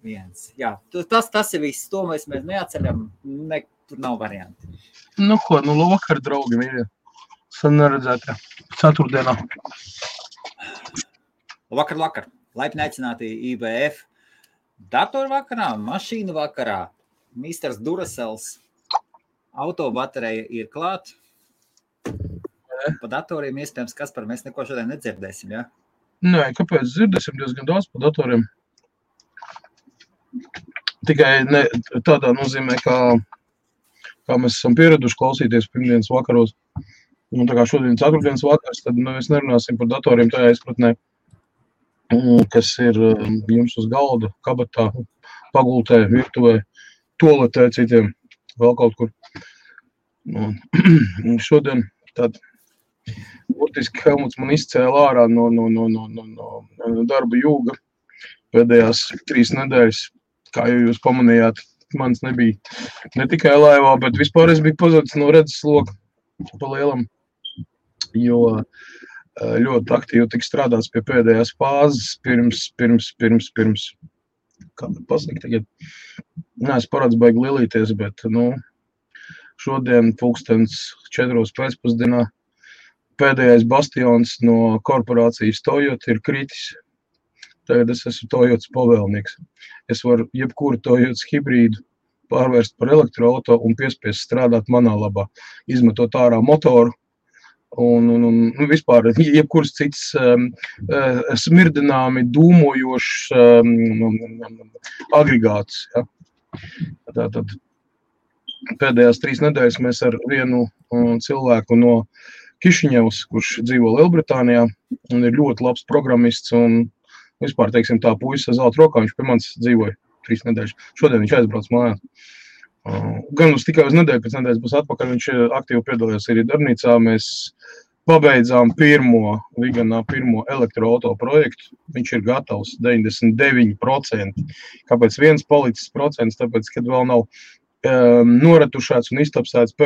viens. Jā, tas ir viss, to mēs neatceļam, tur nav varianti. Vakar, draugi, mīļie. Sen neredzētā. Ceturtdienā. Vakar. Laipni aicināti IBF. Datoru vakarā, mašīnu vakarā. Misters Duracels. Autobaterija ir klāt. Pa datoriem iespējams, Kaspar, mēs neko šodien nedzirdēsim, ja? Nē, kāpēc dzirdēsim diezgan daudz pa datoriem? Tikai ne tādā nozīmē, kā mēs esam pieraduši klausīties pirmdienas vakaros. Un tā kā šodien ceturtdienas vakars, tad mēs nerunāsim par datoriem tajā izpratnē, kas ir jums uz galda, kabatā, pagultē, virtuvē, toaletē, citiem, vēl kaut kur. Un šodien tad burtiski Helmuts man izcēla ārā no darba jūga pēdējās 3 nedēļas, kā jau jūs pamanījāt, mans nebija ne tikai laivā, bet vispār es biju pazudis no redzes loka pa lielam, jo ļoti aktīvi tika strādāts pie pēdējās fāzes pirms kā pasaka tagad, neesmu parāds baigi lielīties, bet, šodien pulkstens 4 pēcpusdienā pēdējais bastions no korporācijas Toyota ir kritis. Tagad es esmu Toyotas pavēlnieks. Es varu jebkuru Toyotas hibrīdu pārvērst par elektroauto un piespiest strādāt manā labā, izmetot ārā motoru un vispār jebkuras cits smirdināmi dūmojošs agregāts. Ja. Tātad pēdējās 3 nedēļas mēs ar vienu cilvēku no Kišiņevs, kurš dzīvo Lielbritānijā un ir ļoti labs programmists un vispār, teiksim, tā puisis ar zelta rokā, viņš pie manis dzīvoja 3 nedēļas. Šodien viņš aizbrauc mājās. Gan tikai uz nedēļu, pēc nedēļas būs atpakaļ, viņš aktīvi piedalījās arī darbnīcā. Mēs pabeidzām pirmo elektroauto projektu. Viņš ir gatavs 99%. Kāpēc viens palicis procents? Tāpēc, kad vēl nav noretušēts un iztapsēts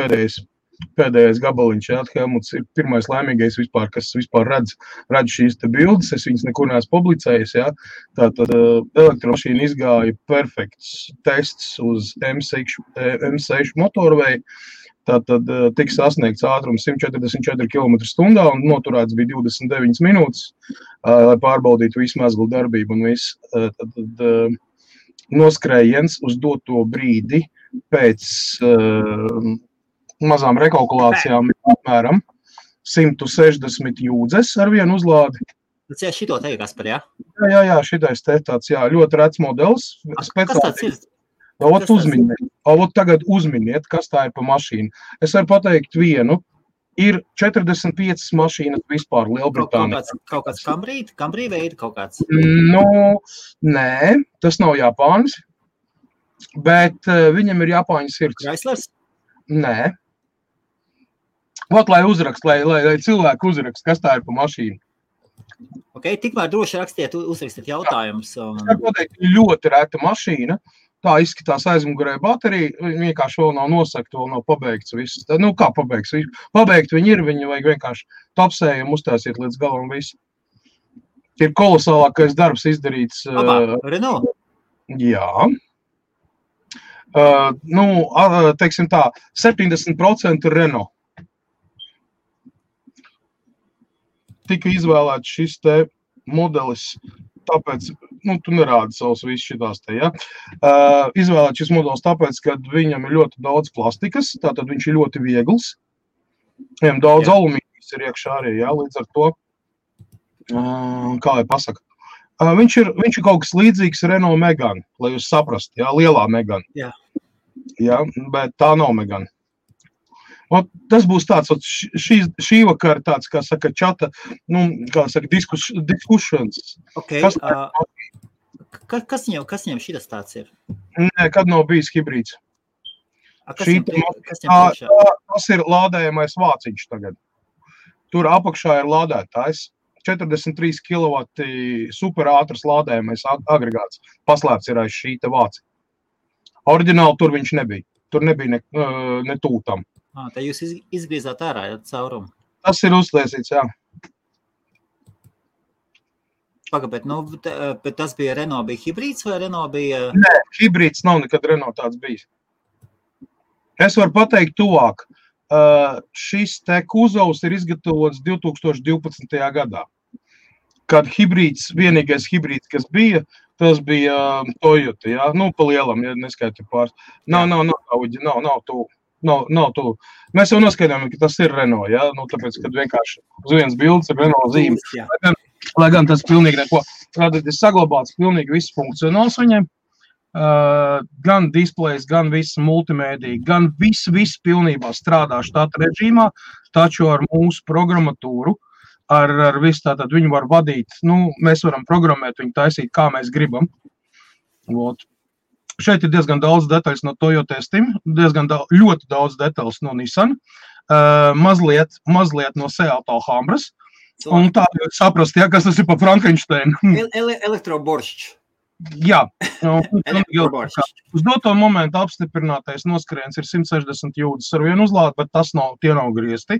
pēdējais gabaliņš, jā, Helmuts ir pirmais laimīgais vispār, kas vispār redz šīs te bildes, es viņas nekur neesmu publicējis, jā. Tātad elektromašīna izgāja perfekts tests uz M6 motorveju, tātad tika sasniegts ātrums 144 km/h un noturēts bija 29 minūtes, lai pārbaudītu visu mezglu darbību un visu. Tātad noskrējiens uz doto brīdi pēc mazām rekalkulācijām apmēram 160 jūdzes ar vienu uzlādi. Tas šito te, Kaspar, jā? Jā, šitais te tāds, jā, ļoti rets modelis. Kas tāds ir? Tagad uzminiet, kas tā ir pa mašīnu. Es varu pateikt vienu. Ir 45 mašīnas vispār Lielbritānijā. Kaut kāds Camry veida kaut kāds? Nē, tas nav Japānis, bet viņam ir Japāņu sirds. Chryslers? Nē. Lai cilvēki uzrakst, kas tā ir pa mašīnu. Ok, tikmēr droši uzrakstiet jautājumus. Es varu pateikt, ļoti reta mašīna. Tā izskatās aizmugurē baterija, viņa vienkārši vēl nav nosakta, vēl nav pabeigts viss. Kā pabeigts? Pabeigt viņi ir, viņi vajag vienkārši tapsējumu uztaisīt līdz galam visu. Ir kolosālākais darbs izdarīts. Renault? Jā. Teiksim tā, 70% Renault. Tika izvēlēts šis te modelis, tāpēc, tu nerādi savus visus šitās te, ja. Izvēlēt šis modelis tāpēc, ka viņam ir ļoti daudz plastikas, tātad viņš ir ļoti viegls. Viņam daudz alumīnijas ir iekšā arī, ja, līdz ar to, kā lai pasaka. Viņš ir kaut kas līdzīgs Renault Megane, lai jūs saprast, ja, lielā Megane. Jā. Ja, bet tā nav Megane. Tas būs tāds, šī vakar tāds, kā saka, čata, kā saka, diskussions. Ok, kas viņam šitas tāds ir? Nē, kad nav bijis hibrīds. Kas viņam priekšā? Tas ir lādējamais vāciņš tagad. Tur apakšā ir lādētājs. 43 kW superātras lādējamais agregāts. Paslēpts ir aiz šī te vāci. Oriģināli tur viņš nebija. Tur nebija ne tūtam. Tā jūs izgriezāt ārā caurumu? Tas ir uztaisīts, jā. pagabēt, bet tas bija Renault bija hibrīds vai Renault bija? Nē, hibrīds nav nekad Renault tāds bijis. Es varu pateikt tuvāk. Šis te kuzovs ir izgatavots 2012. gadā. Kad vienīgais hibrīds, kas bija, tas bija Toyota, jā? Nu, pa lielam, ja neskaiti pāris. Nav tu. Mēs jau noskaidām, ka tas ir Renault, jā? Nu, tāpēc, kad vienkārši uz vienas bildes ir Renault zīme. Lai gan tas pilnīgi neko. Tātad ir saglabāts pilnīgi viss funkcionāls viņiem. Gan displejs, gan viss multimēdija, gan viss pilnībā strādā štata režīmā, taču ar mūsu programmatūru, ar visu tātad viņu var vadīt, mēs varam programmēt viņu taisīt, kā mēs gribam. Vot. Šeit ir diezgan daudz detaļas no Toyota Steam, ļoti daudz detaļas no Nissan, mazliet no Seat Alhambras, un tā saprast, ja, kas tas ir pa Frankensteinu. Elektroboršķis. Jā, uz doto momentu apstiprinātais noskrējiens ir 160 jūdzes ar vienu uzlādi, bet tie nav griezti.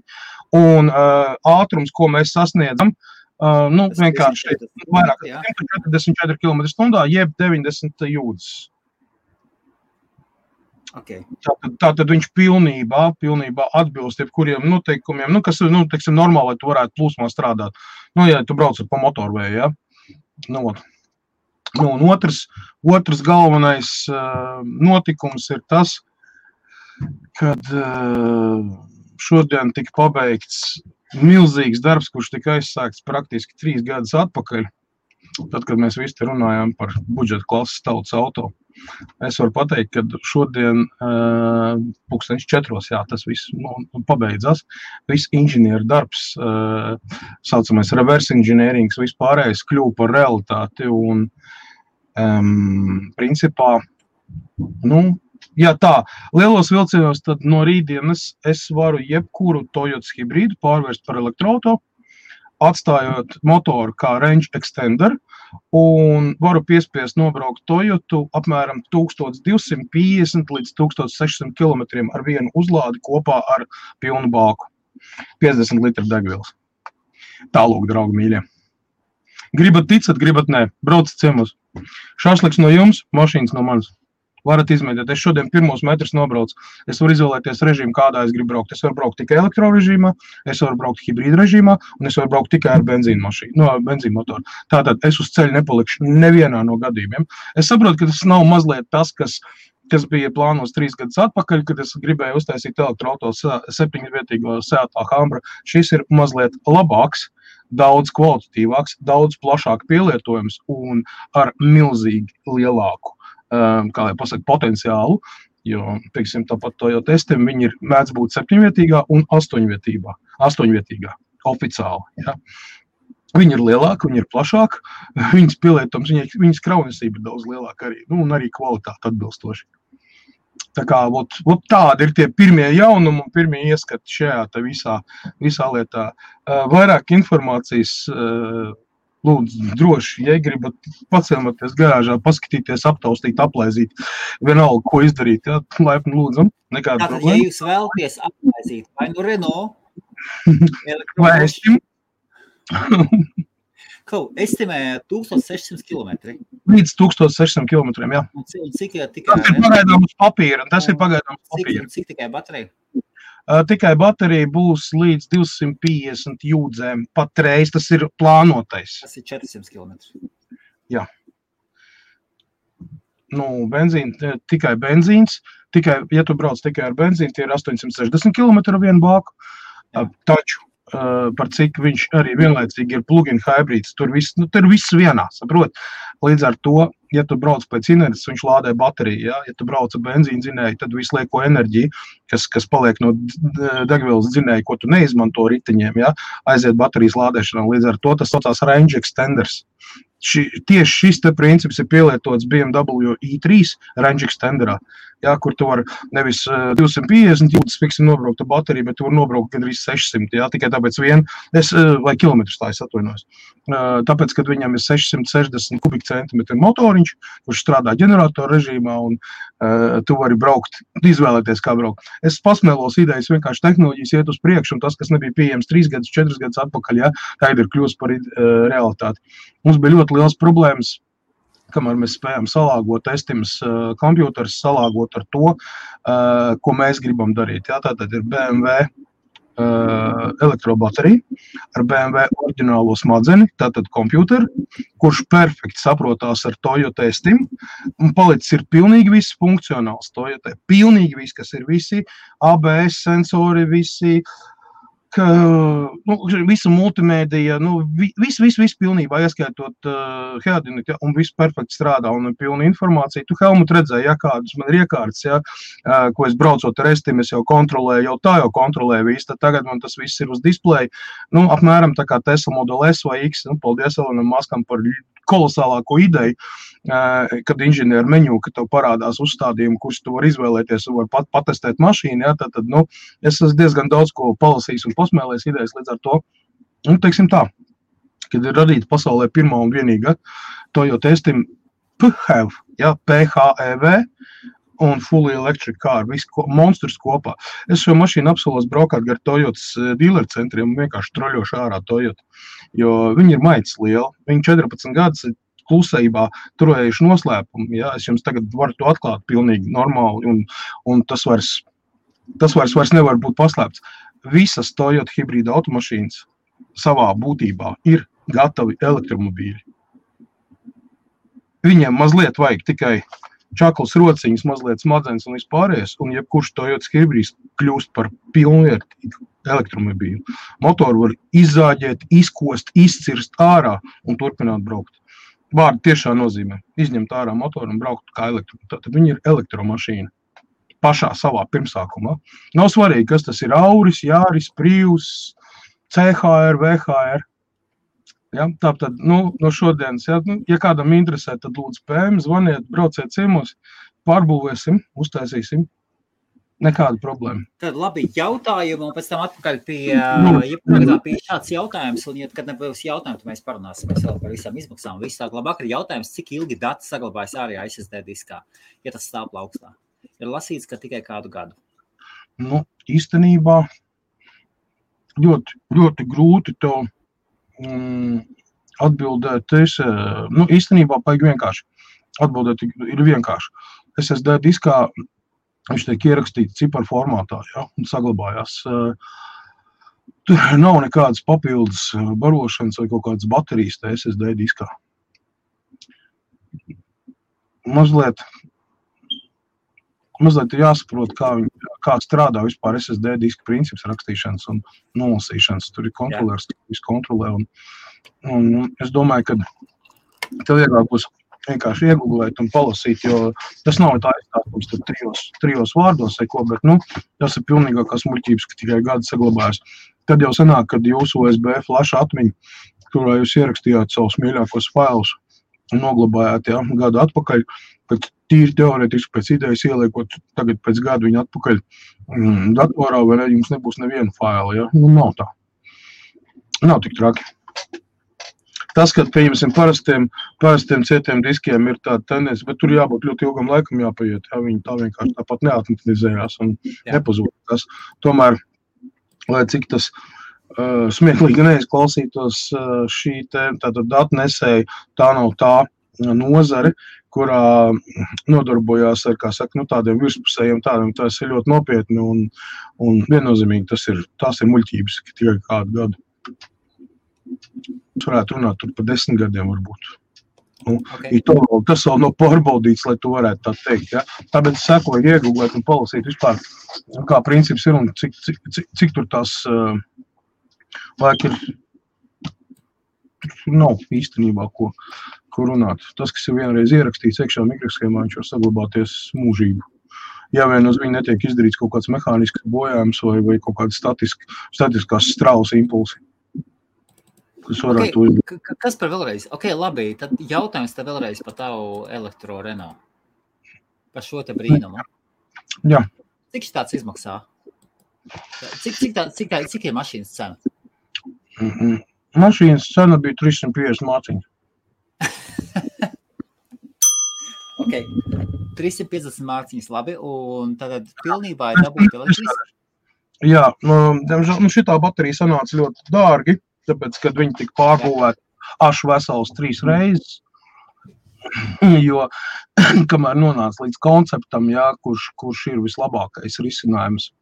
Un ātrums, ko mēs sasniedzam, vienkārši vairāk 144 km/h, jeb 90 jūdzes. Okay. Tātad viņš pilnībā atbilst jebkuriem noteikumiem, kas ir, teiksim, normāli, lai tu varētu plūsmā strādāt. Ja tu brauc pa motorvēju, ja? Un otrs galvenais notikums ir tas, kad šodien tika pabeigts milzīgs darbs, kurš tika aizsākts praktiski 3 gadus atpakaļ, tad, kad mēs visi runājām par budžeta klases tautas auto. Es varu pateikt, ka šodien 4:00, tas viss pabeidzās. Viss inženieru darbs, saucamais reverse engineerings, viss pārējais kļuva par realitāti un principā, lielos vilcienos, tad no rītdienas es varu jebkuru Toyota hibrīdu pārvērst par elektroauto, atstājot motoru kā range extender, un varu piespiest nobraukt Toyotu apmēram 1250 līdz 1600 km ar vienu uzlādi kopā ar pilnu bāku. 50 litru degvielas. Tālūk, draugi mīļie. Gribat ticat, gribat nē. Braucat ciemos. Šašliks no jums, mašīnas no manis. Varat izmēģināt. Es šodien 1 metrus nobraucu. Es varu izvēlēties režīmu, kādā es gribu braukt. Es varu braukt tikai elektrorežīmā, es varu braukt hibrīda režīmā, un es varu braukt tikai ar benzīnmotoru. Tātad es uz ceļa nepalikšu nevienā no gadījumiem. Es saprotu, ka tas nav mazliet tas, kas bija plānos 3 gadus atpakaļ, kad es gribēju uztaisīt elektroauto 7-vietīgo Seat Alhambra. Šis ir mazliet labāks, daudz kvalitatīvāks, daudz plašāk pielietojums un ar milzīgi lielāku potenciālu, jo, teiksim, tāpat Toyota Steam, viņi mēdz būt 7-vietīgā un 8-vietīgā, oficiāli, ja. Viņi ir lielāki, viņi ir plašāki, viņas pielietojums, viņas kraunesība ir daudz lielāka arī, un arī kvalitāte atbilstoši. Tā kā, tādi ir tie pirmie jaunumi un pirmie ieskati šajā te visā lietā. Vairāk informācijas, lūdzu, droši, ja gribat paciematies garāžā, paskatīties, aptaustīt, aplaizīt, vienalga, ko izdarīt, ja, laipni lūdzam, nekāda problēma. problēma. Ja jūs vēlaties aplaizīt, vai nu Renault, vai Estim, estimē 1600 km. Līdz 1600 km, jā. Un cik tikai... Tas ir pagaidām uz papīra, tas ir pagaidām uz papīra. Cik tikai baterija? Tikai baterija būs līdz 250 jūdzēm patreiz, tas ir plānotais. Tas ir 400 km. Jā. Tikai benzīns, ja tu brauc tikai ar benzīnu, tie ir 860 km ar vienu bāku, taču par cik viņš arī vienlaicīgi ir plug-in hybrids, tur viss vienā, saprot? Līdz ar to, ja tu brauc pēc inerces, viņš lādē bateriju, ja tu brauc ar benzīnu dzinēju, tad visu lieko enerģiju, kas paliek no degvielas dzinēju, ko tu neizmanto riteņiem, ja, aiziet baterijas lādēšanā, līdz ar to tas saucās range extenders. Tieši šis te princips ir pielietots BMW i3 range extenderā. jā, kur tu vari nevis 250 jūtas, fiksim, nobraukt ar bateriju, bet tu vari nobraukt gandrīz 600, jā, tikai tāpēc vai kilometrus tā es atvainojos. Tāpēc, kad viņam ir 660 kubikcentimetri motoriņš, kurš strādā ģeneratoru režīmā, un tu vari braukt, izvēlēties, kā braukt. Es pasmēlos idejas, vienkārši tehnoloģijas iet uz priekšu, un tas, kas nebija pieejams 3 gadus, 4 gadus atpakaļ, jā, tagad ir kļūst par realitāti. Mums bija ļoti liels problēmas, kamēr mēs spējam salāgot Estimas kompjūters, salāgot ar to, ko mēs gribam darīt. Jā, tātad ir BMW elektrobaterija ar BMW oriģinālo smadzeni, tātad kompjūteri, kurš perfekti saprotās ar Toyota Estim, un palicis ir pilnīgi viss funkcionāls Toyota. Pilnīgi viss, kas ir visi ABS sensori, visi visa multimēdija, viss pilnībā, ieskaitot headinit, ja, un viss perfekti strādā un ir pilna informācija. Tu, Helmut, redzēji, ja, kādas man ir iekārtas, ja, ko es braucot ar Estim, es jau kontrolēju, jau kontrolēju visu, tad tagad man tas viss ir uz displeja. Apmēram tā kā Tesla Model S vai X, paldies Elonam Muskam par kolosālāko ideju, kad inženieru meņu, ka tev parādās uzstādījumi, kurus tu vari izvēlēties un var patestēt mašīnu, ja, tad es esmu diezgan daudz ko palasījis un posmēlējis idejas līdz ar to. Teiksim tā, kad ir radīta pasaulē pirmā un vienīga Toyota Estim PHEV, ja, PHEV un fully electric car, viss monstrs kopā. Es šo mašīnu apsolos braukāt gar Toyotas dealer centriem un vienkārši troļošu ārā Toyota, jo viņi ir maitas liela. Viņi 14 gadus klusībā turējuši noslēpumu. Ja? Es jums tagad varu to atklāt pilnīgi normāli, un tas vairs nevar būt paslēpts. Visas Toyota hibrīda automašīnas savā būtībā ir gatavi elektromobīļi. Viņiem mazliet vajag tikai čakls rociņas, mazliet smadzenes un vispārējais, un jebkurš Toyotas hibrīds kļūst par pilnvērtīgu elektromobīlu. Motoru var izzāģēt, izkost, izcirst ārā un turpināt braukt. Vārdi tiešā nozīmē izņemt ārā motoru un braukt kā elektromašīna. Tātad viņi ir elektromašīna pašā savā pirmsākumā. Nav svarīgi, kas tas ir Auris, Jāris, Prius, CHR, VHR. Ja, tātad, no šodienas, ja kādam interesē, tad lūdzu PM, zvaniet, brauciet ciemos, pārbūvēsim, uztaisīsim. Nekāda problēma. Tad labi jautājumi, un pēc tam atpakaļ pie šāds jautājums, un ja kad nebūs jautājumi, tad mēs parunāsimies vēl par visām izmaksām. Viss tā labāk ir jautājums, cik ilgi dati saglabājas ārējā SSD diskā, ja tas stāv plaukstā. Ir lasīts, ka tikai kādu gadu. Īstenībā ļoti, ļoti grūti to atbildēt. Īstenībā paigi vienkārši. Atbildēt ir vienkārši. SSD diskā viņš tiek ierakstīts ciparu formātā, ja, un saglabājās. Tur nav nekādas papildus barošanas vai kaut kādas baterijas tā SSD diskā. Mazliet ir jāsaprot, kā strādā vispār SSD diska princips rakstīšanas un nolasīšanas. Tur ir kontrolērs, visu kontrolē. Un es domāju, ka tev vieglāk būs vienkārši iegooglēt un palasīt, jo tas nav tā izstāstums tur trijos vārdos vai ko, bet, tas ir pilnīgākās muļķības, ka tikai gadi saglabājas. Tad jau sanāk, kad jūsu USB flash atmiņa, kurā jūs ierakstījāt savus mīļākos failus un noglabājāt, gadu atpakaļ, kad tīri teorētiski pēc idejas ieliekot tagad pēc gadu viņu atpakaļ datorā, vai ne, jums nebūs neviena faila, nav tā. Nav tik traki. Tas, kad, pieņemsim, parastiem cietiem diskiem ir tāda tendence, bet tur jābūt ļoti ilgam laikam jāpaiet, viņi tā vienkārši tāpat neatmatizējās un nepazūdās. Tomēr, lai cik tas smieklīgi neizklausītos, šī tātad datnesēja, tā nav tā nozare, kurā nodarbojās ar, kā saka, tādiem virspusējiem tādiem, tas ir ļoti nopietni un viennozīmīgi tās ir muļķības, ka tikai kādu gadu. Es varētu runāt tur par 10 gadiem varbūt. Tas vēl nav pārbaudīts, lai tu varētu tā teikt. Ja? Tāpēc es sekoju iegooglēt un palasīt vispār, kā princips ir un cik tur tās laika ir. Tur nav īstenībā, ko runāt. Tas, kas ir vienreiz ierakstīts iekšā mikroshēmā, viņš var saglabāties mūžību. Ja vien uz viņu netiek izdarīts kaut kāds mehānisks bojājums vai kaut kāds statiskās straules impulsi. Kas par vēlreiz? Labi, tad jautājums te vēlreiz par tavu elektro Renault. Par šo te brīnumu. Jā. Cik tāds izmaksā? Cik ir mašīnas cena? Mašīnas cena bija 350 mārciņu. Ok, 350 mārciņas, labi, un tad pilnībā ir dabūt elektrīs? Jā, diemžēl šitā baterija sanāca ļoti dārgi, tāpēc, kad viņi tika pārbūvēti ašu vesels 3 reizes, jo kamēr nonāca līdz konceptam, jā, kurš ir vislabākais risinājums.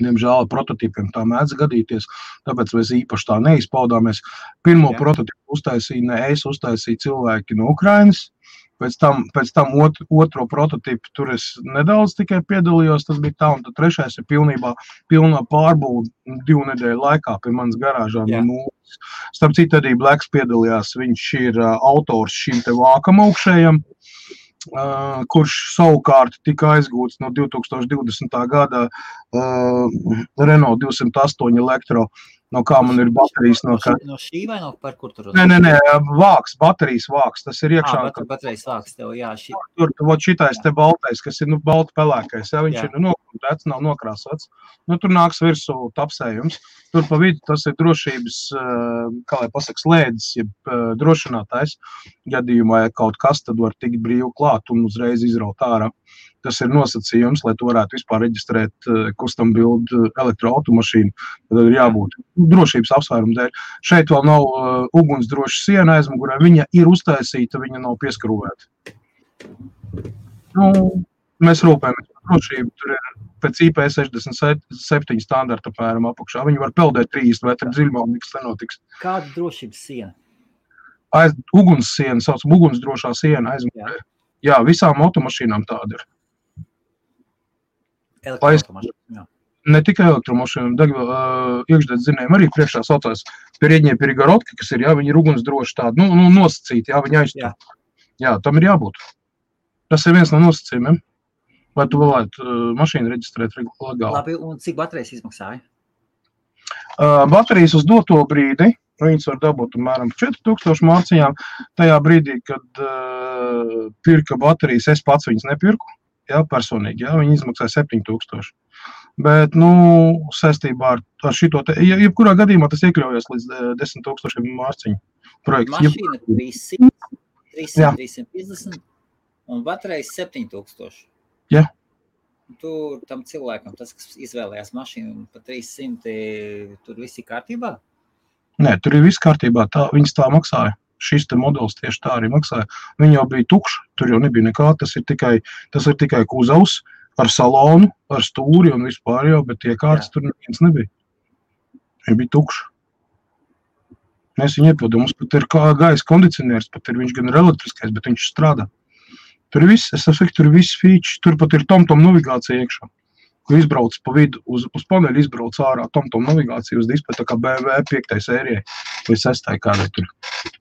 Diemžēl prototīpiem tā mēdz gadīties, tāpēc mēs īpaši tā neizpaudāmies. Pirmo prototīpu uztaisīja ne es, uztaisīja cilvēki no Ukrainas. Pēc tam otro prototīpu tur es nedaudz tikai piedalījos, tas bija tā, un tad trešais ir pilnā pārbūve 2 nedēļu laikā pie manas garāžā no nulles. Starp citu, arī Blacks piedalījās, viņš ir autors šim te vākam augšējam, kurš savukārt tika aizgūts no 2020. gada Renault 208 Elektro. No kā man ir baterijas no šī vai no par kur tur? Nē, vāks, baterijas vāks, tas ir iekšā. Baterijas vāks tev, jā. Tur šitais te baltais, kas ir balti pelēkais, viņš ir nokrūtēts, nav nokrāsots. Tur nāks virsū tapsējums. Tur pa vidu tas ir drošības, kā lai pasaka, slēdzis, ja drošinātājs. Gadījumā, ja kaut kas, tad var tikt brīvi klāt un uzreiz izraut ārā. Tas ir nosacījums, lai tu varētu vispār reģistrēt custom build elektroautomašīnu. Tad ir jābūt drošības apsvērumu dēļ. Šeit vēl nav ugunsdroša siena aizmugurē. Viņa ir uztaisīta, viņa nav pieskrūvēta. Mēs rūpējamies par drošību. Tur ir pēc IP67 standarta apmēram apakšā. Viņi var peldēt 30 metru dziļumā, un nekas nenotiks. Kāda drošības siena? Uguns siena, saucam, ugunsdrošā siena aizmugurē. Jā, visām automašīnām tāda ir. Elektromašīnām. Ne tikai elektromašīnām, iekšdedz zinējumi arī priekšā saucās Передние перегородки, kas ir, jā, viņi ir ugunsdroši tādi, nosacīti, jā, viņi aizstāv. Jā, tam ir jābūt. Tas ir viens no nosacījumiem, lai tu varētu mašīnu reģistrēt legāli. Labi, un cik baterijas izmaksāja? Baterijas uz doto brīdi, viņas var dabūt apmēram 4000 mārciņām. Tajā brīdī, kad pirka baterijas, es pats viņas nepirku. Jā, personīgi, jā, viņi izmaksāja 7000. Bet, saistībā ar šito te, jebkurā gadījumā tas iekļaujas līdz 10,000 mārciņu projekts. Mašīna 300, 350 un baterijas 7000. Jā. Tur tam cilvēkam, tas, kas izvēlējās mašīnu pa 300, tur viss ir kārtībā? Nē, tur ir viss kārtībā, viņas tā maksāja. Šis te modelis tieši tā arī maksāja. Viņa jau bija tukša, tur jau nebija nekā, tas ir tikai kuzavs ar salonu, ar stūri un vispār jau, bet iekārtas tur neviens nebija. Viņa bija tukša. Mēs viņu iepildām, mums pat ir gaisa kondicionieris, pat ir viņš gan ir elektriskais, bet viņš strādā. Tur ir viss, tur ir viss feature, tur pat ir TomTom navigācija iekšā. Kur izbrauc pa vidu, uz paneļu izbrauc ārā TomTom navigācija uz displeja, tā kā BMW 5. sērijai vai 6. kādai tur.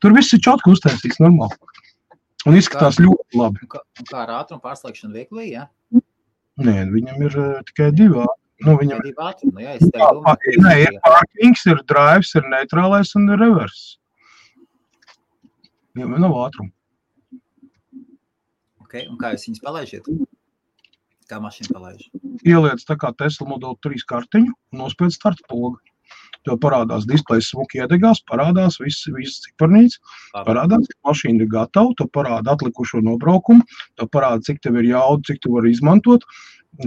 Tur viss ir čotki uztaisīts normāli. Un izskatās ļoti labi. Kā ar ātrumu pārslēgšanu vieglī, jā? Nē, viņam ir tikai 2 ātrumi. Tikai 2 ātrumi, jā, es tev domāju. Nē, ir parkings, ir drives, ir neitrālais un ir reverse. Viņam nav ātrumu. Ok, un kā jūs viņus palaižiet? Kā mašīna palaiž? Ieliec tā kā Tesla Model 3 kartiņu un nospied starta pogu. Tev parādās displejs smuki iedegās, parādās viss ciparnīts, parādās, ka mašīna ir gatava, tev parāda atlikušo nobraukumu, tev parāda, cik tev ir jauda, cik tu vari izmantot.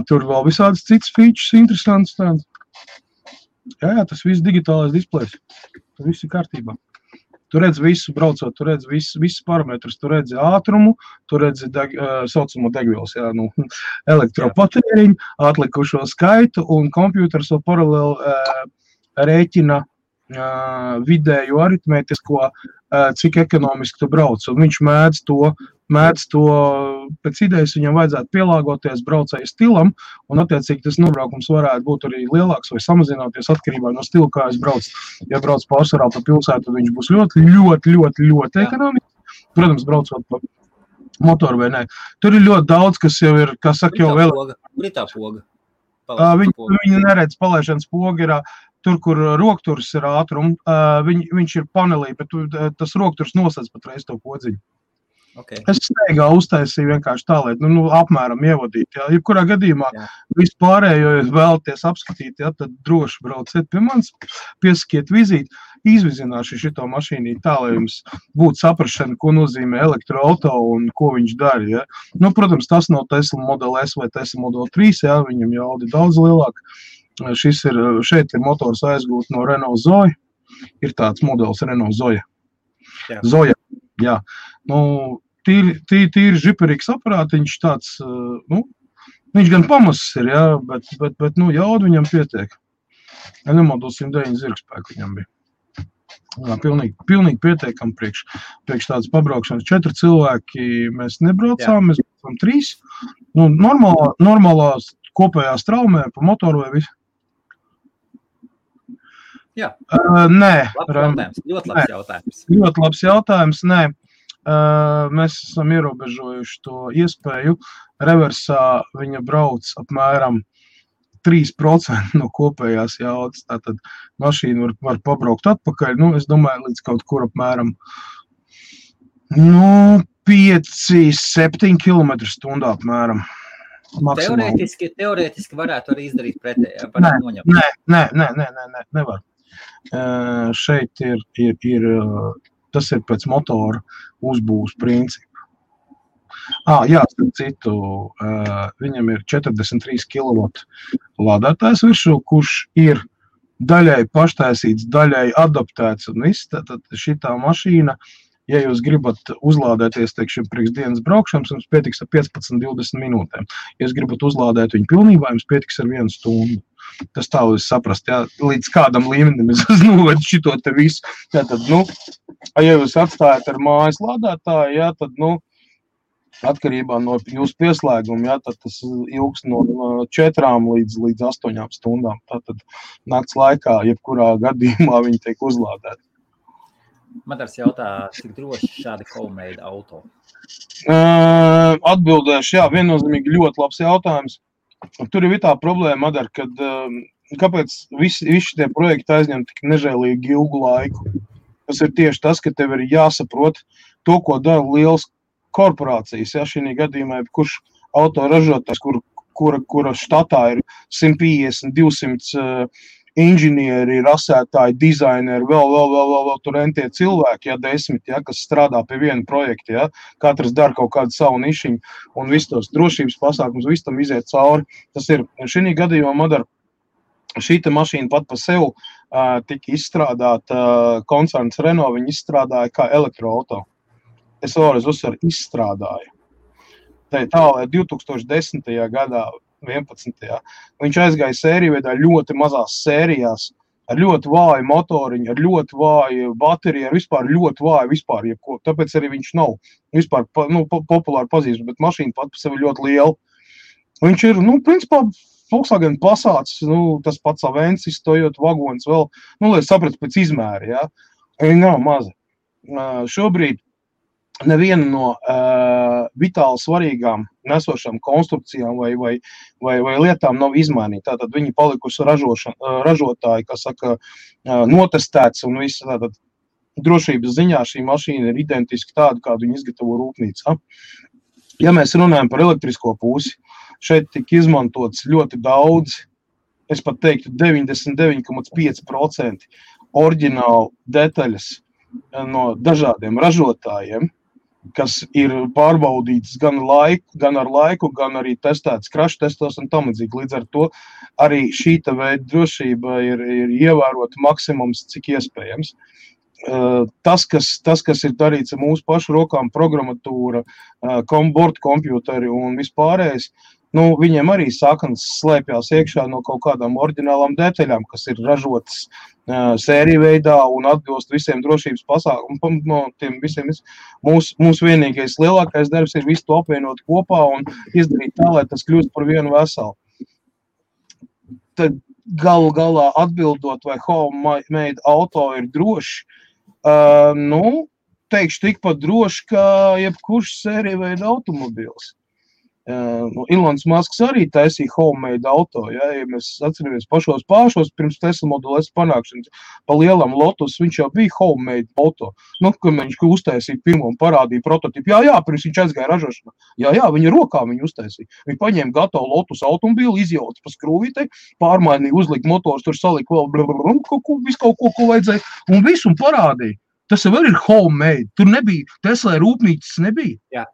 Tur vēl visādas citas features interesants tāds. Jā, tas viss digitālais displejs. Tas viss ir kārtībā. Tu redzi visu braucot, tu redzi visus parametrus, tu redzi ātrumu, tu redzi saucamo degvielas, elektropatēriņu, atlikušo skaitu un kompjūters vēl paralēli rēķina vidēju aritmētisko, cik ekonomiski tu brauc. Un viņš mēdz to, pēc idejas viņam vajadzētu pielāgoties braucēju stilam, un attiecīgi tas nobraukums varētu būt arī lielāks vai samazināties atkarībā no stila, kā es braucu. Ja brauc pārsvarā pa pilsētu, viņš būs ļoti ekonomiski. Protams, braucot pa motoru vai nē. Tur ir ļoti daudz, kas jau ir, kā saka, jau vēl. Kur ir tā poga? Viņi neredz palaišanas poga ir tur, kur rokturs ir ātrum, viņš ir panelī, bet tas rokturs nosedz patreiz to podziņu. Okay. Es steigā uztaisīju vienkārši tā, lai apmēram ievadīt. Jā. Jebkurā gadījumā vispārējo, ja vēlaties apskatīt, jā, tad droši brauciet pie manis, piesakiet vizīti, izvizināšu šito mašīnī tā, lai jums būtu saprašana, ko nozīmē elektroauto un ko viņš dara. Jā. Protams, tas nav Tesla Model S vai Tesla Model 3, jā, viņam jaudi daudz lielāk. Šeit ir motors aizgūt no Renault Zoe, ir tāds modelis Renault Zoe. Jā. Zoja, jā. Tīri žiperīgs aparātiņš tāds, viņš gan pamazs ir, jā, bet jaudu viņam pietiek. Ja nemaldos 109 zirgspēku viņam bija. Jā, pilnīgi pietiekam priekš tādas pabraukšanas. 4 cilvēki mēs nebraucām, mēs braucām 3. Normālā kopējā straumē pa motoru vai visu. Jā. Nē. Ļoti labs jautājums. Ļoti labs jautājums, nē. Mēs esam ierobežojuši to iespēju. Reversā viņa brauc apmēram 3% no kopējās jaudas. Tātad mašīna var pabraukt atpakaļ. Es domāju, līdz kaut kur apmēram 5-7 km/h apmēram. Maksimāli. Teorētiski varētu arī izdarīt pretējā. Nē, nevar. Šeit tas ir pēc motora uzbūves principu. Jā, starp citu, viņam ir 43 kW lādētājs virsū, kurš ir daļai paštaisīts, daļai adaptēts un viss. Tad šitā mašīna, ja jūs gribat uzlādēties, teiksim, priekš dienas braukšanas, jums pietiks ar 15-20 minūtēm. Ja jūs gribat uzlādēt viņu pilnībā, jums pietiks ar 1 stundu. Tas tā jūs saprast, jā, līdz kādam līmenim es novedu šito te visu. Tātad, ja jūs atstājat ar mājas lādētāju, jā, tad, atkarībā no jūsu pieslēguma, jā, tad tas ilgs no 4 līdz 8 stundām. Tātad nakts laikā, jebkurā gadījumā viņi tiek uzlādēti. Matars jautā, cik droši šādi homemade auto? Atbildēšu, jā, viennozīmīgi ļoti labs jautājums. Tur ir tā problēma, Madar, kad kāpēc visi tie projekti aizņem tik nežēlīgi ilgu laiku. Tas ir tieši tas, ka tev ir jāsaprot to, ko dara lielas korporācijas. Ja, šī gadījumā, kurš autoražotājs, kura štatā ir 150-200 inženieri, rasētāji, dizaineri, vēl tur entie cilvēki, ja 10, ja, kas strādā pie viena projekta, ja, katrs dara kaut kādu savu nišiņu un visus tos drošības pasākums, visu tam iziet cauri. Tas ir, šī gadījumā, Madar, šīta mašīna pat pa sev tika izstrādāta, koncerns Renault, viņi izstrādāja kā elektroauto. Es vēlreiz uzsveru, izstrādāja. Tā, lai 2010. gadā 11. Viņš aizgāja sēriju veidā ļoti mazās sērijās, ar ļoti vāju motoriņu, ar ļoti vāju bateriju, ar vispār ļoti vāju vispār jebko. Tāpēc arī viņš nav vispār populāri pazīstams, bet mašīna pat par sevi ļoti liela. Viņš ir, principā, Volkswagen Passats, tas pats Avensis, Toyota vagons vēl, lai sapratu pēc izmēra, ja. Viņa nav maza. Šobrīd neviena no vitāli svarīgām nesošām konstrukcijām vai lietām nav izmainīta. Tātad viņi palikusi ražotāji, kas saka, notestēts un viss. Tātad drošības ziņā šī mašīna ir identiski tāda, kādu viņi izgatavo rūpnīcā. Ja mēs runājam par elektrisko pusi, šeit tika izmantots ļoti daudz, es pat teiktu 99,5% oriģinālu detaļas no dažādiem ražotājiem, kas ir pārbaudīts gan ar laiku, gan arī testēts crash testos un tam līdzīgi. Līdz ar to arī šīta veida drošība ir ievērota maksimums, cik iespējams. Tas, kas ir darīts ar mūsu pašu rokām, programmatūra, bordkompjuteri un vispārējais, viņiem arī saknes slēpjās iekšā no kaut kādām oriģinālām detaļām, kas ir ražotas sēriju veidā un atbilst visiem drošības pasākumiem. No tiem visiem mūsu vienīgais lielākais darbs ir visu to apvienot kopā un izdarīt tā, lai tas kļūst par vienu veselu. Tad galu galā atbildot, vai homemade auto ir droši, teikšu tikpat droši, kā jebkurš sēriju veida automobils. Ilons Masks arī taisīja homemade auto, ja mēs atceramies pašos pirms Tesla Model S panākšanas, pa lielam Lotus, viņš jau bija homemade auto, kad viņš uztaisīja pirmo un parādīja prototipu, pirms viņš aizgāja ražošanā, viņa rokā viņu uztaisīja, viņi paņēma gatavu Lotus automobīlu, izjauca pa skrūvītei, pārmainīja, uzlika motors, tur salika vēl visu kaut ko vajadzēja, un visu un parādīja. Tas jau ir homemade, tur nebija, Tesla rūpnīcas nebija. Jā.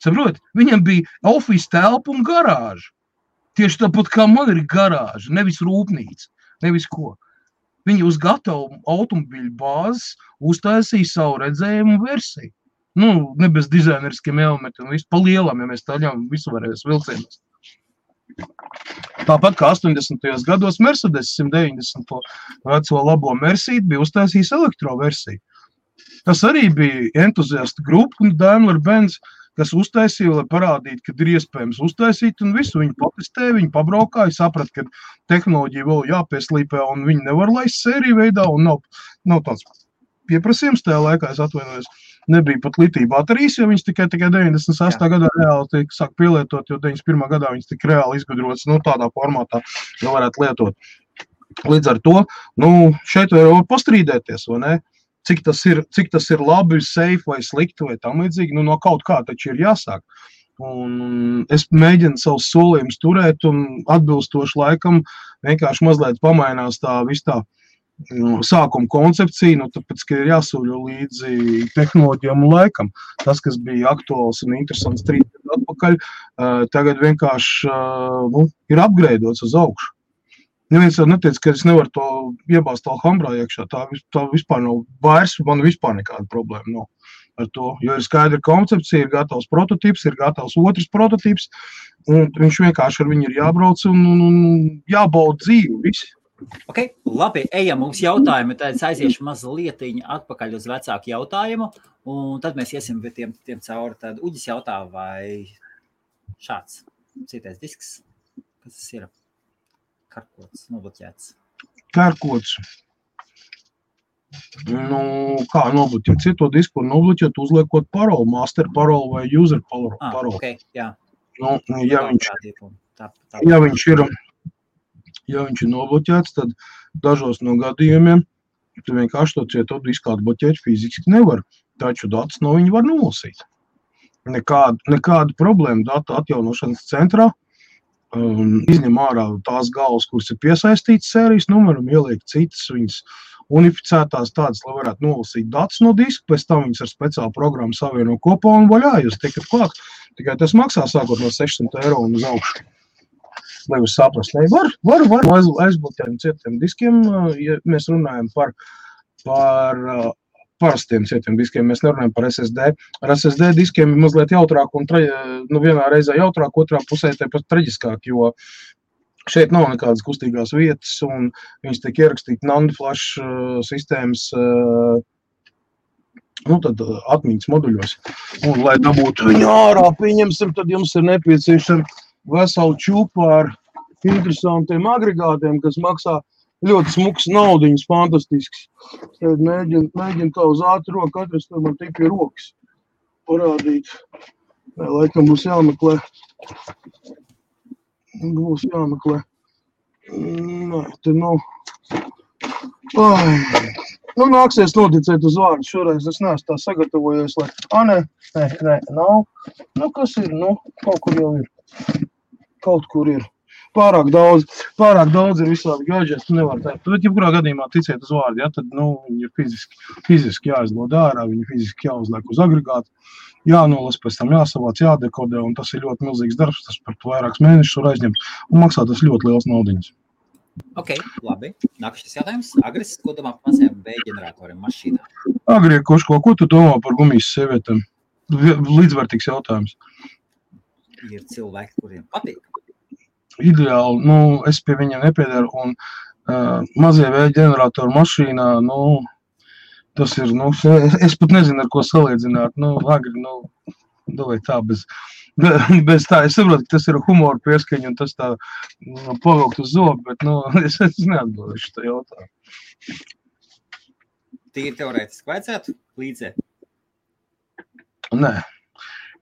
Saprot, viņam bija office telpa un garāža. Tieši tāpat kā man ir garāža, nevis rūpnīca, nevis ko. Viņi uz gatavu automobīļu bāzes uztaisīja savu redzējumu versiju. Ne bez dizaineriskiem elementiem, visu pa lielam, ja mēs taļām visu varēs vilcienos. Tāpat kā 80. gados Mercedes 190. veco labo Mercedes bija uztaisījis elektroversiju. Tas arī bija entuziastu grupa un Daimler-Benz, kas uztaisīja, lai parādītu, ka ir iespējams uztaisīt, un visu viņi patestēja, viņi pabraukāja, saprat, ka tehnoloģija vēl jāpieslīpē, un viņi nevar laist sēriju veidā, un nav tāds pieprasījums tajā laikā, es atvainojos, nebija pat litija baterijas, jo viņas tikai 98. gadā reāli sāk pielietot, jo 91. gadā viņas tik reāli izgudrotas, tādā formātā, jo varētu lietot. Līdz ar to, šeit var pastrīdēties, vai ne? Cik tas ir labi, safe vai slikti vai tam līdzīgi, no kaut kā taču ir jāsāk. Un es mēģinu savus solījumus turēt un atbilstoši laikam vienkārši mazliet pamainās tā sākuma koncepcija, tāpēc, ka ir jāsūļo līdzi tehnoloģijām un laikam. Tas, kas bija aktuāls un interesants 3 gadu atpakaļ, tagad vienkārši ir upgradeots uz augšu. Neviens jau neteica, ka es nevaru to iebāzt Alhambrā iekšā. Tā vispār nav vairs, man vispār nekāda problēma nav ar to. Jo ir skaidra koncepcija, ir gatavs prototips, ir gatavs otrs prototips, un viņš vienkārši ar viņu ir jābrauc un jābauda dzīvi, visi. Ok, labi, ejam, mums jautājumi, tad es aiziešu mazlietiņu atpakaļ uz vecāku jautājumu, un tad mēs iesim tiem cauri. Tad Uģis jautā, vai šāds citais disks, kas tas ir? Karkots, nobloķēts. Karkots. Kā nobloķēt? Cito disku var nobloķēt, uzliekot paroli, master paroli vai user paroli. Ok, jā. Ja viņš ir nobloķēts, tad dažos no gadījumiem tu vienkārši to cieto disku atbloķēt fiziski nevar, taču datus no viņa var nolasīt. Nekāda problēma datu atjaunošanas centrā. Izņem ārā tās galvas, kuras ir piesaistītas sērijas numeram, ieliek citas viņas unificētās tādas, lai varētu nolasīt datus no diska, pēc tam viņas ar speciālu programmu savieno kopā un vaļā, jūs tiekat klāt. Tikai tas maksā sākot no 600 eiro un uz augšu. Lai jūs saprast, var aizbloķēt cietiem diskiem, ja mēs runājam par parastiem cietiem diskiem, mēs nerunājam par SSD. Ar SSD diskiem ir mazliet jautrāk un vienā reizē jautrāk, otrā pusē tāpat traģiskāk, jo šeit nav nekādas kustīgās vietas un viņas tiek ierakstīti NAND flash sistēmas tad atmiņas moduļos. Un, lai dabūtu viņu ārā, pieņemsim, tad jums ir nepieciešama vesela čupa ar interesantiem agregātiem, kas maksā ļoti smuks naudiņas, fantastisks. Tad mēģinu tā uz ātru roku atrast, tad man tik pie rokas parādīt. Laikam būs jāmeklē. Nē, te nav. Nāksies noticēt uz vārdu. Šoreiz es neesmu tā sagatavojies, lai... Nē, nav. Kas ir? Kaut kur jau ir. Kaut kur ir. Pārāk daudz ir visādi gadžeti, tu nevar teikt. Bet, jebkurā gadījumā ticiet uz vārdu, tad, viņi ir fiziski jāizlod ārā, viņi fiziski jāuzliek uz agregātu, jānolas, pēc tam jāsavāc, jādekodē, un tas ir ļoti milzīgs darbs, tas par vairākus mēnešus var aizņemt, un maksā tas ļoti liels naudiņas. Ok, labi. Nākamais jautājums. Agris, ko domā par mazajiem B-ģeneratoriem mašīnā? Agri, ko tu domā par gumijas sievietēm? Līdzvērtīgs jautājums. Ir cilvēki, kuriem patīk. Ideāli, es pie viņiem nepiedaru, un mazie V-ģeneratoru mašīnā, tas ir, es pat nezinu, ar ko salīdzināt, agri, vai tā, bez tā, es saprotu, ka tas ir humora pieskaņa, un tas tā pavilkt uz zobu, bet, es neatbildēšu tā jautājumu. Tīri teorētiski vajadzētu līdzē? Nē.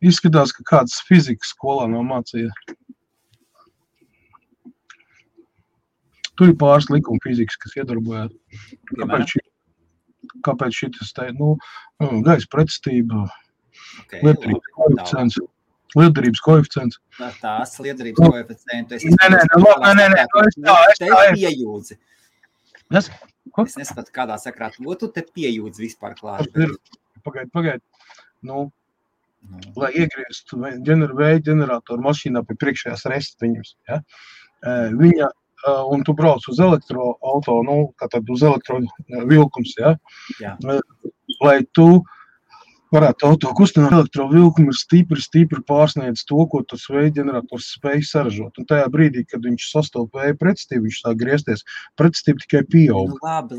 Izskatās, ka kāds fizikas skolā nav mācīja. Tur ir pāris likuma fizikas, kas iedarbojās. Kāpēc šitas te, gaisa pretestība, liederības koeficients. Tās liederības koeficientu. Nē, es piejūdzi. Ko? Es neskatu, kādā sakrā tu te piejūdzi vispār klāt. Pagaid. Lai iegrieztu vēja ģeneratoru mašīnā pie priekšējās restiņus, ja? Viņa, un tu brauc uz elektroauto, tātad uz elektrovilkums, ja? Jā. Lai tu varētu auto kustināt, elektrovilkumu ir stipri pārsniedz to, ko tas vēja ģenerators spēj saražot. Un tajā brīdī, kad viņš sastop vēja pretestību, viņš sāk griezties, pretestība tikai pieaug. Labi.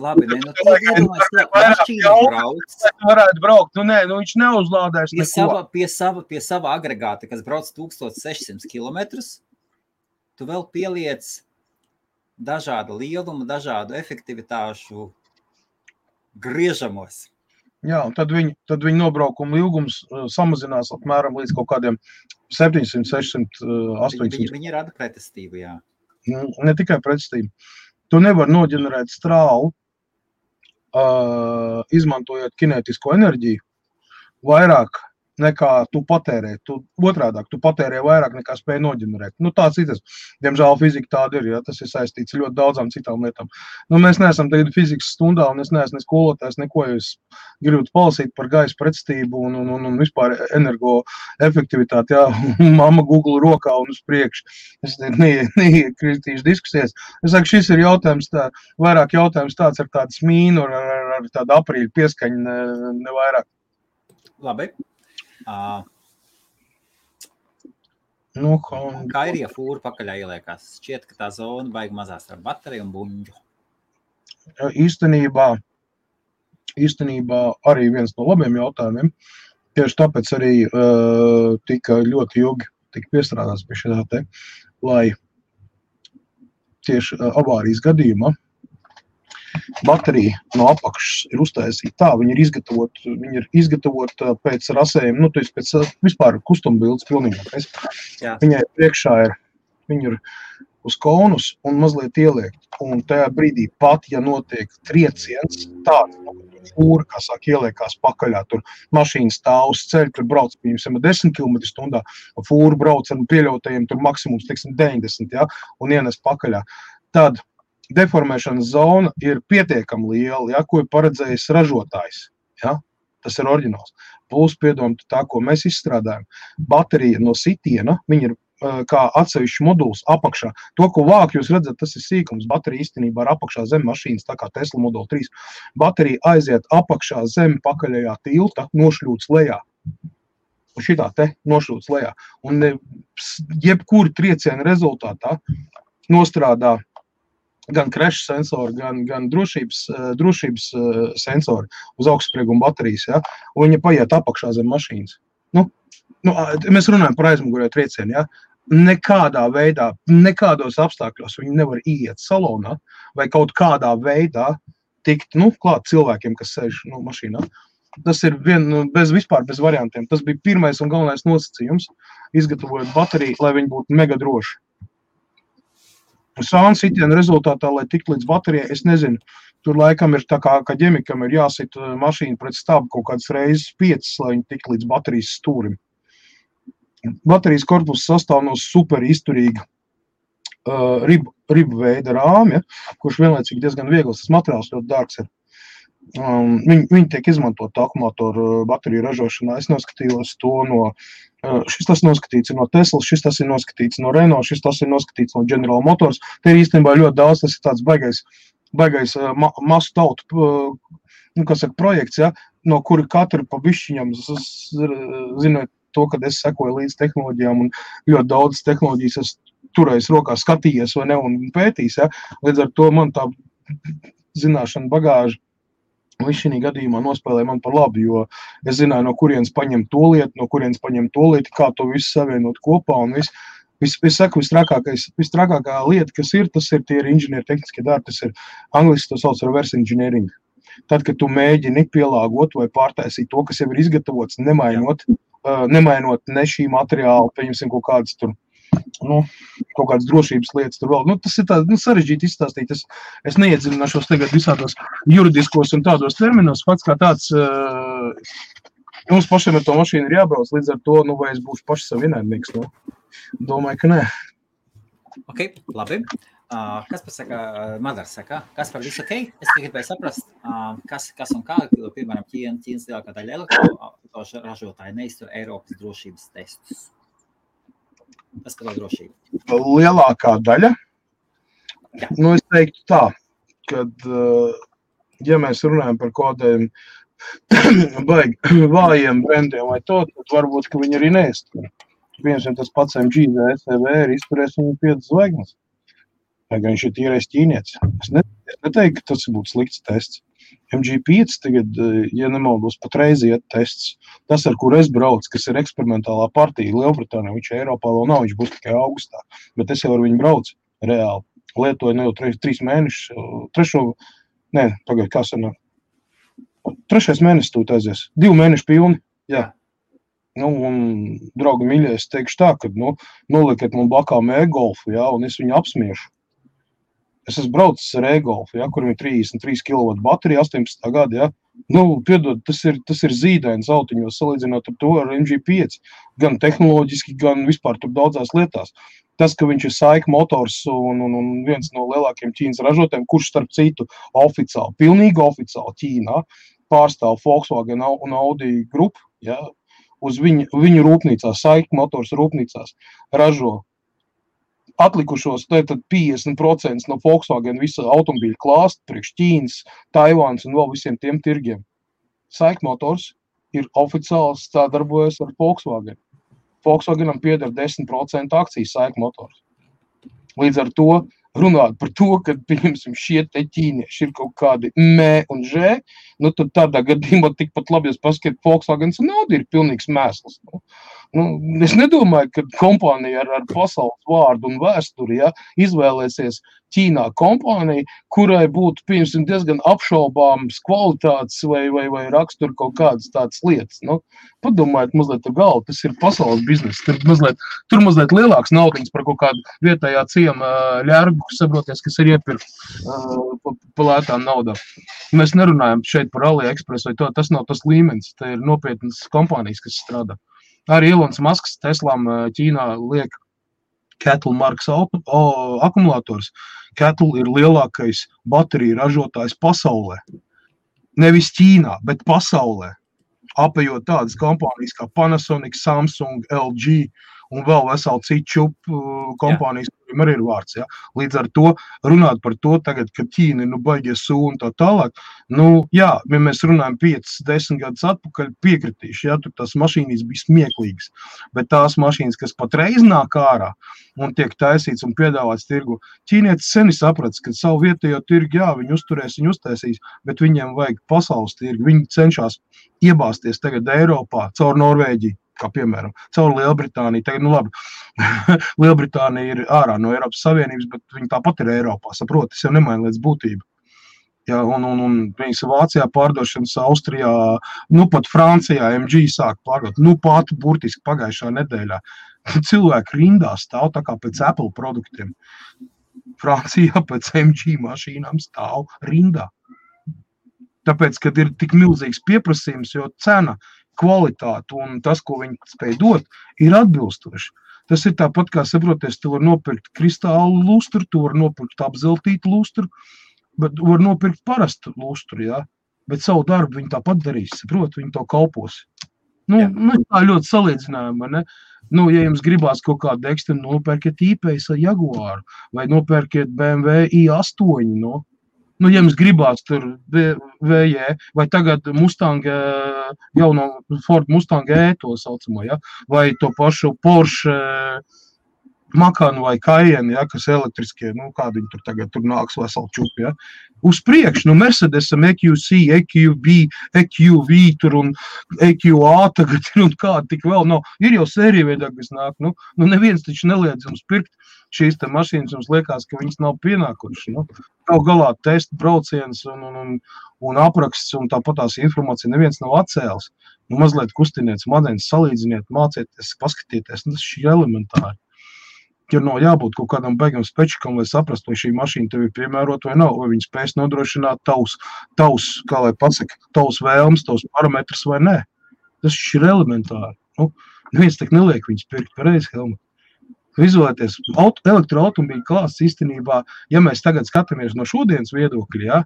Mašīna brauc. Varētu braukt, viņš neuzlādēs neko. Pie sava agregāta, kas brauc 1600 kilometrus, tu vēl pieliec dažādu lielumu, dažādu efektivitāšu griežamos. Jā, un tad viņa nobraukuma ilgums samazinās apmēram līdz kaut kādiem 700, 600, 800. Viņi rada pretestību, jā. Ne tikai pretestību. Tu nevar noģenerēt strāvu, izmantojot kinētisko enerģiju, vairāk nekā tu patērē. Otrādāk, tu patērē vairāk nekā spēj noģenerēt. Tāds ir tas. Diemžēl fizika tāda ir, ja, tas ir saistīts ļoti daudzām citām lietām. Mēs neesam tagad fizikas stundā, un es neesmu ne skolotājs, neko, jo es gribu palasīt par gaisa pretestību un vispār energoefektivitāti, jā, mamma Google rokā un uz priekšu. Es neiekritīšu diskusijas. Es saku, šis ir jautājums, vairāk jautājums tāds ar tādu smīnu, ar tādu aprīļu pieskaņu, ne vairāk. Labi. Kā ir, ja fūra pakaļā ieliekās? Šķiet, ka tā zona baigi mazās ar bateriju un buņģu. Īstenībā arī viens no labiem jautājumiem. Tieši tāpēc arī tika ļoti ilgi piestrādāts pie šitā te, lai tieši avārijas gadījumā baterija no apakšas ir uztaisīta tā, viņa ir izgatavota pēc rasējuma, pēc vispār kustumbildes pilnīgākais. Viņai priekšā viņa ir uz konus un mazliet ieliekt. Un tajā brīdī pat, ja notiek trieciens, tāds fūra, kā sāk ieliekās pakaļā, tur mašīna stāv uz ceļa, tur brauc, piemēram, 10 km/h, fūra brauc ar pieļautajiem, tur maksimums, 90, ja, un ienes pakaļā. Tad deformēšanas zona ir pietiekami liela, ja, ko ir paredzējis ražotājs. Ja? Tas ir oriģināls. Plus, piedomāt tā, ko mēs izstrādājam. Baterija no sitiena, viņa ir kā atsevišķi moduls apakšā. To, ko vāk, jūs redzat, tas ir sīkums. Baterija īstenībā ir apakšā zem mašīnas, tā kā Tesla Model 3. Baterija aiziet apakšā zem pakaļējā tilta, nošļūts lejā. Un šitā te nošļūts lejā. Un jebkuri trieciena rezultātā nostrādā gan crash sensori, gan drošības sensori uz augstsprieguma baterijas, ja? Un viņa paiet apakšā zem mašīnas. Mēs runājam par aizmugurēju triecienu, ja? Nekādā veidā, nekādos apstākļos viņi nevar iet salonā vai kaut kādā veidā tikt, klāt cilvēkiem, kas sēž mašīnā. Tas ir vispār bez variantiem. Tas bija pirmais un galvenais nosacījums, izgatavojot bateriju, lai viņi būtu mega droši. Sāna sitiena rezultātā, lai tikt līdz baterijai, es nezinu, tur laikam ir tā kā ģemikam ir jāsit mašīna pret stābu kaut kādas reizes 5, lai viņi tikt līdz baterijas stūrim. Baterijas korpuss sastāv no super izturīga ribu veida rāmja, kurš vienlaicīgi diezgan viegls, tas materiāls ļoti dārgs ir. Viņi tiek izmantot akumulātoru bateriju ražošanā. Es noskatījos to šis tas noskatīts no Teslas, šis tas ir noskatīts no Renault, šis tas ir noskatīts no General Motors. Te ir īstenībā ļoti daudz, tas ir tāds baigais masu tautu, projekts, ja, no kura katru pa bišķiņam, zinot to, kad es sekoju līdz tehnoloģijām un ļoti daudz tehnoloģijas es turējis rokā, skatījies vai ne un pētījis, ja. Līdz ar to man tā zināšana bagāža šī gadījumā nospēlēja man par labi, jo es zināju, no kurienes paņemt to lietu, kā to visu savienot kopā un viss. Es saku, vistrākākā lieta, kas ir, tas ir tie inženieri tehniskie darbi, tas ir angliski to sauc reverse engineering. Tad, kad tu mēģini pielāgot vai pārtaisīt to, kas jau ir izgatavots, nemainot nemainot ne šī materiāla, pieņemsim kaut kādas tur, kaut kādas drošības lietas tur vēl. Tas ir tā, sarežģīti izstāstīt. Es neiedziļināšos tagad visādos juridiskos un tādos terminos. Fakts kā tāds, mums pašiem ar to mašīnu ir jābrauc, līdz ar to, vai es būšu paši savu ienaidnieks, Domāju, ka nē. Ok, labi. Kas pasaka, Madars saka, kas par visu ok? Es tikai gribēju saprast, kas un kā, piemēram, Ķīnas lielākā daļa elektroautomašīnu ražotāji neiztur Eiropas drošības testus. Tas par drošību. Lielākā daļa? Jā. Es teiktu tā, kad, ja mēs runājam par kādiem baigi vājiem brendiem vai to, tad varbūt, ka viņi arī neiztur. Piemēram, tas pats MG vai SCV ir izturēs viņu 5 zvaigznes. Vai gan viņš ir tīrais ķīnietis. Es neteiktu, ka tas būtu slikts tests. MG5 tagad, ja nemaldos, patreiz iet tests. Tas, ar kur es braucu, kas ir eksperimentālā partija Lielbritānijā, viņš Eiropā vēl nav, viņš būs tikai augustā. Bet es jau ar viņu braucu reāli. Lietoju jau 3 mēnešus. Kā sanāk? 3. mēnesis tūt aizies. 2 mēneši pilni. Jā. Un, draugi mīļie, es teikšu tā, ka, nolikiet man blakām e-golfu, un es viņu apsmiešu. Es esmu braucis ar e-golfu, kur viņam 33 kW baterija, 18. gada, piedod, tas ir zīdains autiņos, salīdzinot ar to ar MG5, gan tehnoloģiski, gan vispār tur daudzās lietās. Tas, ka viņš ir saika motors un viens no lielākiem Ķīnas ražotājiem, kurš starp citu oficiāli, pilnīgi oficiāli Ķīnā pārstāv Volkswagen un Audi grupu, uz viņu rūpnīcās, saika motors rūpnīcās ražo atlikušos, tad 50% no Volkswagen visa automobīļa klāsta priekš Ķīnas, Taivāns un vēl visiem tiem tirgiem. Saika motors ir oficiāls darbojas ar Volkswagen. Volkswagenam pieder 10% akcijas saika motors. Līdz ar to runāt par to, ka, pieņemsim, šie te ķīnieši ir kaut kādi mē un žē, tad tādā gadījumā tikpat labi, ja paskatīt, Volkswagens un Audi ir pilnīgs mēsls. Es nedomāju, ka kompānija ar pasaules vārdu un vēsturi, izvēlēsies Ķīnā kompāniju, kurai būtu, pieņemsim, diezgan apšaubāmas kvalitātes vai rakstura kaut kādas tādas lietas. Padomājiet mazliet ar galvu, tas ir pasaules bizness. Tur mazliet lielāks naudiņas par kaut kādu vietējā ciema ļērgu, saproties, kas ir iepirkt pa lētām naudām. Mēs nerunājam šeit par AliExpress vai to, tas nav tas līmenis, tā ir nopietnas kompānijas, kas strādā. Arī Elons Musks Teslām Ķīnā liek Kettle markas akumulators. Kettle ir lielākais bateriju ražotājs pasaulē. Nevis Ķīnā, bet pasaulē. Apējot tādas kompānijas kā Panasonic, Samsung, LG un vēl veseli citu kompānijas, kuriem arī ir vārds. Līdz ar to runāt par to tagad, ka Ķīna baigies un tā tālāk. Ja mēs runājam 5-10 gadus atpakaļ, piekritīšu, tur tās mašīnas bija smieklīgas. Bet tās mašīnas, kas patreiz nāk ārā un tiek taisīts un piedāvāts tirgu, ķīnietis seni saprats, ka savu vietējo tirgu, viņi uzturēs, viņi uztaisīs, bet viņiem vajag pasaules tirgu. Viņi cenšas iebāzties tagad Eiropā caur Norvēģiju. Kā piemēram, caur Lielbritāniju. Tagad, labi, Lielbritānija ir ārā no Eiropas Savienības, bet viņi tāpat ir Eiropā, saprot, tas jau nemaina lietas būtību. Un viņas Vācijā pārdošanas, Austrijā, pat Francijā MG sāk pārdot, pat burtiski pagājušā nedēļā. Cilvēki rindā stāv tā kā pēc Apple produktiem. Francijā pēc MG mašīnām stāv rindā. Tāpēc, kad ir tik milzīgs pieprasījums, jo cena, kvalitāte un tas, ko viņi spēj dot, ir atbilstoši. Tas ir tāpat, kā saproties, tu var nopirkt kristālu lustru, tu var nopirkt apzeltītu lustru, bet var nopirkt parastu lustru, bet savu darbu viņi tāpat darīs, saprot, viņi to kalpos. Tā ļoti salīdzinājuma, ne? Ja jums gribās kaut kādu ekstenu, nopērkiet I-Pace vai Jaguāru, vai nopērkiet BMW i8, ja jums gribās tur VJ, vai tagad Mustang, jauno Ford Mustang E, to saucamo, vai to pašu Porsche Macan vai Cayenne, kas elektriskie, kādi viņi tur tagad tur nāks veseli čupi, Uz priekšu, Mercedesam EQC, EQV tur un EQA tagad ir un kādi tik vēl nav. Ir jau sērija veidā, kas nāk, neviens taču neliedz jums pirkt šīs te mašīnas jums liekas, ka viņas nav pienākušas. Nu, kaut galā testa brauciens un apraksts un tāpat tās informācija neviens nav atcēlis. Nu, mazliet kustiniet smadzenes, salīdziniet, mācieties, paskatieties. Nu, tas ir elementāri. Ir no jābūt kaut kādam beigam spečikam, lai saprastu, vai šī mašīna tev ir piemērota vai nav, vai viņi spēs nodrošināt tavs, kā lai pasaka, tavs vēlmes, tavs parametrs vai nē. Tas ir elementāri. Nu, neviens tak neliek viņus pirkt pareizi, Helmut. Izolēties, elektroautomobīļu klāsts īstenībā, ja mēs tagad skatāmies no šodienas viedokļa, ja,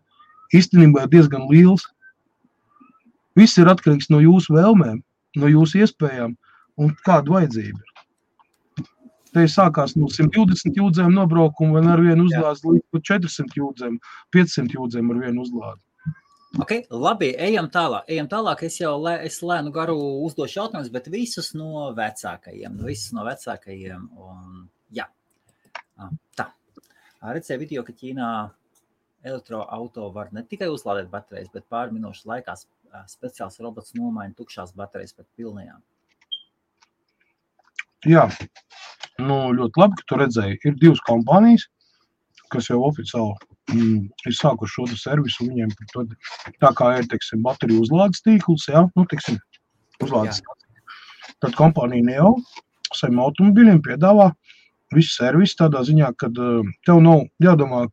īstenībā ir diezgan liels. Viss ir atkarīgs no jūsu vēlmēm, no jūsu iespējām un kāda vajadzība ir. Te sākās no 120 jūdzēm nobraukumu un ar vienu uzlādes līdz 400 jūdzēm, 500 jūdzēm ar vienu uzlādi. Ok, labi, ejam tālāk. Es lēnu garu uzdošu jautājumus, bet visus no vecākajiem. Un, jā. Tā. Redzēju video, ka Ķīnā elektroauto var ne tikai uzlādēt baterijas, bet pāri minūšu laikā speciāls robots nomaina tukšās baterijas pret pilnajām. Jā, ļoti labi, ka tu redzēji. Ir 2 kompānijas, kas jau oficiāli ir sākuši šo servisu viņiem. Tā kā ir, teiksim, bateriju uzlādes tīkls, jā, uzlādes tīkls. Tad kompānija Neo saviem automobiļiem piedāvā visu servisu tādā ziņā, kad tev nav jādomā,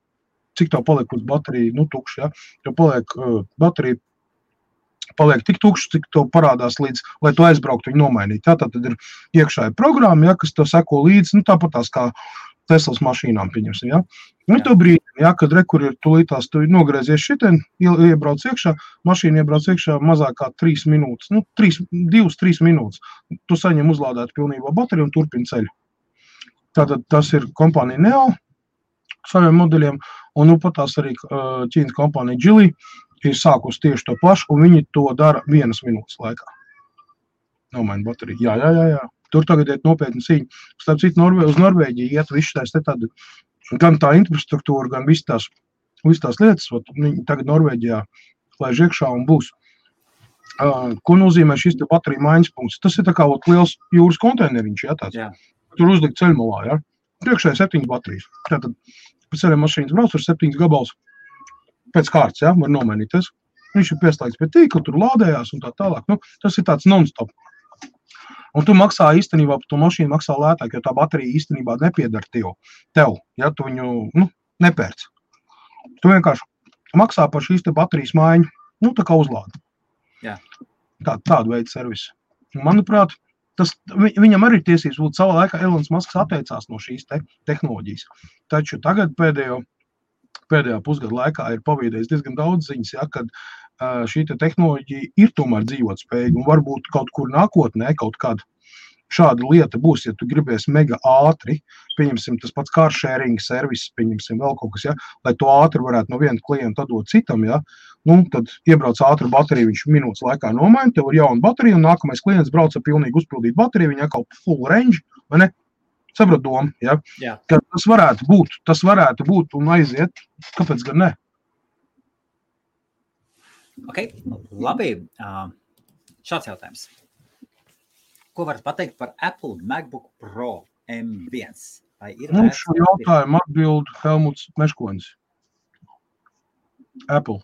cik tev paliek uz bateriju, tukši, jā. Tev paliek baterija paliek tik tukšs, cik tev parādās līdz, lai tu aizbrauktu viņu nomainīt. Jā, tad ir iekšāja programma, jā, kas tev seko līdz, tāpat tās kā Teslas mašīnām, pieņemsim, jā. To brīdi, jā, kad rekur ir tulītās, tu nogriezies šitien, iebrauc iekšā, mašīna iebrauc iekšā mazāk kā 3 minūtes, 2-3 minūtes. Tu saņem uzlādēt pilnībā bateriju un turpini ceļu. Tātad tas ir kompānija Neo saviem modeļiem, un pat tās arī Ķīnas kompānija Geely ir sākus tieši to pašu, un viņi to dara 1 minūtes laikā. Nomaina bateriju. Jā. Tur tagad iet nopietni cīņa. Starp citu, uz Norvēģiju iet visu tās tādu, gan tā infrastruktūra, gan visas tās lietas. Viņi tagad Norvēģijā laiž iekšā un būs. Ko nozīmē šis te bateriju maiņas punkts? Tas ir tā kā liels jūras konteineriņš, jā, tāds. Jā. Tur uzlikt ceļmalā, jā. Priekšā ir 7 baterijas. Tātad pēc ceļiem mašīnas brauc ar 7 gabals. Pēc kārtas, jā, var nomainīties. Viņš ir pieslēgts pie tīkla, tur lādējās un tā tālāk. Tas ir tāds non-stop. Un tu maksā īstenībā, par to mašīnu maksā lētāk, jo tā baterija īstenībā nepiedara tev, ja tu viņu nepērc. Tu vienkārši maksā par šīs te baterijas maiņu, tā kā uzlādi. Jā. Tādu veidu servisu. Manuprāt, viņam arī tiesības būt savā laikā Elons Musks atteicās no šīs tehnoloģijas. Taču tagad pēdējā pusgada laikā ir pavīdējis diezgan daudz ziņas, ja, kad šī tehnoloģija ir tomēr dzīvot spējīga un varbūt kaut kur nākotnē kaut kāda šāda lieta būs, ja tu gribēsi mega ātri, pieņemsim tas pats car sharing servis, pieņemsim vēl kaut kas, ja, lai to ātri varētu no viena klienta dot citam, ja, tad iebrauc ātri bateriju, viņš minūtes laikā nomaina, tev ir jauna baterija un nākamais klients brauc ar pilnīgi uzpildīt bateriju, viņa kaut full range, vai ne? Saprot domu, ja? Jā. Ka tas varētu būt un aiziet, kāpēc gan ne? Ok, labi. Šāds jautājums. Ko varat pateikt par Apple MacBook Pro M1? Šo jautājumu atbild Helmuts Meškonis. Apple.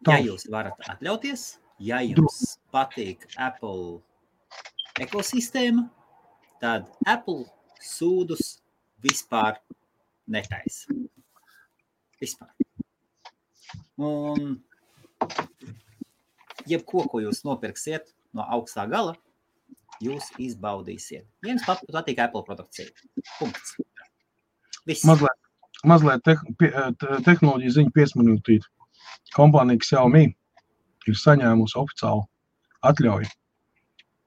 Ja jūs varat atļauties, ja jums patīk Apple ekosistēma, tad Apple sūdus vispār netaisa. Vispār. Un jebko, ko jūs nopirksiet no augstā gala, jūs izbaudīsiet. Jums patīk Apple produkcija. Punkts. Viss. Mazliet tehnoloģija ziņa piesmanītīt. Kompānija Xiaomi ir saņēmusi oficiālu atļauju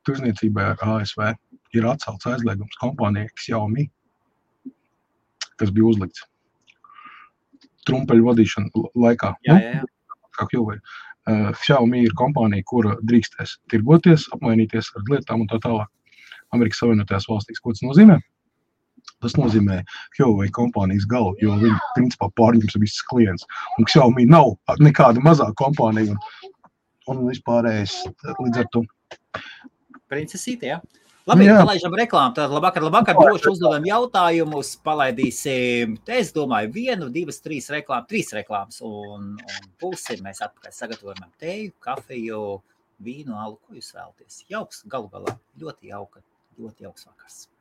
tirzniecībai ar ASV. Ir atcelts aizliegums kompānijai Xiaomi, kas bija uzlikts trumpeļu vadīšana laikā. Jā. Kā Huawei. Xiaomi ir kompānija, kura drīkstēs tirgoties, apmainīties ar lietām un tā tālāk. Amerikas Savienotajās valstīs. Ko tas nozīmē? Tas nozīmē Huawei kompānijas galu, jo viņi principā pārņems visas klients. Un Xiaomi nav nekāda mazā kompānija un vispārējais līdz ar to. Princesīte, jā. Labi, palaižam reklāmu. Tad labvakar, droši uzdodam jautājumus, palaidīsim, es domāju, 1, 2, 3 reklāmas un pulsi mēs atpakaļ sagatavojam teju, kafiju, vīnu, alu, ko jūs vēlaties. Jauks, galu galā, ļoti jauks vakars.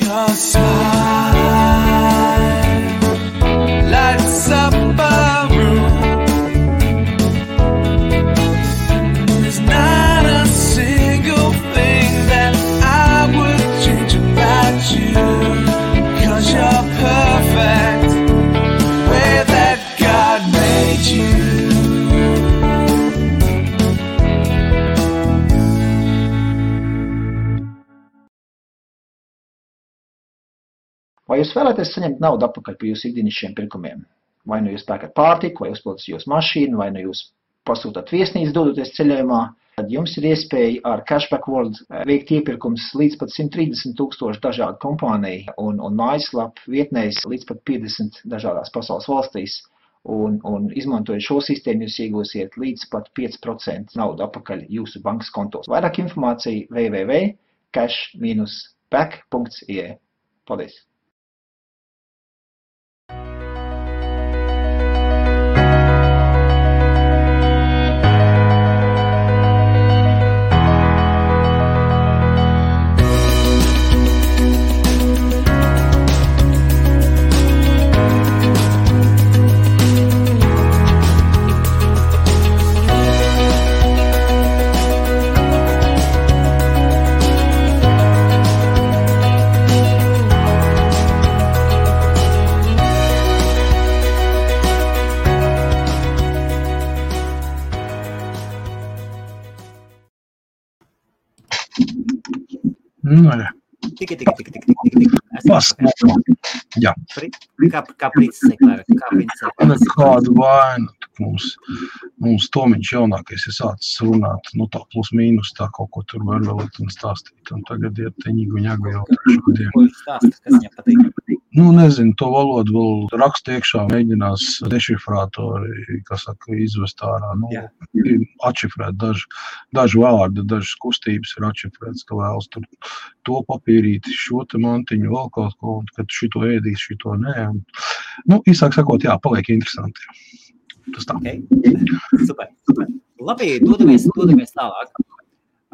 Your smile lights up a room. There's not a single thing that I would change about you, 'cause you're perfect the way that God made you. Vai jūs vēlaties saņemt naudu atpakaļ par jūsu ikdienišķiem pirkumiem? Vai nu jūs pērkat pārtiku, vai uzpildat jūsu mašīnu, vai nu jūs pasūtat viesnīcu dodoties ceļojumā, tad jums ir iespēja ar Cashback World veikt iepirkums līdz pat 130,000 dažādu kompāniju un mājaslapu vietnēs līdz pat 50 dažādās pasaules valstīs. Un izmantojot šo sistēmu, jūs iegūsiet līdz pat 5% naudu atpakaļ jūsu bankas kontos. Vairāk informācija www.cash-back.ie. Paldies! Tik. Jā. Kā princese, kā princese. Kādu vainu mums Tomiņš jaunākais ir sācis runāt, tā plus mīnus tā kaut ko tur var vēl un stāstīt. Un tagad ir teņigu ņaga jau šodien. Ko viņš stāsta, kas viņam patīk? Nezinu, to valodu vēl rakstu iekšā mēģinās dešifrātori, izvest ārā. Atšifrēt daži vārdi, dažas kustības ir atšifrēts, ka vēlas tur to papīrīti, šo te mantiņu, vēl kaut ko, un kad šito ēdīs, šito nē. Īsāk sakot, jā, paliek interesanti. Tas tā. Okay. Super. Labi, dodamies tālāk.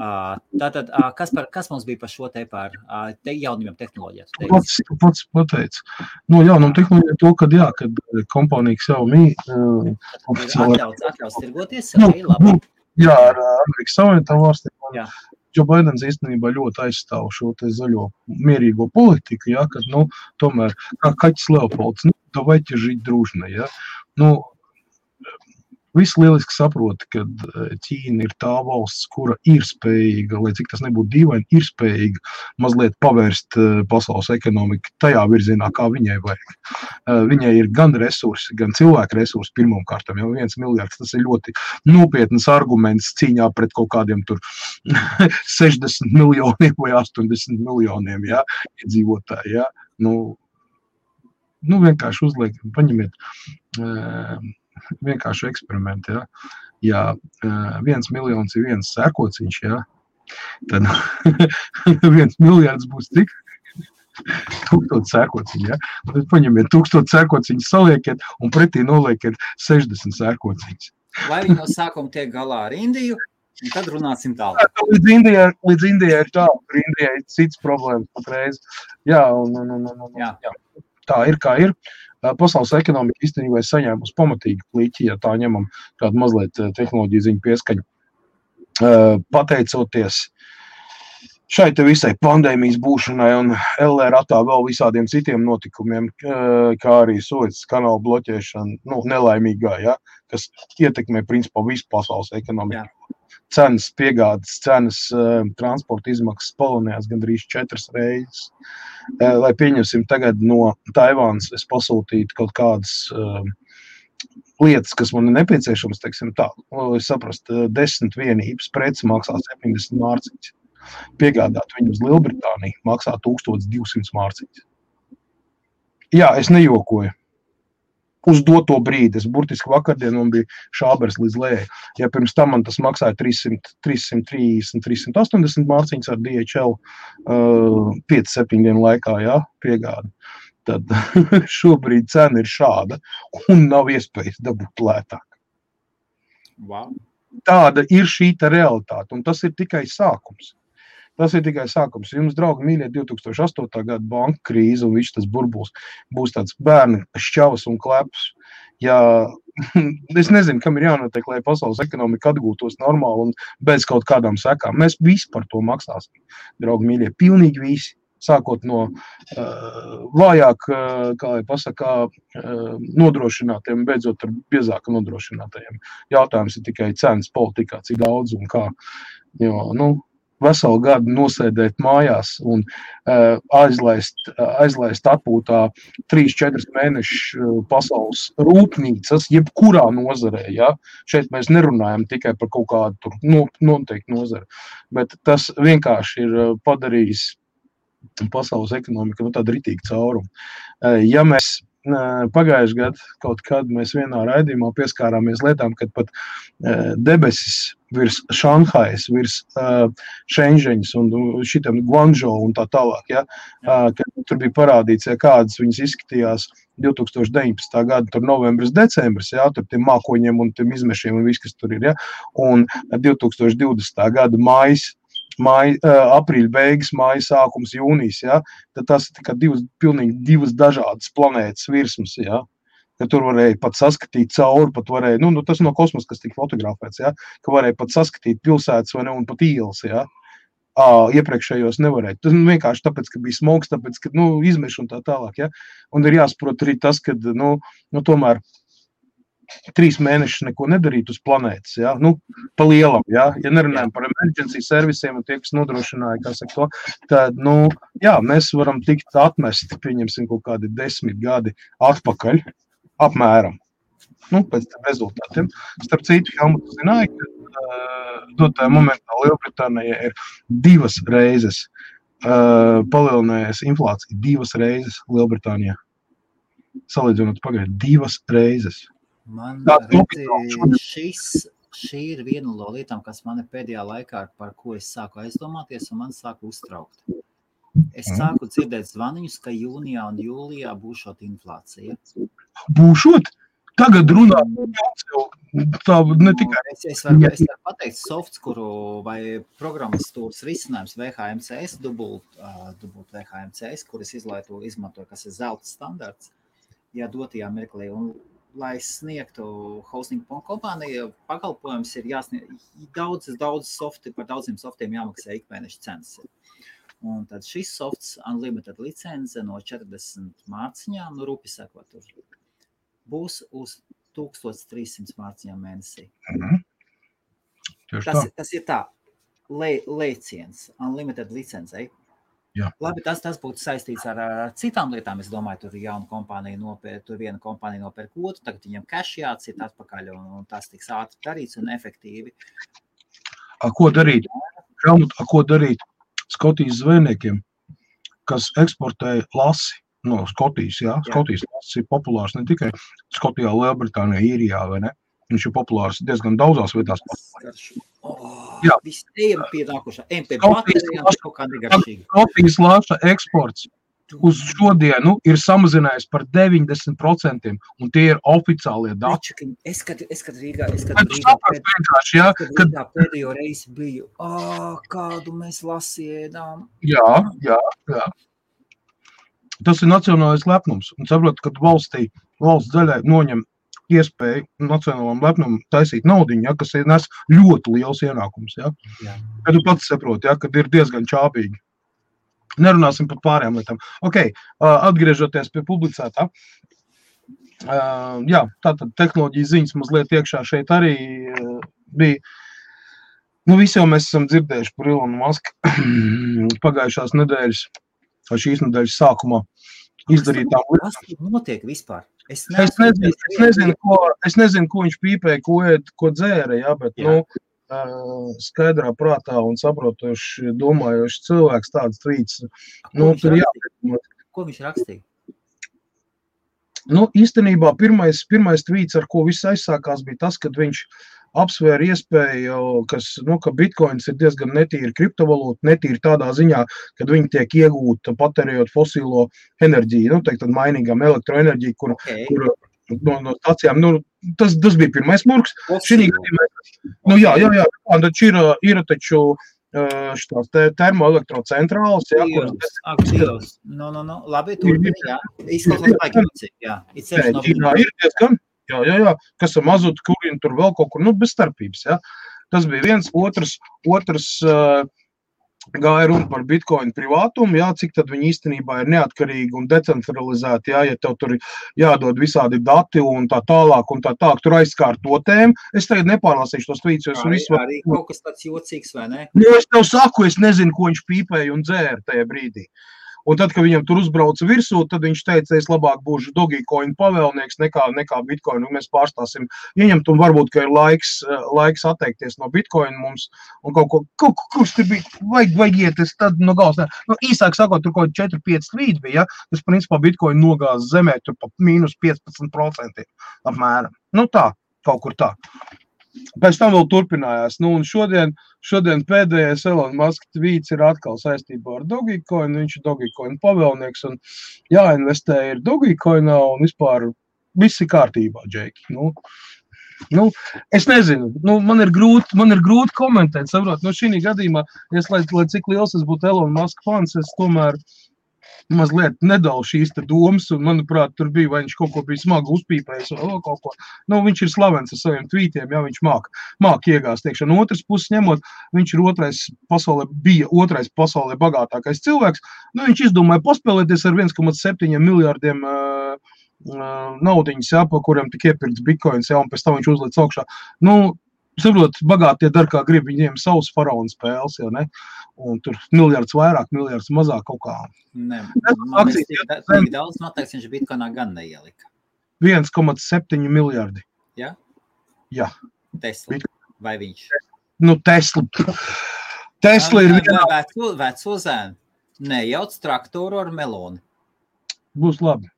Tātad, kas mums bija par šo te par jaunajām tehnoloģijām? Pats pateic. Jaunām tehnoloģijām to, kad kompānija Xiaomi atļaus tirgoties, labi. Jā, ar Amerikas Savienotām valstīm. Joe Bidens īstenībā ļoti aizstāv šo te zaļo mierīgo politiku, kad, tomēr, kā kaķis Leopolds, давайте жить дружно, Visi lieliski saprota, ka Ķīna ir tā valsts, kura ir spējīga, lai cik tas nebūtu dīvaini, ir spējīga mazliet pavērst pasaules ekonomiku tajā virzienā, kā viņai vajag. Viņai ir gan resursi, gan cilvēku resursi pirmām kārtām, jau 1 miljards, tas ir ļoti nopietnas arguments cīņā pret kaut kādiem tur 60 miljoniem vai 80 miljoniem, iedzīvotāji, vienkārši uzliek, paņemiet vienkārši eksperimenti, Ja 1 miljons ir 1 sēkociņš, tad 1 miljards būs cik? 1000 sēkociņu, Tad paņemiet 1000 sēkociņus, saliekiet un pretī noliekiet 60 sēkociņus. Lai viņi no sākuma tiek galā ar Indiju, un tad runāsim tālāk. Līdz Indijai ir tā, kur Indijai ir cits problēmas patreiz. Jā. Tā ir, kā ir. Pasaules ekonomika īstenībā ir saņēmusi pamatīgi pliķi, ja tā ņemam kādu mazliet tehnoloģiju ziņu pieskaņu. Pateicoties šai te visai pandēmijas būšanai un LRAtā vēl visādiem citiem notikumiem, kā arī Suecas kanāla bloķēšana, nelaimīgā, kas ietekmē principā visu pasaules ekonomiku. Cenas, piegādes cenas, transporta izmaksas palielinājās gandrīz 4 reizes. Lai pieņemsim tagad no Taivānas, es pasūtītu kaut kādas lietas, kas man ir nepieciešamas, teiksim tā, es saprastu, 10 vienības preci maksā 70 mārciņas. Piegādāt viņu uz Lielbritāniju maksā 1200 mārciņas. Jā, es nejokoju. uz doto brīdi. Es burtiski vakardien man bija šābers līdz lejai. Ja pirms tam man tas maksāja 330, 380 mārciņas ar DHL 5-7 dienu laikā, jā, piegādi. Tad šobrīd cena ir šāda un nav iespējas dabūt lētāk. Wow. Tāda ir šī realitāte, un tas ir tikai sākums. Tas ir tikai sākums. Jums, draugi, mīļie, 2008. Gada banka krīze un viss tas burbulis būs tāds bērni šķavas un kleps. Ja, es nezinu, kam ir jānotiek, lai pasaules ekonomika atgūtos normāli un bez kaut kādām sekām. Mēs visi par to maksāsim, draugi, mīļie, pilnīgi visi. Sākot no vājāk, kā lai pasakā, nodrošinātiem, beidzot ar biezāk nodrošinātajiem. Jautājums ir tikai cenas politikā, cik daudz un kā. Jo, veselu gadu nosēdēt mājās un aizlaist atpūtā 3-4 mēnešu pasaules rūpnīcas, jebkurā nozarē. Ja? Šeit mēs nerunājam tikai par kaut kādu noteiktu nozari, bet tas vienkārši ir padarījis pasaules ekonomika tāda ritīga cauruma. Ja mēs pagājuši gadu kaut kad mēs vienā raidījumā pieskārāmies lietām, kad pat debesis virs Šanhajas, virs Šenžeņas un šitam Guangzhou un tā tālāk, ja, kad tur bija parādīts, ja kādas viņas izskatījās 2019. Gada, tur novembris, decembris, ja, tur tiem mākoņiem un tiem izmešiem un viss, kas tur ir, ja, un 2020. Gada aprīļa beigas, māja sākums, jūnijas, ja, tad tas ir tikai pilnīgi divas dažādas planētas virsmas, ja, ka tur varēja pat saskatīt cauri, pat varēja, tas no kosmosa, kas tika fotografēts, ja, ka varēja pat saskatīt pilsētas vai ne, un pat ielas, ja, iepriekšējos nevarēja. Tas vienkārši tāpēc, ka bija smogs, tāpēc, ka, izmeši un tā tālāk, ja, un ir jāsaprot arī tas, ka, tomēr 3 mēnešus neko nedarīt uz planētas, ja? Pa lielam, ja nerunājam par emergency servisiem un tie, kas nodrošināja, kā saka to, tad, mēs varam tikt atmesti, pieņemsim kaut kādi 10 gadi atpakaļ, apmēram, pēc tam rezultātiem. Starp citu, Helmut, zināja, ka dotajā momentā Lielbritānijā ir 2 reizes palielinājies inflācija, 2 reizes Lielbritānijā. Salīdzinot pagaidu, 2 reizes. Man šī ir viena no lietām, kas man pēdējā laikā, par ko es sāku aizdomāties un man sāku uztraukt. Es sāku dzirdēt zvaniņus, ka jūnijā un jūlijā būšot inflācija. Būšot? Tagad runā. Tā ne tikai. Es varu pateikt softs, vai programmatūras risinājums VHMCS, dubult VHMCS, kuras izmantoju, kas ir zelta standarts, ja dotajā mirklī. Un lai sniegtu hosting kompāniju, pakalpojums ir jāsniedz daudz softi, par daudziem softiem jāmaksā ikmēneša cenas. Un tad šis softs unlimited licence no 40 mārciņām, rupi sakot, būs uz 1300 mārciņām mēnesī. Tas ir tā, lēciens, unlimited licencei. Jā. Labi, tas būtu saistīts ar citām lietām. Es domāju, tur viena kompānija nopērk otru, tagad viņam cash jācīt atpakaļ, un tas tiks ātri darīts un efektīvi. Ko darīt? Helmut, ko darīt Skotijas zvejniekiem, kas eksportē lasi no Skotijas? Jā? Skotijas lasis ir populārs ne tikai Skotijā, Lielbritānijā, Īrijā, vai ne? Viņš ir populārs diezgan daudzās vietās. Viss ejam pie nākošā. MP baterijām kaut kā negaršīgi. Skotijas lāša eksports uz šodienu ir samazinājies par 90%, un tie ir oficiālie dati. Es kad Rīgā pēdējo reizi biju, kādu mēs lasiedām. Jā. Tas ir nacionālais lepnums, un saprot, kad valsts daļai noņem iespēju nacionālam lepnumam taisīt naudiņu, ja, kas nes ļoti liels ienākums. Ja. Kad tu pats saproti, ja, kad ir diezgan čābīgi. Nerunāsim par pārējām lietām. Atgriežoties pie publicētā. Tātad tehnoloģijas ziņas mazliet iekšā šeit arī bija. Visi jau mēs esam dzirdējuši par Elonu Musku pagājušās nedēļas, vai šīs nedēļas sākumā izdarītām lietām. Kas notiek vispār? Es nezinu, ko viņš pīpēja, ko dzēra, ja, bet, skaidrā prātā un saprotoši domājoši cilvēks tāds trīts. Tur jāpēc. Ko viņš rakstīja? Nu, īstenībā pirmais tweets, ar ko viss aizsākās, bija tas, kad viņš apsvēra iespēju, ka bitcoins ir diezgan netīra kriptovalūta, netīra tādā ziņā, kad viņi tiek iegūta patērējot fosilo enerģiju, tad mainīgām elektroenerģiju, kur no stācijām, tas bija pirmais murgs. Jā, tad ir taču šitās termoelektrocentrālas, kuras... Labi, turpini, jā. Izklausās baigi, jā. Ķīnā ir diezgan, jā, kas ar mazotu kurinu tur vēl kaut kur, bez starpības, jā. Tas bija viens, otrs gāja runa par bitcoin privātumu, jā, cik tad viņi īstenībā ir neatkarīgi un decentralizēti, jā, ja tev tur jādod visādi dati un tā tālāk, tur aizskārt to tēmu. Es tagad nepārlasīšu tos tweets, jo arī kaut kas tāds jocīgs, vai ne? Es tev saku, es nezinu, ko viņš pīpēja un dzēra tajā brīdī. Un tad, kad viņam tur uzbrauca virsū, tad viņš teica, es labāk būšu Dogecoin pavēlnieks nekā Bitcoin, un mēs pārstāsim ieņemt, un varbūt, ka ir laiks atteikties no Bitcoin mums, un kurš tur bija, vajag iet, es tad no galvas, īsāk sakot, tur kaut 4-5 tweet bija, tas principā Bitcoin nogāz zemē, tur pa mīnus 15% apmēram. Tā, kaut kur tā. Pēc tam vēl turpinājās. Un šodien pēdējais Elon Musk tweets ir atkal saistībā ar Dogecoin. Viņš ir Dogecoin pavēlnieks un jāinvestē ir Dogecoinā un vispār viss ir kārtībā, Džeki. Es nezinu, man ir grūti komentēt, saprot, šī gadījumā, lai cik liels es būtu Elon Musk fans, es tomēr mazliet nedalu šīs te domas, un, manuprāt, tur bija, vai viņš kaut ko bija smagi uzpīpējis, vai kaut ko. Viņš ir slavens ar saviem tweetiem, jā, viņš māk iegāzt iekšā. No otras puses ņemot, viņš ir bija otrais pasaulē bagātākais cilvēks. Viņš izdomāja paspēlēties ar 1,7 miljārdiem naudiņas, jā, pa kuriem tik iepirkts bitcoins, jā, un pēc tam viņš uzliec augšā. Saprot, bagātie dar kā grib, viņiem savus faraonu spēles, jau ne? Un tur miljards vairāk, miljards mazāk kaut kā. Man ir daudz noteikts, viņš bitcoinā gan neielika. 1,7 miljardi. Jā? Jā. Tesla. Vai viņš? Tesla. Tesla ir vienā... Veco zēnu. Nejauc traktoru ar meloni. Būs labi.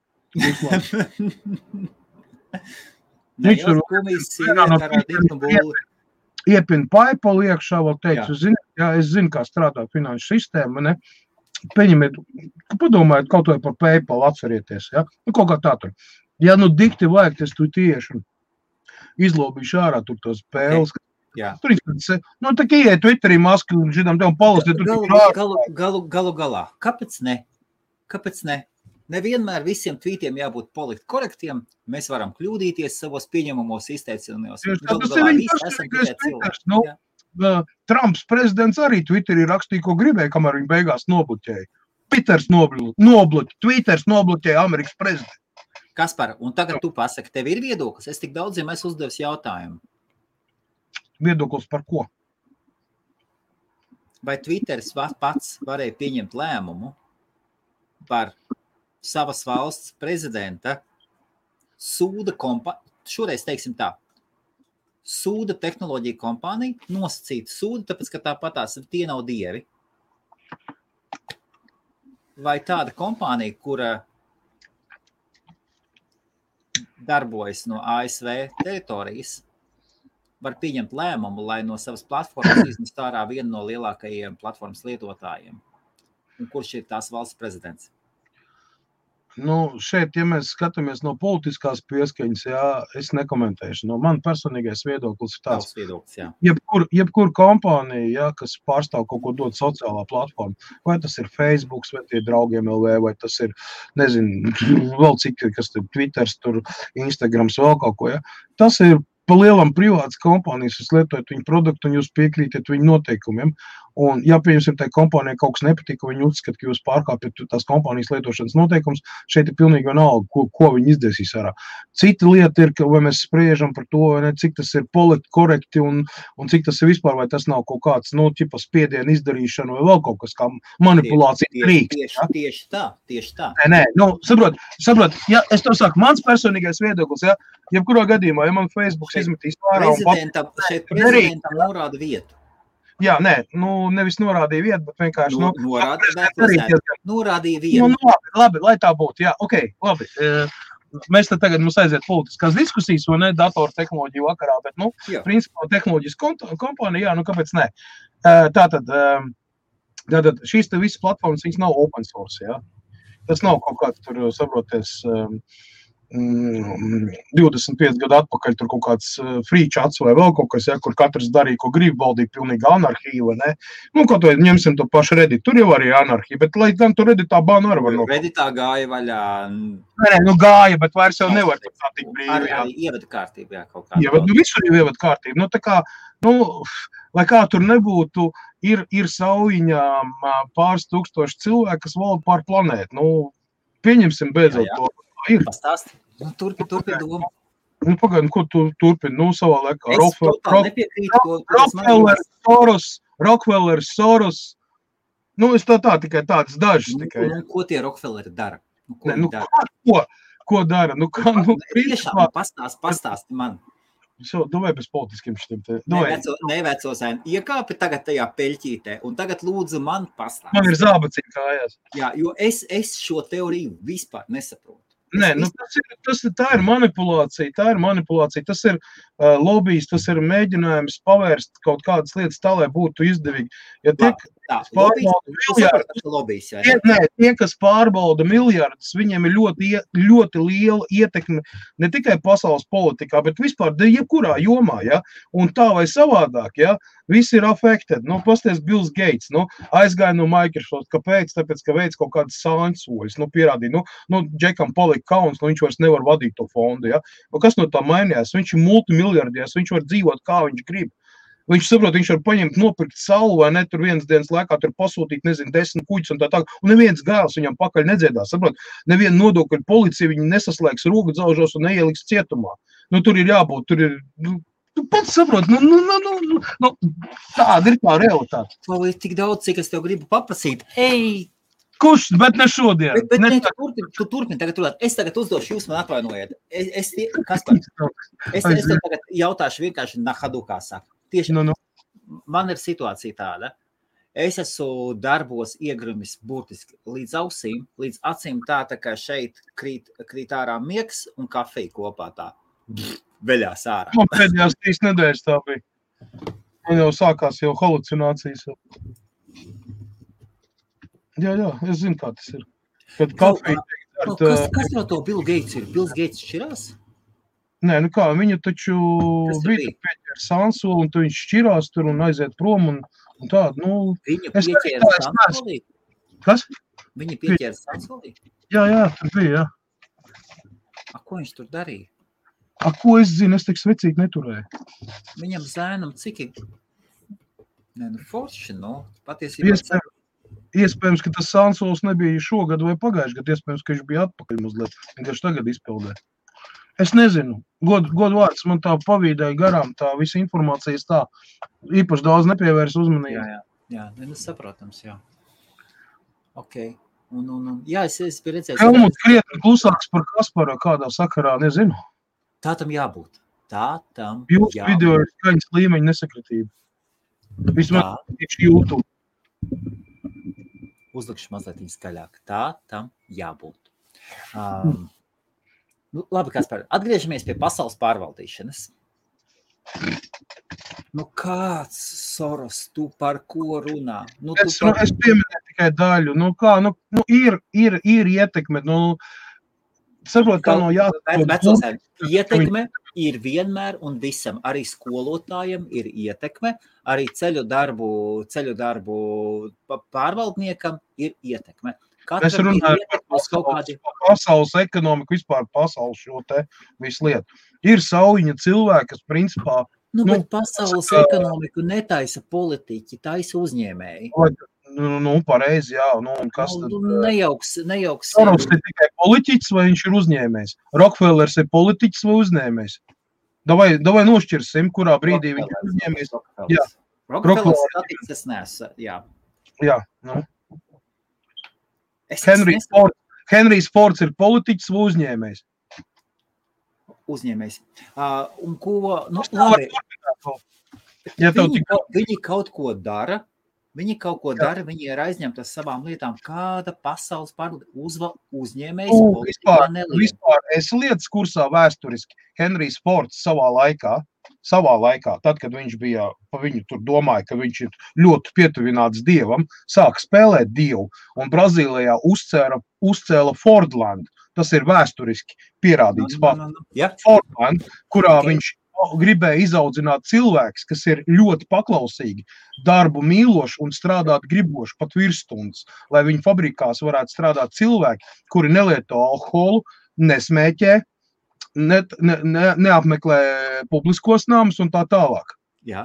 Nejauc kumijas sīviet ar diknu būli. Iepina PayPal iekšā, vēl teicu, es zinu, kā strādā finanšu sistēma, ne? Pieņemiet, padomājiet kaut vai par PayPal, atcerieties, ja? Kaut kā tā tur. Ja dikti vajag, es tu tieši izlobīšu ārā tur tos spēles. Jā. Tur tā kā ieiet Twitterī masku un židām tev palasiet. Galu galā. Kāpēc ne? Nevienmēr visiem tweetiem jābūt politi korektiem. Mēs varam kļūdīties savos pieņemamos izteicienos. Trumps prezidents arī Twitterī rakstīja, ko gribēja, kamēr viņi beigās nobloķēja. Twitters nobloķēja Amerikas prezidentu. Kaspar, un tagad tu pasaki, tev ir viedoklis? Es tik daudziem esmu uzdevis jautājumu. Viedoklis par ko? Vai Twitters pats varēja pieņemt lēmumu par savas valsts prezidenta šoreiz teiksim tā, sūda tehnoloģija kompānija, nosacīta sūda, tāpēc, ka tāpatās tie nav dievi. Vai tāda kompānija, kura darbojas no ASV teritorijas, var pieņemt lēmumu, lai no savas platformas iznest ārā vienu no lielākajiem platformas lietotājiem? Un kurš ir tās valsts prezidents? Šeit, ja mēs skatāmies no politiskās pieskaņas, jā, es nekomentēšu. Man personīgais viedoklis ir tāds. Viedoklis, jā. Jebkur kompānija, jā, kas pārstāv kaut ko dot sociālā platforma, vai tas ir Facebook, vai tie draugiem LV, vai tas ir, nezinu, vēl cik, kas tur Twitters, tur Instagrams, vēl kaut ko, jā. Tas ir pa lielam privātas kompānijas, jūs lietojat viņu produktu un jūs piekrītat viņu noteikumiem. Un, ja pieņemsim, tai kompānijai kaut kas nepatīk, ka viņi uzskata, ka jūs pārkāpjat tās kompānijas lietošanas noteikums, šeit ir pilnīgi vienalga, ko viņi izdarīs ārā. Cita lieta ir, ka vai mēs spriežam par to, vai ne, cik tas ir politi korekti un cik tas ir vispār, vai tas nav kaut kāds, spiedienu izdarīšana vai vēl kaut kas kā manipulācija rīks. Tieši tā. Nē, saprot, ja es to saku, mans personīgais viedoklis, ja, jebkurā gadījumā, ja man Facebook izmetīs pārā šeit prezidentam norāda vietu. Jā, nē, nevis norādīja vietu, bet vienkārši... Norādīja vietu. Labi, lai tā būtu, jā, ok, labi. mēs te tagad mums aiziet politiskās diskusijas, vai ne, datortehnoloģiju vakarā, bet, principā tehnoloģijas kompānija, kāpēc ne? Tātad šīs te visas platformas, viņas nav open source, jā. Tas nav kaut kāds tur, saproties, 25 gadu atpakaļ tur kaut kāds free chats vai vēl kaut kas, ja, kur katrs darīja, ko grib, valdīja pilnīgi anarhija, vai ne? Kaut vai ņemsim to pašu Reddit, tur jau arī anarhija, bet lai gan tur Redditā bāna arī var nokļūt. Redditā gāja vaļā. Nē, gāja, bet vairs jau nevar tā tik brīvi. Arī ievada kārtību, jā, kaut kā. Visur jau ievada kārtību. Tā kā, lai kā tur nebūtu, ir Saujiņā pāris tūkstoši cilvēki, kas valda pār planētu. Pieņemsim beidzot to. Pastāsti. Turpin domu. Pagaidām, ko tu turpini? Savā laikā. Rockefeller, Soros. Es tā tikai tādas dažas. Ko tie Rockefelleri dara? Ko dara? Tiešām pastāsti man. Vai bez politiskiem šitiem te? Nevecosēni. Iekāpi tagad tajā peļķītē un tagad lūdzu man pastāsti. Man ir zābaciņi kājās. Jā, jo es šo teoriju vispār nesaprotu. Nē, tā ir manipulācija, tas ir lobijs, tas ir mēģinājums pavērst kaut kādas lietas tā, lai būtu izdevīgi. Ja tie, kas pārbauda miljardus, viņiem ir ļoti liela ietekme ne tikai pasaules politikā, bet vispār jebkurā jomā, ja? Un tā vai savādāk, ja? Visi ir affected. Pasties Bills Gates, aizgāja no Microsoft. Kāpēc? Tāpēc, ka veids kaut kādas sāņsoļas, pierādīja. Džekam palika kauns, viņš vairs nevar vadīt to fondu, ja? Kas no tā mainījās? Viņš ir multimiljardies, viņš var dzīvot, kā viņš grib. Viņš saprot, viņš var paņemt, nopirkt salu, vai ne, tur vienas dienas laikā tur pasūtīt, 10 kuģus un tā. Un neviens gāls viņam pakaļ nedziedās, saprot. Neviena nodokļu policija viņu nesaslēgs rogu dzaužos un neieliks cietumā. Tur ir jābūt, tur ir... Tu pats saprot, tāda ir tā realitāte. To ir tik daudz, cik es tev gribu paprasīt. Kurš, bet ne šodien. Tu turpini tagad runāt. Es tagad uzdošu, jūs man atvainojiet. Es tev tagad jautāšu vienkārši nahadukā saka. Tieši man ir situācija tāda. Es esmu darbos iegrumis burtiski līdz ausīm, līdz acīm tā kā šeit krīt ārā miegs un kafija kopā tā. Veļās ārā. Man pēdējās 3 nedēļas tā bija. Man jau sākās jau halucinācijas. Jā, es zinu, kā tas ir. Kad kafija... Kas no to Bill Gates ir? Bills Gates šķirās? Nē, viņu taču bija pieķēra sansoli, un tu viņš šķirās tur un aiziet prom un tādu, Viņu pieķēra sansolī? Kas? Viņu pieķēra sansolī? Jā, tur bija, jā. Ko viņš tur darīja? Ko es zinu, es tik svecīgi neturēju. Viņam zēnam cik ir? Forši, patiesībā. Iespējams, ka tas sansols nebija šogad vai pagājuši gadu, iespējams, ka viņš bija atpakaļ mazliet, vienkārši tagad izpildē. Es nezinu, godu vārds man tā pavīdēja garām, tā visa informācijas tā īpaši daudz nepievērs uzmanību. Jā, saprotams, jā. Ok. Jā, es biju redzējis. Helmuts krietni klusāks par Kasparu kādā sakarā, nezinu. Tā tam jābūt. Jūsu video ir skaņas līmeņa nesakritība. Vismaz tieši YouTube. Uzlikšu mazliet skaļāk. Tā tam jābūt. Labi, Kaspar, atgriežamies pie pasaules pārvaldīšanas. Kāds Soros, tu par ko runā? Es pieminēju tikai daļu. Ir ietekme, saprot, kā no jāsaka. Ietekme ir vienmēr un visam. Arī skolotājiem ir ietekme, arī ceļu darbu pārvaldniekam ir ietekme. Es runāju par pasaules ekonomiku, vispār pasaules šo te visu lietu. Ir Saujiņa cilvēki, kas principā... bet pasaules ekonomiku netaisa politiķi, taisa uzņēmēji. Pareizi, jā. Un kas tad? Nejauks. Soros ir tikai politiķis vai viņš ir uzņēmējs? Rockefellers ir politiķis vai uzņēmējs? Davai nošķirsim, kurā brīdī viņš ir uzņēmējs. Jā. Rockefellers statiks es nesu, jā. Jā, Henrijs Fords ir politiķis vai uzņēmējs? Uzņēmējs. Labi. Viņi kaut ko dara, Viņi kaut ko dara, viņi ir aizņemti ar savām lietām. Kāda pasaules uzņēmējs politikā nelien? Vispār es lietas kursā vēsturiski Henrijs Fords savā laikā, tad, kad viņš bija, pa viņu tur domāja, ka viņš ir ļoti pietuvināts dievam, sāka spēlēt dievu, un Brazīlijā uzcēla Fordland. Tas ir vēsturiski pierādīts fakts. Ja. Fordland, kurā viņš gribēja izaudzināt cilvēks, kas ir ļoti paklausīgi, darbu mīloši un strādāt griboši pat virsstundas, lai viņu fabrikās varētu strādāt cilvēki, kuri nelieto alkoholu, nesmēķē, neapmeklē publiskos namus un tā tālāk. Jā.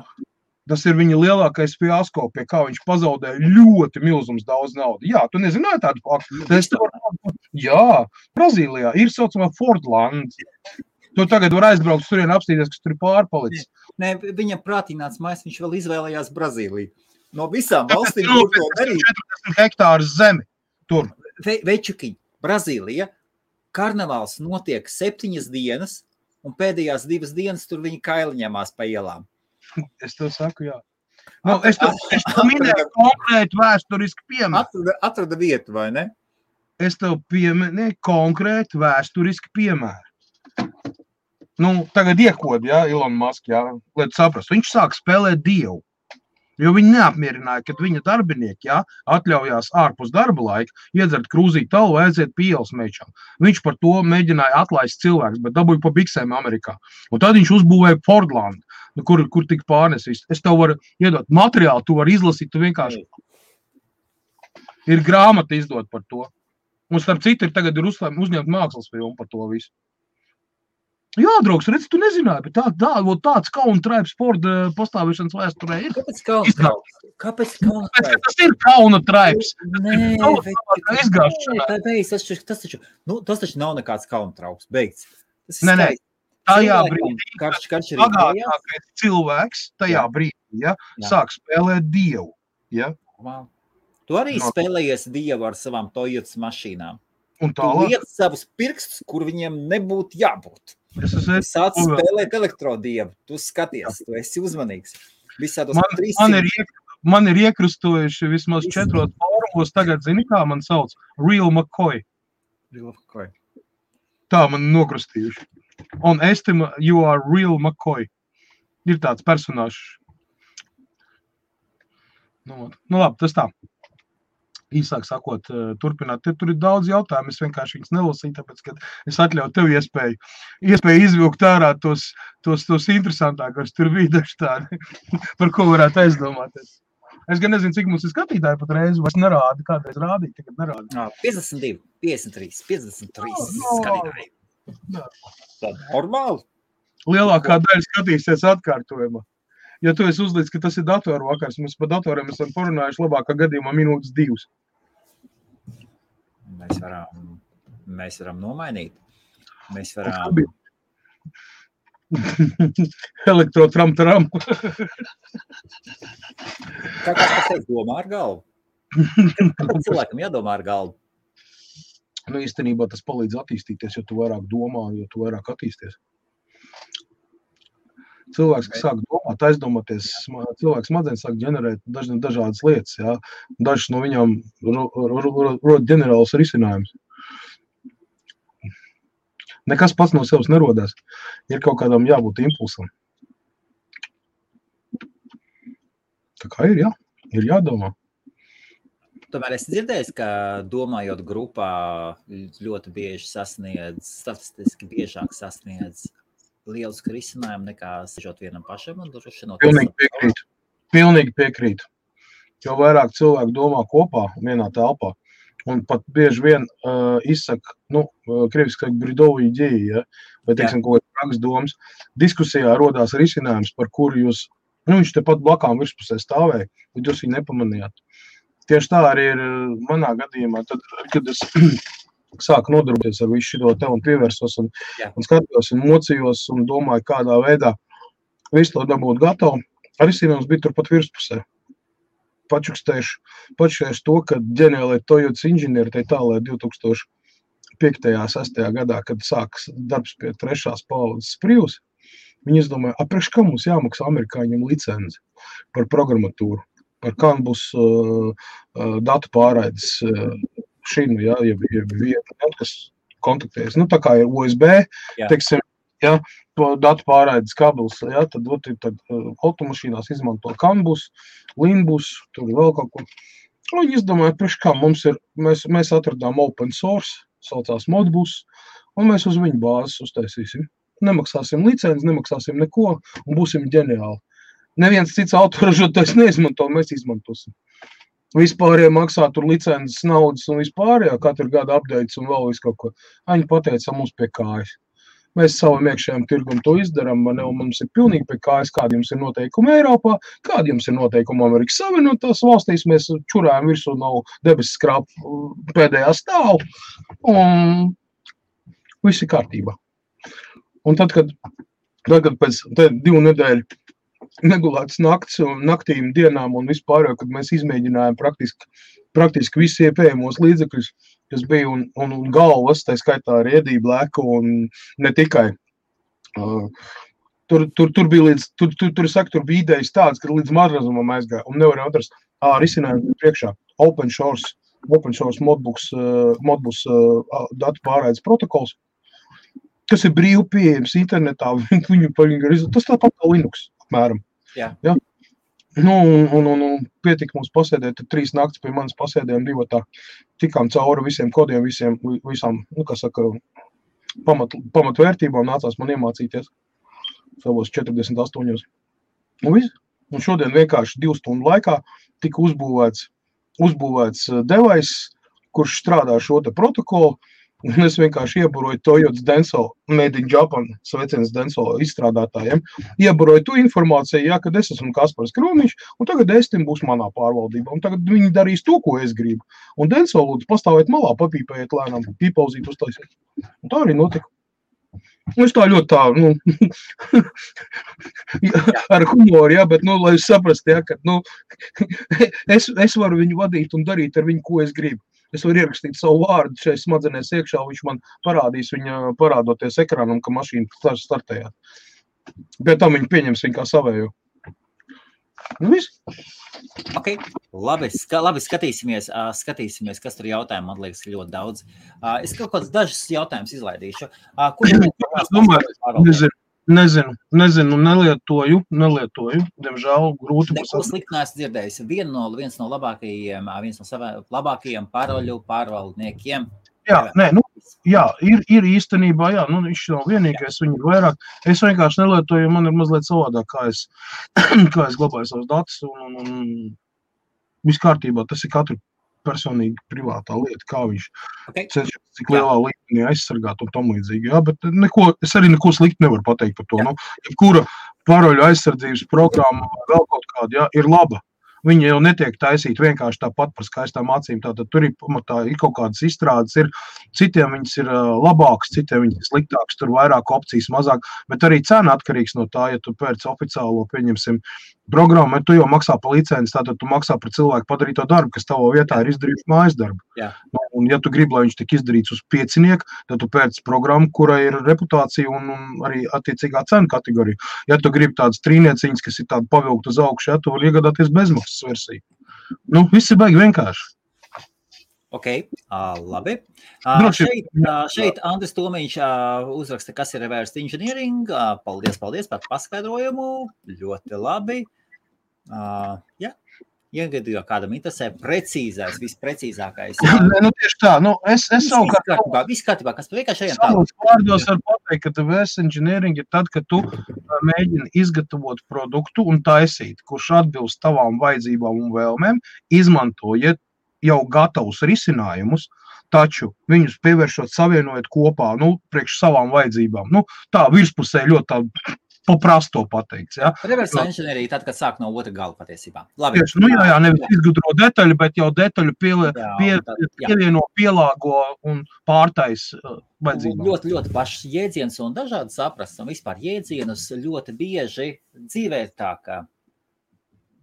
Tas ir viņa lielākais fiasko, pie kā viņš pazaudēja ļoti milzums daudz naudu. Jā, tu nezināji tādu faktu? Jā, Brazīlijā ir saucamā Fordland. Tu tagad var aizbraukt turien apstīties, kas tur ir pārpalicis. Nē, viņam prātīnāts mājas, viņš vēl izvēlējās Brazīliju. No visām valstīm, kur to darīt. 40 hektārus zemi tur. Večukiņ, Brazīlija, karnevāls notiek 7 dienas, un pēdējās 2 dienas tur viņi kaili ņemās pa ielām. Es tev saku, jā. Nu, es tev minēju konkrētu vēsturisku piemēru. Atrada vietu, vai ne? Es tev pieminēju konkrētu vēsturisku piemēru. Nu, tagad iekod, jā, Elon Musk, jā, lai tu saprastu. Viņš sāk spēlēt dievu, jo viņi neapmierināja, kad viņa darbinieki, jā, atļaujās ārpus darba laika, iedzert krūzīt talu, aiziet pie ielas mečām. Viņš par to mēģināja atlaist cilvēks, bet dabūja pa biksēm Amerikā. Un tad viņš uzbūvēja Fordland, kur tika pārnesis. Es tev varu iedot materiālu, tu vari izlasīt, tu vienkārši. Ir grāmata izdot par to. Un starp citu, tagad ir uzņemt mākslas filmu par to visu. Jā, draugs, redz, tu nezināji, bet tāds kauna traips sporta pastāvēšanas vēsturē ir. Kāpēc kauna traips? Kāpēc kauna traips? Tas ir kauna traips. Tas taču nav nekāds kauna trauks, beigts. Nē, tajā brīdī, bagātākais cilvēks tajā brīdī, ja, sāk spēlēt dievu. Ja. Wow. Tu arī spēlējies dievu ar savām Toyotas mašīnām. Un tu liec savus pirkstus, kur viņiem nebūtu jābūt. Tu sāc spēlēt elektrodievu, tu skaties, tu esi uzmanīgs. Man ir iekrustojuši vismaz 4 fórumos, tagad zini, kā man sauc? Real McCoy. Tā man nokrustījuši. Un estima, you are real McCoy. Ir tāds personāžs. Nu labi, tas tā. Īsāk sakot, turpināt. Tur ir daudz jautājumu, es vienkārši viņus nelasīju, tāpēc, ka es atļauju tev iespēju izvilkt ārā tos interesantākos, tur bija daži tādi, par ko varētu aizdomāties. Es gan nezinu, cik mums ir skatītāji pat reizi, vairs nerāda, kādreiz rādīja, tagad nerāda. 52, 53, 53 skatītāji. Tad normāli. Lielākā daļa skatīsies atkārtojumā. Ja tu esi uzlīdz, ka tas ir datoru vakars, mums par datoriem esam porunājuši labākā gadījumā minūtes 2. Mēs varam nomainīt. Mēs varam... Elektrotram-taram. Kā tas teikt, domā ar galvu? Kāpēc cilvēkam jādomā ar galvu? Nu, īstenībā tas palīdz attīstīties, jo tu vairāk domā, jo tu vairāk attīsties. Cilvēks, kas sāk domāt, aizdomāties, cilvēks smadzenes sāk ģenerēt dažādas lietas, jā. Dažas no viņām rod ģenerālus risinājumus. Nekas pats no sevis nerodās. Ir kaut kādam jābūt impulsam. Tā kā ir, jā. Ir jādomā. Tomēr es dzirdēju, ka domājot grupā ļoti bieži statistiski biežāk sasniedz liels risinājumu nekā sežot vienam pašam un drošinot. Pilnīgi piekrītu. Jo vairāk cilvēku domā kopā vienā telpā un pat bieži vien izsaka, krieviski bridovi ideji, ja, vai teiksim kaut kāds praks domas. Diskusijā rodās risinājums, par kuru jūs, viņš tepat blakām virspusē stāvēja, bet jūs viņu nepamanījāt. Tieši tā arī ir manā gadījumā, tad, kad es sāku nodarboties ar visu šito te un pievērsos un skatījos un mocījos un domāju, kādā veidā visu to dabūt gatavu. Risinājums bija turpat virspusē. Pačukstējuši to, ka ģeniālai Toyotas inženieri tai tālē 2005.–2006. gadā, kad sākas darbs pie 3. paudzes Prius, viņi izdomāja, priekš kā mums jāmaksā amerikāņiem licenci par programmatūru. ar Canbus datu pārraides šinu, ja, vienu, kas kontaktējas. Nu, tā kā ir USB, teiksim, ja, datu pārraides kabels, ja, tad automašīnās izmanto Canbus, Linbus, tur vēl kaut ko. Un viņi izdomāja, priekš kā mums ir, mēs atradām open source, saucās Modbus, un mēs uz viņu bāzes uztaisīsim. Nemaksāsim licenci, nemaksāsim neko, un būsim ģeniāli. Neviens cits autoražotājs neizmanto, mēs izmantosim. Vispārējie maksā tur licences, naudas un vispārējā, katru gadu updates un vēl visu kaut ko. Viņi pateica mums pie kājas. Mēs savam iekšējām tirgum to izdaram, un mums ir pilnīgi pie kājas, kādi jums ir noteikumi Eiropā, kādi jums ir noteikumi Amerikas Savienotās valstīs, mēs čurājam virsū nav debesis skrāpu pēdējā stāvu, un viss ir kārtībā. Un tad, kad pēc 2 nedēļu negulētas nakts un naktīm dienām un vispār, kad mēs izmēģinājām praktiski visi iepējamos līdzekļus, kas bija un galvas, tā skaitā arī ēdību lēku un ne tikai. Tur bija bija idejas tāds, ka līdz marazumam aizgāja un nevarēja atrast risinājumu priekšā. Open source Modbus datu pārraides protokols, kas ir brīvi pieejams internetā, tas tāpat kā Linux, apmēram. Jā. Ja? Nu, un pietika mums pasēdēt 3 naktis pie manas pasēdējām 2 tikām cauri visiem kodiem, visām, nu, kā saka, pamatvērtībām nācās man iemācīties savos 48. Un viss. Un šodien vienkārši 2 stundu laikā tika uzbūvēts devais, kurš strādā šo te protokolu, un es vienkārši ieburoju Toyotas Denso, Made in Japan, sveiciens Denso izstrādātājiem, ieburoju tu informāciju, ja, kad es esmu Kaspars Kromiņš, un tagad Estim būs manā pārvaldībā, un tagad viņi darīs to, ko es gribu. Un Denso lūdzu pastāvēt malā, papīpējiet lēnām, pīpauzīt uztaisīt. Un tā arī notika. Es tā ļoti tā, nu, ar humoru, ja, bet, nu, lai jūs saprast, ja, ka, nu, es varu viņu vadīt un darīt ar viņu, ko es gribu. Es varu ierakstīt savu vārdu šeit smadzenēs iekšā, viņš man parādīs viņa parādoties ekrānam, ka mašīna startējāt. Bet tam viņi pieņems viņu kā savējo. Nu, viss. Ok, labi, skatīsimies, kas tur jautājumu, man liekas, ļoti daudz. Es kaut kāds dažus jautājumus izlaidīšu. Nezinu, nelietoju, diemžēl grūti. Neko slikti neesmu dzirdējis. Viens no labākajiem pārvaldniekiem. Ir īstenībā, viņš nav vienīgais, viņi ir vairāk. Es vienkārši nelietoju, man ir mazliet savādāk, kā es glabāju savus datus un viss kārtībā, tas ir katru personīgi privātā lieta, kā viņš cenšas, cik lielā līmenī aizsargāt un tam līdzīgi. Jā, bet es arī neko slikti nevaru pateikt par to. Nu, jebkura paroļu aizsardzības programma vēl kaut kāda, ir laba. Viņi jau netiek taisīti vienkārši tāpat par skaistām acīm. Tātad tur ir kaut kādas izstrādes, citiem viņas ir labākas, citiem viņas ir sliktākas, tur vairāk opcijas, mazāk, bet arī cena atkarīgs no tā, ja tu pēc oficiālo, pieņemsim, programmu, tu jau maksā par licenci, tātad tu maksā par cilvēku padarīto darbu, kas tavo vietā ir izdarījuši mājas darbu. Jā. Un ja tu gribi, lai viņš tik izdarīts uz 5, tad tu pēc programmu, kurai ir reputācija un arī attiecīgā cena kategorija. Ja tu gribi tādas trīnieciņas, kas ir tāda pavilkt uz augšu, ja tu var iegādāties bezmaksas versiju. Nu, viss ir baigi vienkārši. Ok, labi. Šeit Andris Tomiņš uzraksta, kas ir reverse engineering. Paldies par paskaidrojumu. Ļoti labi. Jā. Iegadījā kādam interesē precīzais, visprecīzākais. Nu, tieši tā. Nu, es savukārt... Viss kārtībā, kas vienkārši ejam tālāk. Vārdos var pateikt, ka reverse engineering ir tad, kad tu mēģini izgatavot produktu un taisīt, kurš atbilst tavām vajadzībām un vēlmēm, izmantojot jau gatavus risinājumus, taču viņus pievēršot, savienojot kopā, priekš savām vajadzībām. Tā virspusē ļoti tā paprasto pateikts, ja. Reverse engineering tad, kad sāk no otra gala patiesībā. Labi. Tieši, nevis izgudro detaļu, bet jau detaļu pievieno, pielāgo un pārtais vajadzībām. Ļoti, ļoti pašs jēdziens un dažādi saprast, un vispār jēdzienus ļoti bieži dzīvē tā, ka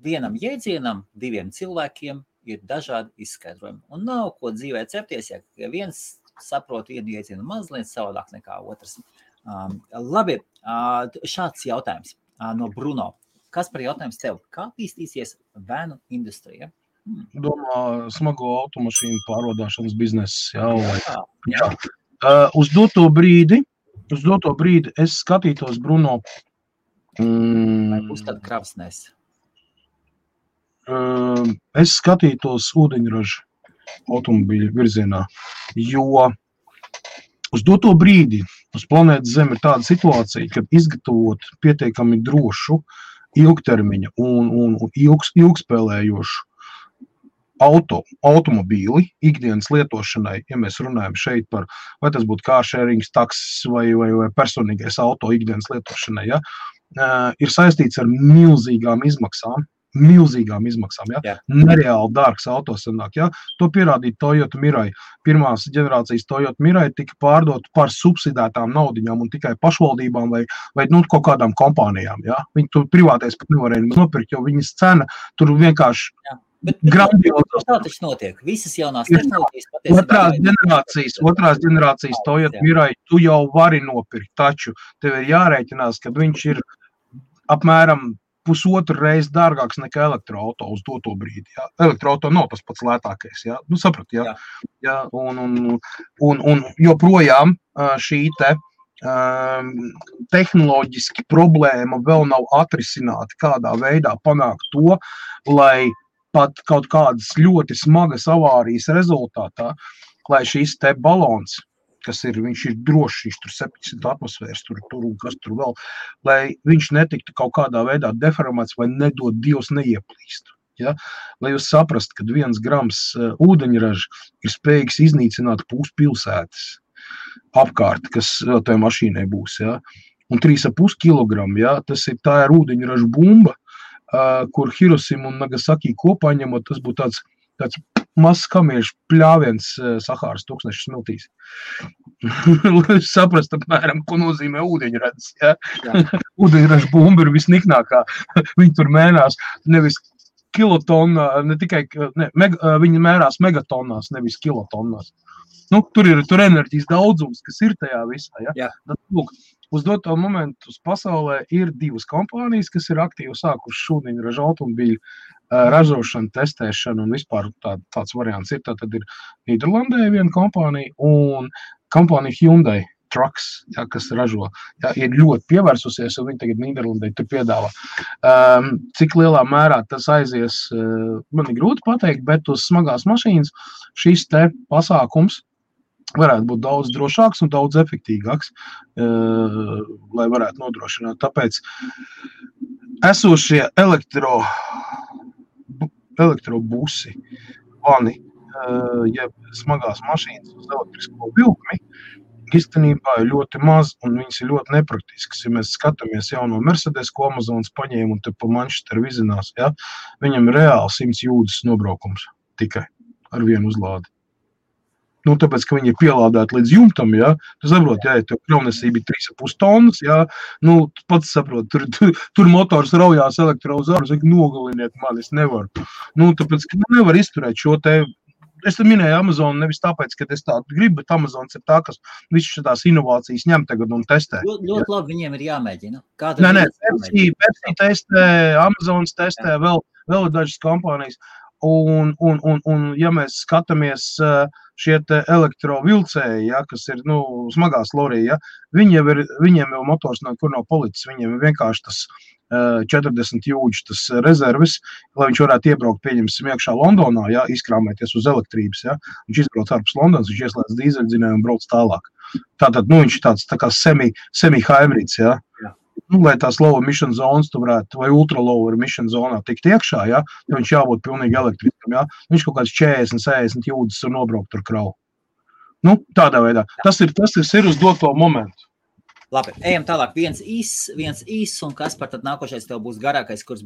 vienam jēdzienam, 2 cilvēkiem ir dažādi izskaidrojumi. Un nav ko dzīvē cepties, ja viens saprot vienu jēdzienu mazliet savādāk nekā otrs. Labi, šāds jautājums no Bruno. Kas par jautājums tev? Kā attīstīsies vanu industrija? Domā, smago automašīnu pārvadāšanas bizness. Jā. Uz doto brīdi es skatītos, Bruno, Būs tāda kravasnēs. Es skatītos ūdeņražu automobīļu virzienā, jo uz doto brīdi uz planētas Zeme ir tāda situācija, kad izgatavot pietiekami drošu, ilgtermiņa un ilgspēlējošu automobīli ikdienas lietošanai, ja mēs runājam šeit par, vai tas būtu carsharings, taksis vai personīgais auto ikdienas lietošanai, ja, ir saistīts ar milzīgām izmaksām, ja? Nereāli dārgs auto sanāk, ja? To pierādīja Toyota Mirai. Pirmās ģenerācijas Toyota Mirai tika pārdot par subsidētām naudiņām un tikai pašvaldībām vai kaut kādām kompānijām, ja? Viņi tur privātais pat nevarēja nopirkt, jo viņas cena tur vienkārši Bet grandiozas. tā taču notiek. Visas jaunās tehnoloģijas patiesībā. Otrās ģenerācijas Toyota Mirai tu jau vari nopirkt, taču tev ir jārēķinās, ka viņš ir apmēram pusotru reizi dārgāks nekā elektroauto uz doto brīdi. Ja? Elektroauto nav tas pats lētākais. Ja? Nu, saprat, ja? Ja? Un joprojām šī tehnoloģiski problēma vēl nav atrisināta, kādā veidā panākt to, lai pat kaut kādas ļoti smagas avārijas rezultātā, lai šīs te balons, viņš ir drošs, viņš tur 700 atmosfēras, tur un kas tur vēl, lai viņš netiktu kaut kādā veidā deformēts vai nedod Dievs neieplīst. Ja? Lai jūs saprast, ka 1 grams ūdeņraža ir spējīgs iznīcināt puspilsētas apkārt, kas tajā mašīnai būs. Ja? Un 3,5 kilogramu, ja? Tā ir ūdeņraža bumba, kur Hirosima un Nagasaki kopā ņemot, tas būtu tāds mazs kamiešu pļāviens Sahāras tūkstneša smiltīs. Lai saprast apmēram, ko nozīmē ūdeņradis. Ja? Ūdeņraža bumba ir visniknākā. Viņi tur mēnās nevis kilotonnā, viņi mērās megatonnās, nevis kilotonnās. Nu, tur ir enerģijas daudzums, kas ir tajā visā. Ja? Tad, lūk, uz doto momentu uz pasaulē ir 2 kompānijas, kas ir aktīvi sākušas ūdeņraža automobīļu ražošanu, testēšanu un vispār tāds variants ir. Tad ir Nīderlandē viena kompānija un kompānija Hyundai Trucks, ja, kas ražo, ja, ir ļoti pievērsusies un viņi tagad Nīderlandē tur piedāvā. Cik lielā mērā tas aizies, man ir grūti pateikt, bet uz smagās mašīnas šis te pasākums varētu būt daudz drošāks un daudz efektīgāks, lai varētu nodrošināt. Tāpēc esošie elektrobusi, vani, ja smagās mašīnas uz elektrisko vilkmi, īstenībā ir ļoti maz un viņas ir ļoti nepraktiskas. Ja mēs skatāmies jauno Mercedes, ko Amazonas paņēma un te pa Manchesteru vizinās, ja, viņam ir reāli 100 jūdzes nobraukums tikai ar vienu uzlādi. Nu, tāpēc, ka viņi ir pielādēti līdz jumtam, ja, tu saproti, ja tev kravnesība ir 3,5 tonnas, ja, nu, pats saproti, tur motors raujās elektrozaru, saka, nogaliniet mani, es nevaru. Nu, tāpēc, ka nevar izturēt šo te, es te minēju Amazonu nevis tāpēc, ka es tādu gribu, bet Amazons ir tā, kas visu šitās inovācijas ņem tagad un testē. Ļoti labi viņiem ir jāmēģina. Nē, Pepsi testē, Amazons testē, vēl ir dažas kompānijas. Un ja mēs skatāmies šie te elektrovilcēji, ja, kas ir, nu, smagās lorija, ja, viņiem jau motors kur nav policis, viņiem ir vienkārši tas 40 jūdžu tas rezervis, lai viņš varētu iebraukt, pieņemsim, iekšā Londonā, ja, izkrāmēties uz elektrības, ja, viņš izbrauc ārpus Londonas, viņš ieslēdz dīzeļdzinēju un brauc tālāk. Tātad, nu, viņš ir tāds tā kā semi-hybrid's, ja. Nu, lai tās low emission zonas tu varētu, vai ultra low emission zonā tikt iekšā, ja, jo viņš jābūt pilnīgi elektriskam, ja. Viņš kaut kāds 40 jūdzes un nobraukt ar kravu. Nu, tādā veidā. Tas ir uz doto momentu. Labi, ejam tālāk. Viens īs, un kas par tad nākošais tev būs garākais, kur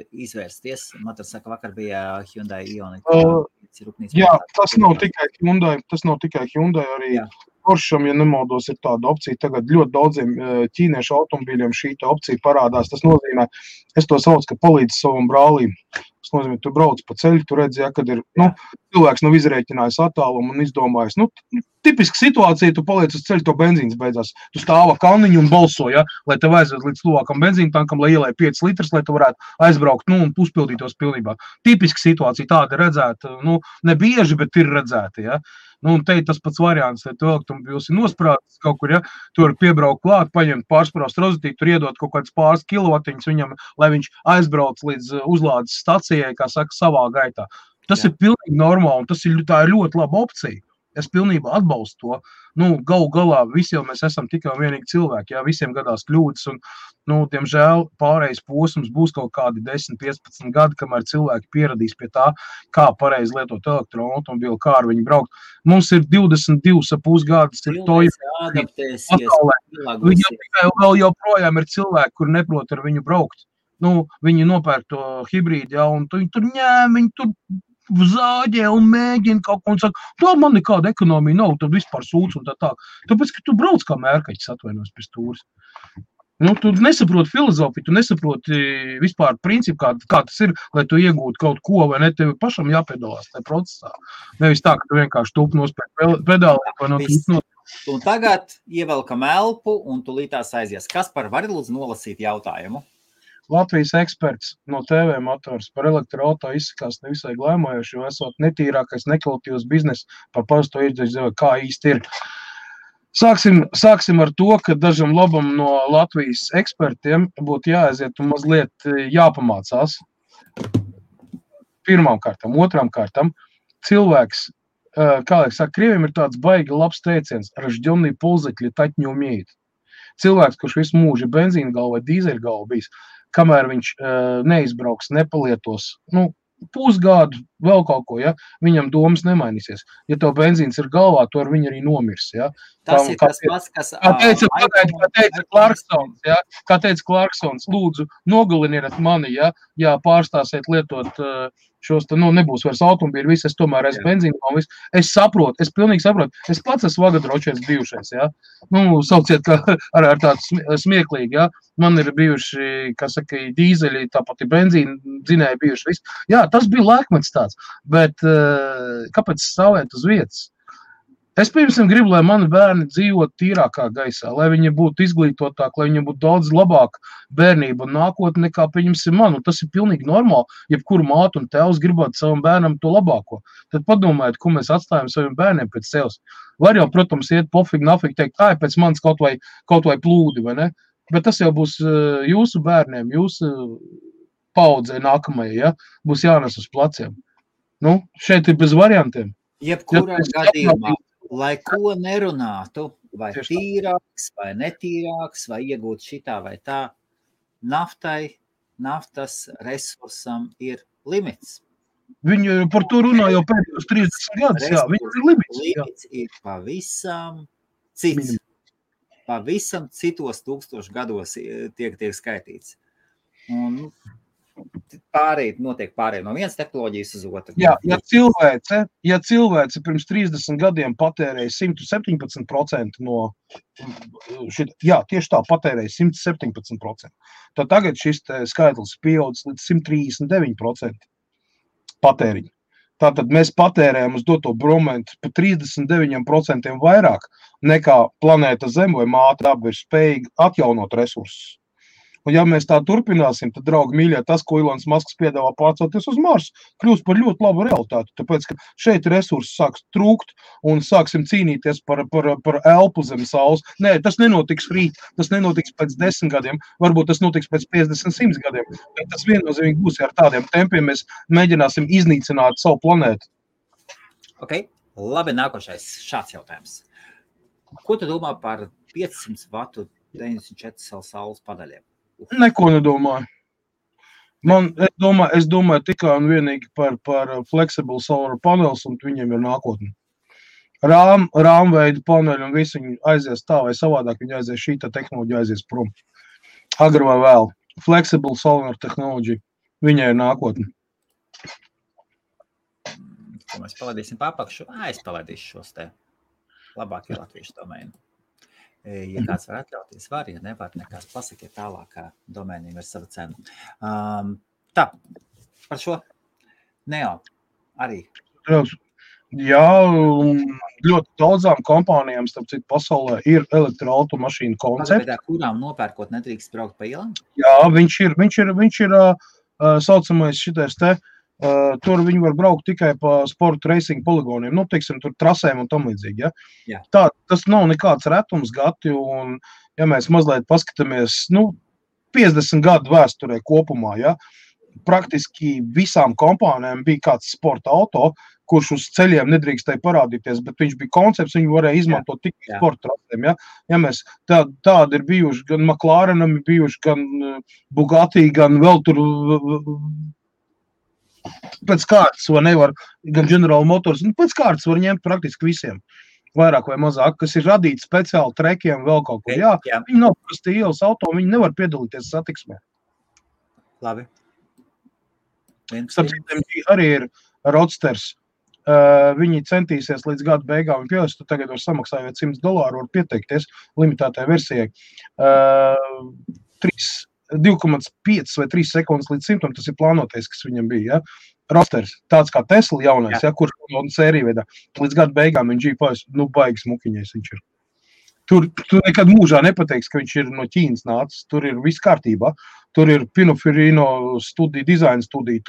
izvērsties? Matars saka, vakar bija Hyundai Ioniq. Jā, tas nav tikai Hyundai, arī Porscham, ja nemaldos, ir tāda opcija. Tagad ļoti daudziem ķīniešu automobīļiem šī opcija parādās. Tas nozīmē, es to saucu, ka palīdz savam brālim. Tas nozīmē, tu brauc pa ceļu, tu redzi, ja, kad ir, nu, cilvēks nav izrēķinājis attālumu un izdomājis, nu, tipiska situācija, tu paliec uz ceļa, to benzīns beidzās. Tu stāva kalniņu un balso, ja, lai tev aizved līdz tuvākam benzīna tankam, lai ielai 5 litrus, lai tu varētu aizbraukt, un uzpildītos pilnībā. Tipiska situācija tāda redzēta, ne bieži, bet ir redzēta, ja. Un te ir tas pats variants, ja tu elektromobils ir nosprātis kaut kur, ja, tu vari piebraukt klāt, paņemt pārspraust rozetīti, tur iedot kaut kāds pāris kilovatiņus viņam, lai viņš aizbrauc līdz uzlādes stacijai, kā saka, savā gaitā. Tas ir pilnīgi normāli, un tā ir ļoti laba opcija. Es pilnībā atbalstu to. Galu galā visi jau mēs esam tikai un vienīgi cilvēki, jā, visiem gadās kļūdas, un, diemžēl, pārējais posms būs kaut kādi 10-15 gadi, kamēr cilvēki pieradīs pie tā, kā pareizi lietot elektroautomobili, kā ar viņu braukt. Mums ir 22,5 gadus, ir to vēl joprojām ir cilvēki, kur neprot ar viņu braukt. Viņi nopērk to hibrīdu, jā, un tur ņēm, viņi tur zāģē un mēģina kaut ko un saka, tā man nekāda ekonomija nav, tad vispār sūdz un tā. Tāpēc, ka tu brauc kā mērkaķis atvainos pie stūres. Tu nesaproti filozofiju, tu nesaproti vispār principu, kā tas ir, lai tu iegūtu kaut ko, vai ne, tev pašam jāpiedalās tajā procesā. Nevis tā, ka tu vienkārši tūp nospēj pedāli vai no tūp nospēj. Un tagad ievelkam elpu un tu lītās aizies. Kaspar, vari lūdzu nolasīt jautājumu? Latvijas eksperts no TV motors par elektroauto izsakās nevisai glaimojoši, jo esot netīrākais nekvalitīvs biznes par parasto iedzīvotāju, kā īsti ir. Sāksim ar to, ka dažam labam no Latvijas ekspertiem būtu jāaiziet un mazliet jāpamācās. Pirmām kārtām, otrām kārtām, cilvēks, kā liek saka, krieviem ir tāds baigi labs teiciens, ražģionī pulzekļi taķ не умеет. Cilvēks, kurš visu mūžu benzīna galva vai dīzeļa galva bijis, kamēr viņš neizbrauks, nepalietos, pusgadu, vēl kaut ko, ja, viņam domas nemainīsies. Ja tev benzīns ir galvā, to ar viņu arī nomirs, ja. Tas ir tas pats, kas... Kā teica Clarksons, lūdzu, nogaliniet mani, ja pārstāsiet lietot šos, nebūs vairs automobīļi, viss, es tomēr esmu benzīnu, es saprotu, es pilnīgi saprotu, es pats esmu vagadročies bijušais, ja, sauciet ar tādu smieklīgi, ja, man ir bijuši, kā saka, dīzeļi, tāpat ir benzīni dzinēji bijuši, viss, jā, tas bija laikmets tāds, bet kāpēc stāvēt uz vietas? Es pirmsim gribu, lai mani bērni dzīvot tīrākā gaisā, lai viņi būtu izglītotāk, lai viņiem būtu daudz labāk bērnība un nākotne nekā pieņemsim man. Un tas ir pilnīgi normāli, jebkuru mātu un tēvs gribētu savam bērnam to labāko. Tad padomājiet, ko mēs atstājam saviem bērniem pēc sevis. Var jau, protams, iet pofīgi, nafīgi teikt, pēc manis kaut vai plūdi, vai ne? Bet tas jau būs jūsu bērniem, jūsu paudzei nākamajai, ja? Būs jānes uz pleciem. Šeit ir bez variantiem. Jebkurā gadījumā. Lai ko nerunātu, vai tīrāks, vai netīrāks, vai iegūt šitā vai tā, naftas resursam ir limits. Viņi par to runā jau pēdējos 30 gadus, jā, viņam ir limits. Limits ir pavisam cits. Pavisam citos 1000 gados tiek skaitīts. Un notiek pārēj no vienas tehnoloģijas uz otru. Jā, ja cilvēce pirms 30 gadiem patērēja 117% no tieši tā, patērēja 117%. Tad tagad šis skaitlis pieaudzis līdz 139% patēriņu. Tātad mēs patērējam uz doto momentu pa 39% vairāk nekā planēta Zeme vai māte daba ir spējīga atjaunot resursus. Un ja mēs tā turpināsim, tad, draugi mīļie, tas, ko Ilons Masks piedāvā pārcelties uz Marsu, kļūs par ļoti labu realitāti, tāpēc, ka šeit resursi sāks trūkt un sāksim cīnīties par elpu zem saules. Nē, tas nenotiks rīt, tas nenotiks pēc 10 gadiem, varbūt tas notiks pēc 50-100 gadiem, bet tas viennozīmīgi būs, ja ar tādiem tempiem mēs mēģināsim iznīcināt savu planētu. Ok, labi, nākošais šāds jautājums. Ko tu domā par 500 vatu 94 saules padaļiem? Neko nedomāju. Es domāju tikai un vienīgi par flexible solar panels, un viņiem ir nākotne. Rāmveida paneļi un visi viņi aizies tā vai savādāk, viņi aizies šīta tehnoloģija aizies prom. Agri vai vēl. Flexible solar tehnoloģija, viņai ir nākotne. Ko mēs palaidīsim papakšu? Es palaidīšu šos te labākie latviešu domēni. Ja kāds var atļauties, var, ja nevar, nekās pasakiet tālāk, kā domēniem ir sava cena. Tā, par šo Neo arī. Jā, ļoti daudzām kompānijām, starp citu, pasaulē ir elektroautomašīnu koncepti. Kurām nopērkot nedrīkst braukt pa ielām? Jā, viņš ir saucamais šitais te, tur viņi var braukt tikai pa sporta racing poligoniem, nu, teiksim, tur trasēm un tam līdzīgi, ja? Jā. Tā, tas nav nekāds retums gati, un, ja mēs mazliet paskatāmies, 50 gadu vēsturē kopumā, ja? Praktiski visām kompānijām bija kāds sporta auto, kurš uz ceļiem nedrīkstēja parādīties, bet viņš bija koncepts, viņu varēja izmantot tikai sporta trasēm, ja? Ja mēs tādi ir bijuši, gan McLarenam ir bijuši, gan Bugatti, gan vēl tur pēc kārtas, vai nevar, gan General Motors, pēc kārtas var ņemt praktiski visiem, vairāk vai mazāk, kas ir radīti speciāli trekiem, vēl kaut ko. Jā. Viņi nav parasti ielas auto, viņi nevar piedalīties satiksmē. Labi. Arī ir Roadsters. Viņi centīsies līdz gada beigām pieļaus, tu tagad var samaksājot $100, var pieteikties limitētai versijai. 2,5 vai 3 sekundes līdz 100, tas ir plānotais, kas viņam bija. Ja? Roadsters, tāds kā Tesla jaunais, ja? Kurš sērija veidā. Līdz gada beigām viņš G5, baigas mukiņais viņš ir. Tur nekad mūžā nepateiks, ka viņš ir no Ķīnas nācis. Tur ir viss kārtībā. Tur ir Pininfarina studija, dizaina studija.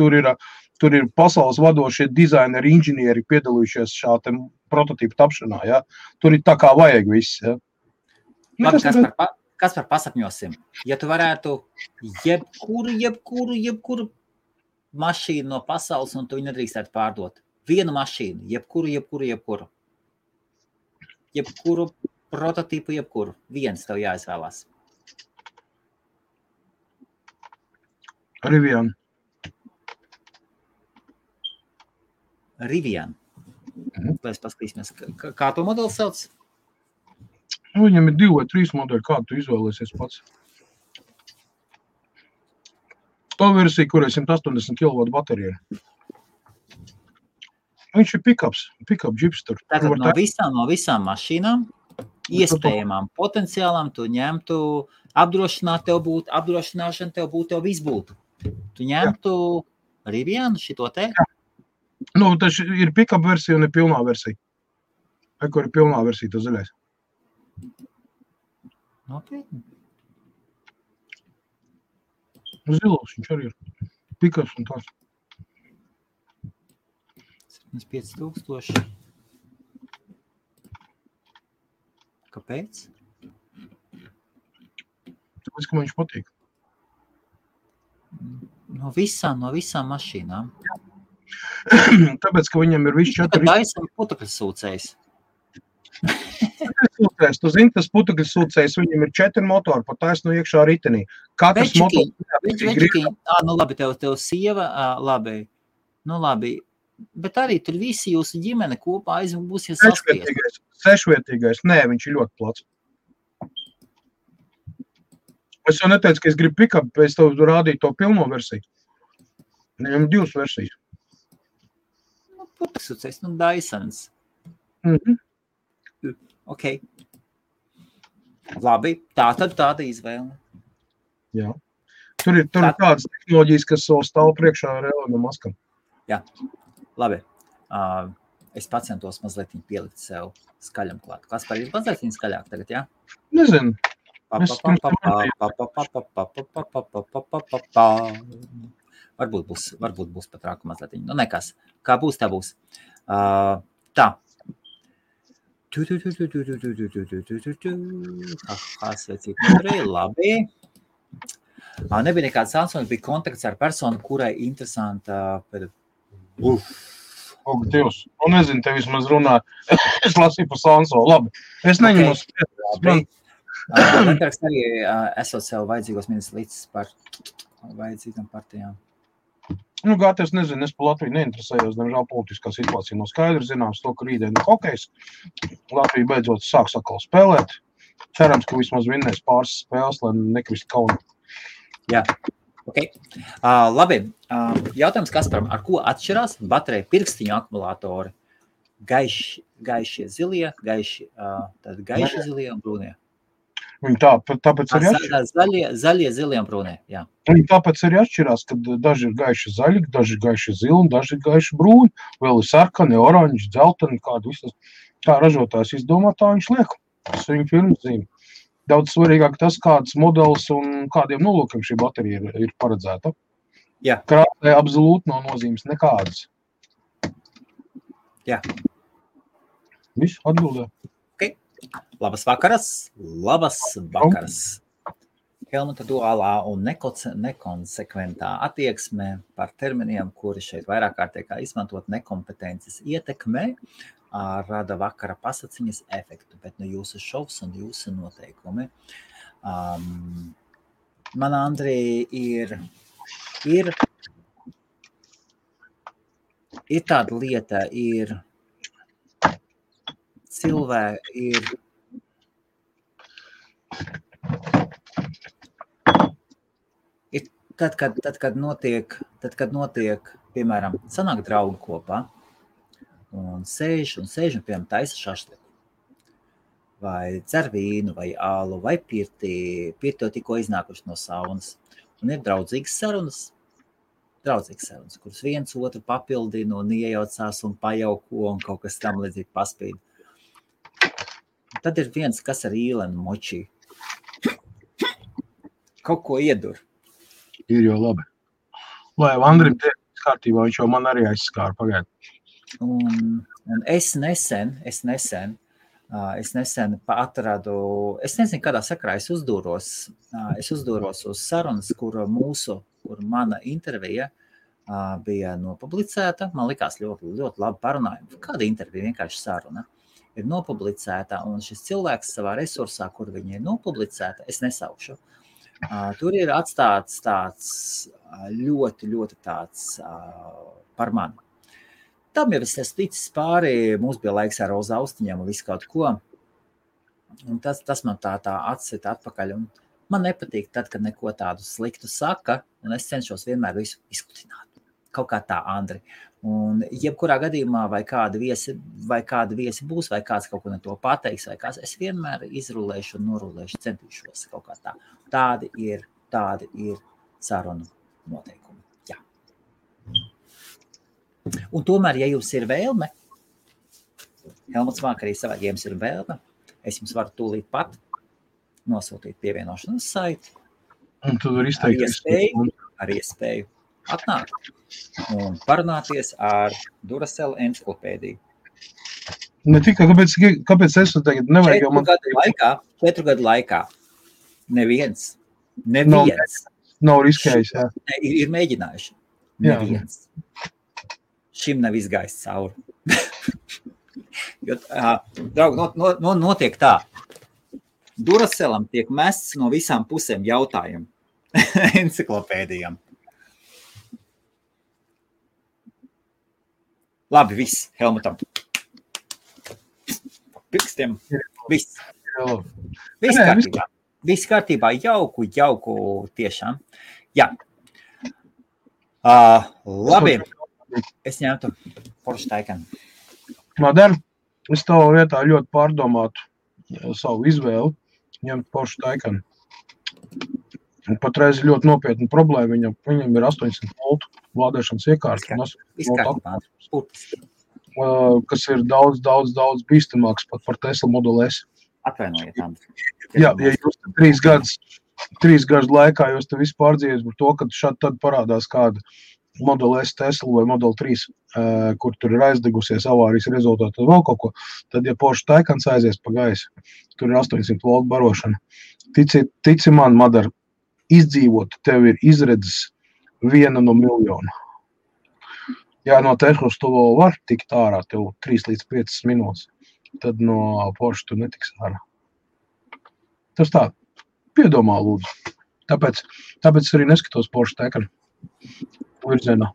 Tur ir pasaules vadošie dizaineri, inženieri piedalījušies šāda prototīpa tapšanā. Ja? Tur ir tā kā vajag viss. Ja? Labi, Kaspar, pasapņosim. Ja tu varētu jebkuru mašīnu no pasaules, un tu viņu nedrīkstētu pārdot. Vienu mašīnu, jebkuru. Jebkuru prototīpu, jebkuru. Viens tev jāizvēlās. Rivian. Lai paskatīsimies, kā to modeli sauc? Viņam ir 2 vai 3 modeļi, kādu tu izvēlēsies pats. To versija, kur ir 180 kW baterija. Viņš ir pick-up džips tur. Tātad no visām mašīnām, iespējamām potenciālām, tu ņemtu apdrošināšana tev viss būtu. Tu ņemtu Rivianu šito te? Tas ir pick-up versija un ir pilnā versija. Kur ir pilnā versija, tas zaļais. Nopietni. Zilos viņš arī ir. Pick-ups un tās. 75,000. Kāpēc? Tāpēc, ka man viņš patīk. No visām mašīnām. Tāpēc, ka viņam ir viss 4... Daisam putekļu sūcējs. Tu zini, tas putekļu sūcējs, viņam ir 4 motori, pa taisnu iekšā ritenī. Katrs motors... labi, tev sieva, labi. Bet arī tur visi jūsu ģimene kopā būs saspiest. Sešvietīgais. Nē, viņš ir ļoti plats. Es jau neteicu, ka es gribu pick-up, es tev rādīju to pilno versiju. Viņam 2 versijas. Putekļsūcējs, Dysons. Ok. Labi, tāda izvēle. Jā. Tur ir tādas tehnoloģijas, kas stāv priekšā ar Elonu Maskam. Jā. Labi. Es pacentos mazliet pielikt sev skaļam klāt. Kaspar, ir mazliet skaļāk tagad, jā? Nezinu. Varbūt būs pat rāku mazliet. Nekas. Kā būs, tā būs. Tā. Labi. Nebija nekāds Samsung, bija kontakts ar personu, kurai interesanta... Dievs, nezinu, te vismaz runā. Es lasīju par Samsung, labi. Es neņemu spēju. Lembergs arī esot sev vajadzīgos ministrs līdz par vajadzīgām partijām. Gāties, nezinu, es pa Latviju neinteresējos, diemžēl politiskā situācija nav skaidra, zināms to, ka rītdien ir hokejs. Latvija beidzot sāks atkal spēlēt. Cerams, ka vismaz vinnēs pāris spēles, lai nekrist kauni. Jā, ok. Labi, jautājums Kasparam, ar ko atšķirās baterija pirkstiņu akumulātori? Gaišie zilie, gaiši zilie un brūnie? Viņi tāpēc arī atšķirās. Zaļie, zilie un brūnie, jā. Viņi tāpēc arī atšķirās, kad daži ir gaiši zaļi, daži ir gaiši zili un daži ir gaiši brūni. Vēl ir sarkani, oranži, dzelteni, kādu visas. Kā ražotājs izdomā, tā viņš liek. Tas viņa firmas zīme. Daudz svarīgāk tas, kāds modelis un kādiem nolūkiem šī baterija ir paredzēta. Jā. Krāsē absolūti nav nozīmes nekādas. Jā. Viss atbildē. Okay. Labas vakaras. Helmuta duālā un nekonsekventā attieksme par terminiem, kuri šeit vairāk kārtībā izmantot nekompetences ietekmē, rada vakara pasaciņas efektu, bet jūsu šovs un jūsu noteikumi. Man, Andrija, ir tāda lieta, ir cilvēki, tad, kad notiek, piemēram, sanāk draugi kopā un sēž un piemēram taisa šašliku, vai dzer vīnu, vai ālu, vai pirti tikko iznākuši no saunas, un ir draudzīgas sarunas, kuras viens otru papildina un iejaucās un pajauko un kaut kas tam līdzīgi paspīd. Tad ir viens, kas ar īlenu močī. Kaut ko iedur. Ir jau labi. Lai Andrim tiek kārtībā, viņš jau man arī aizskāra pagaidu. Un es nesen atradu, es nezinu, kādā sakarā es uzdūros uz sarunas, kur mana intervija bija nopublicēta. Man likās ļoti labi parunājumi. Kāda intervija, vienkārši saruna, ir nopublicēta, un šis cilvēks savā resursā, kur viņa ir nopublicēta, es nesaukšu. Tur ir atstāts tāds ļoti tāds par mani. Tam jau es esmu ticis pāri, mums bija laiks ar Roza austiņām un visu kaut ko. Un tas man tā atsita atpakaļ. Un man nepatīk tad, kad neko tādu sliktu saka, un es cenšos vienmēr visu izkutināt. Kaut kā tā, Andri. Un jebkurā gadījumā vai kādi viesi būs, vai kāds kaut ko ne to pateiks, vai kāds, es vienmēr izrulēšu un norulēšu, centīšos kaut kā tā. Tādi ir sarunu noteikumi. Jā. Un tomēr, ja jums ir vēlme, Helmuts Vāk arī savā, ja jums ir vēlme, es jums varu tūlīt pat nosūtīt pievienošanas saiti. Un tu var izteikties. Ar iespēju atnākt un parunāties ar Duracell enciklopēdiju. Ne tikai, kāpēc es tagad nevajag jau man... 4 gadu laikā neviens nav riskējis, jā. Ir mēģinājuši. Neviens. Šim nav izgājis cauri. Jo, draugi, notiek tā. Duracellam tiek mests no visām pusēm jautājumu enciklopēdijām. Labi, viss, Helmutam. Pirkstiem, viss. Viss kārtībā. Viss kārtībā, jauku tiešām. Jā. Labi, es ņemtu Porsche Taycan. Madara, es tavā vietā ļoti pārdomātu savu izvēli, ņemt Porsche Taycan. Patreiz ir ļoti nopietna problēma, viņam ir 800 voltu lādēšanas iekārta. Kas ir daudz bīstamāks pat par Tesla Model S. Atvainojiet, Andri. Jā, ja jūs 3 gadu laikā jūs te visu pārdzīvies par to, ka šādi tad parādās kāda Model S Tesla vai Model 3, kur tur ir aizdegusies avārijas rezultātā vēl kaut ko, tad, ja Porsche Taycans aizies pa gaisu, tur ir 800 voltu barošana. Tici man, Madara, izdzīvot tev ir izredzes 1 no miljona. Ja no Teslas tu vēl var tikt ārā tev 3 līdz 5 minūtes, tad no Porsche tu netiks ārā. Tas tā, piedomā lūdzu. Tāpēc arī neskatos Porsche Taycan virzienā.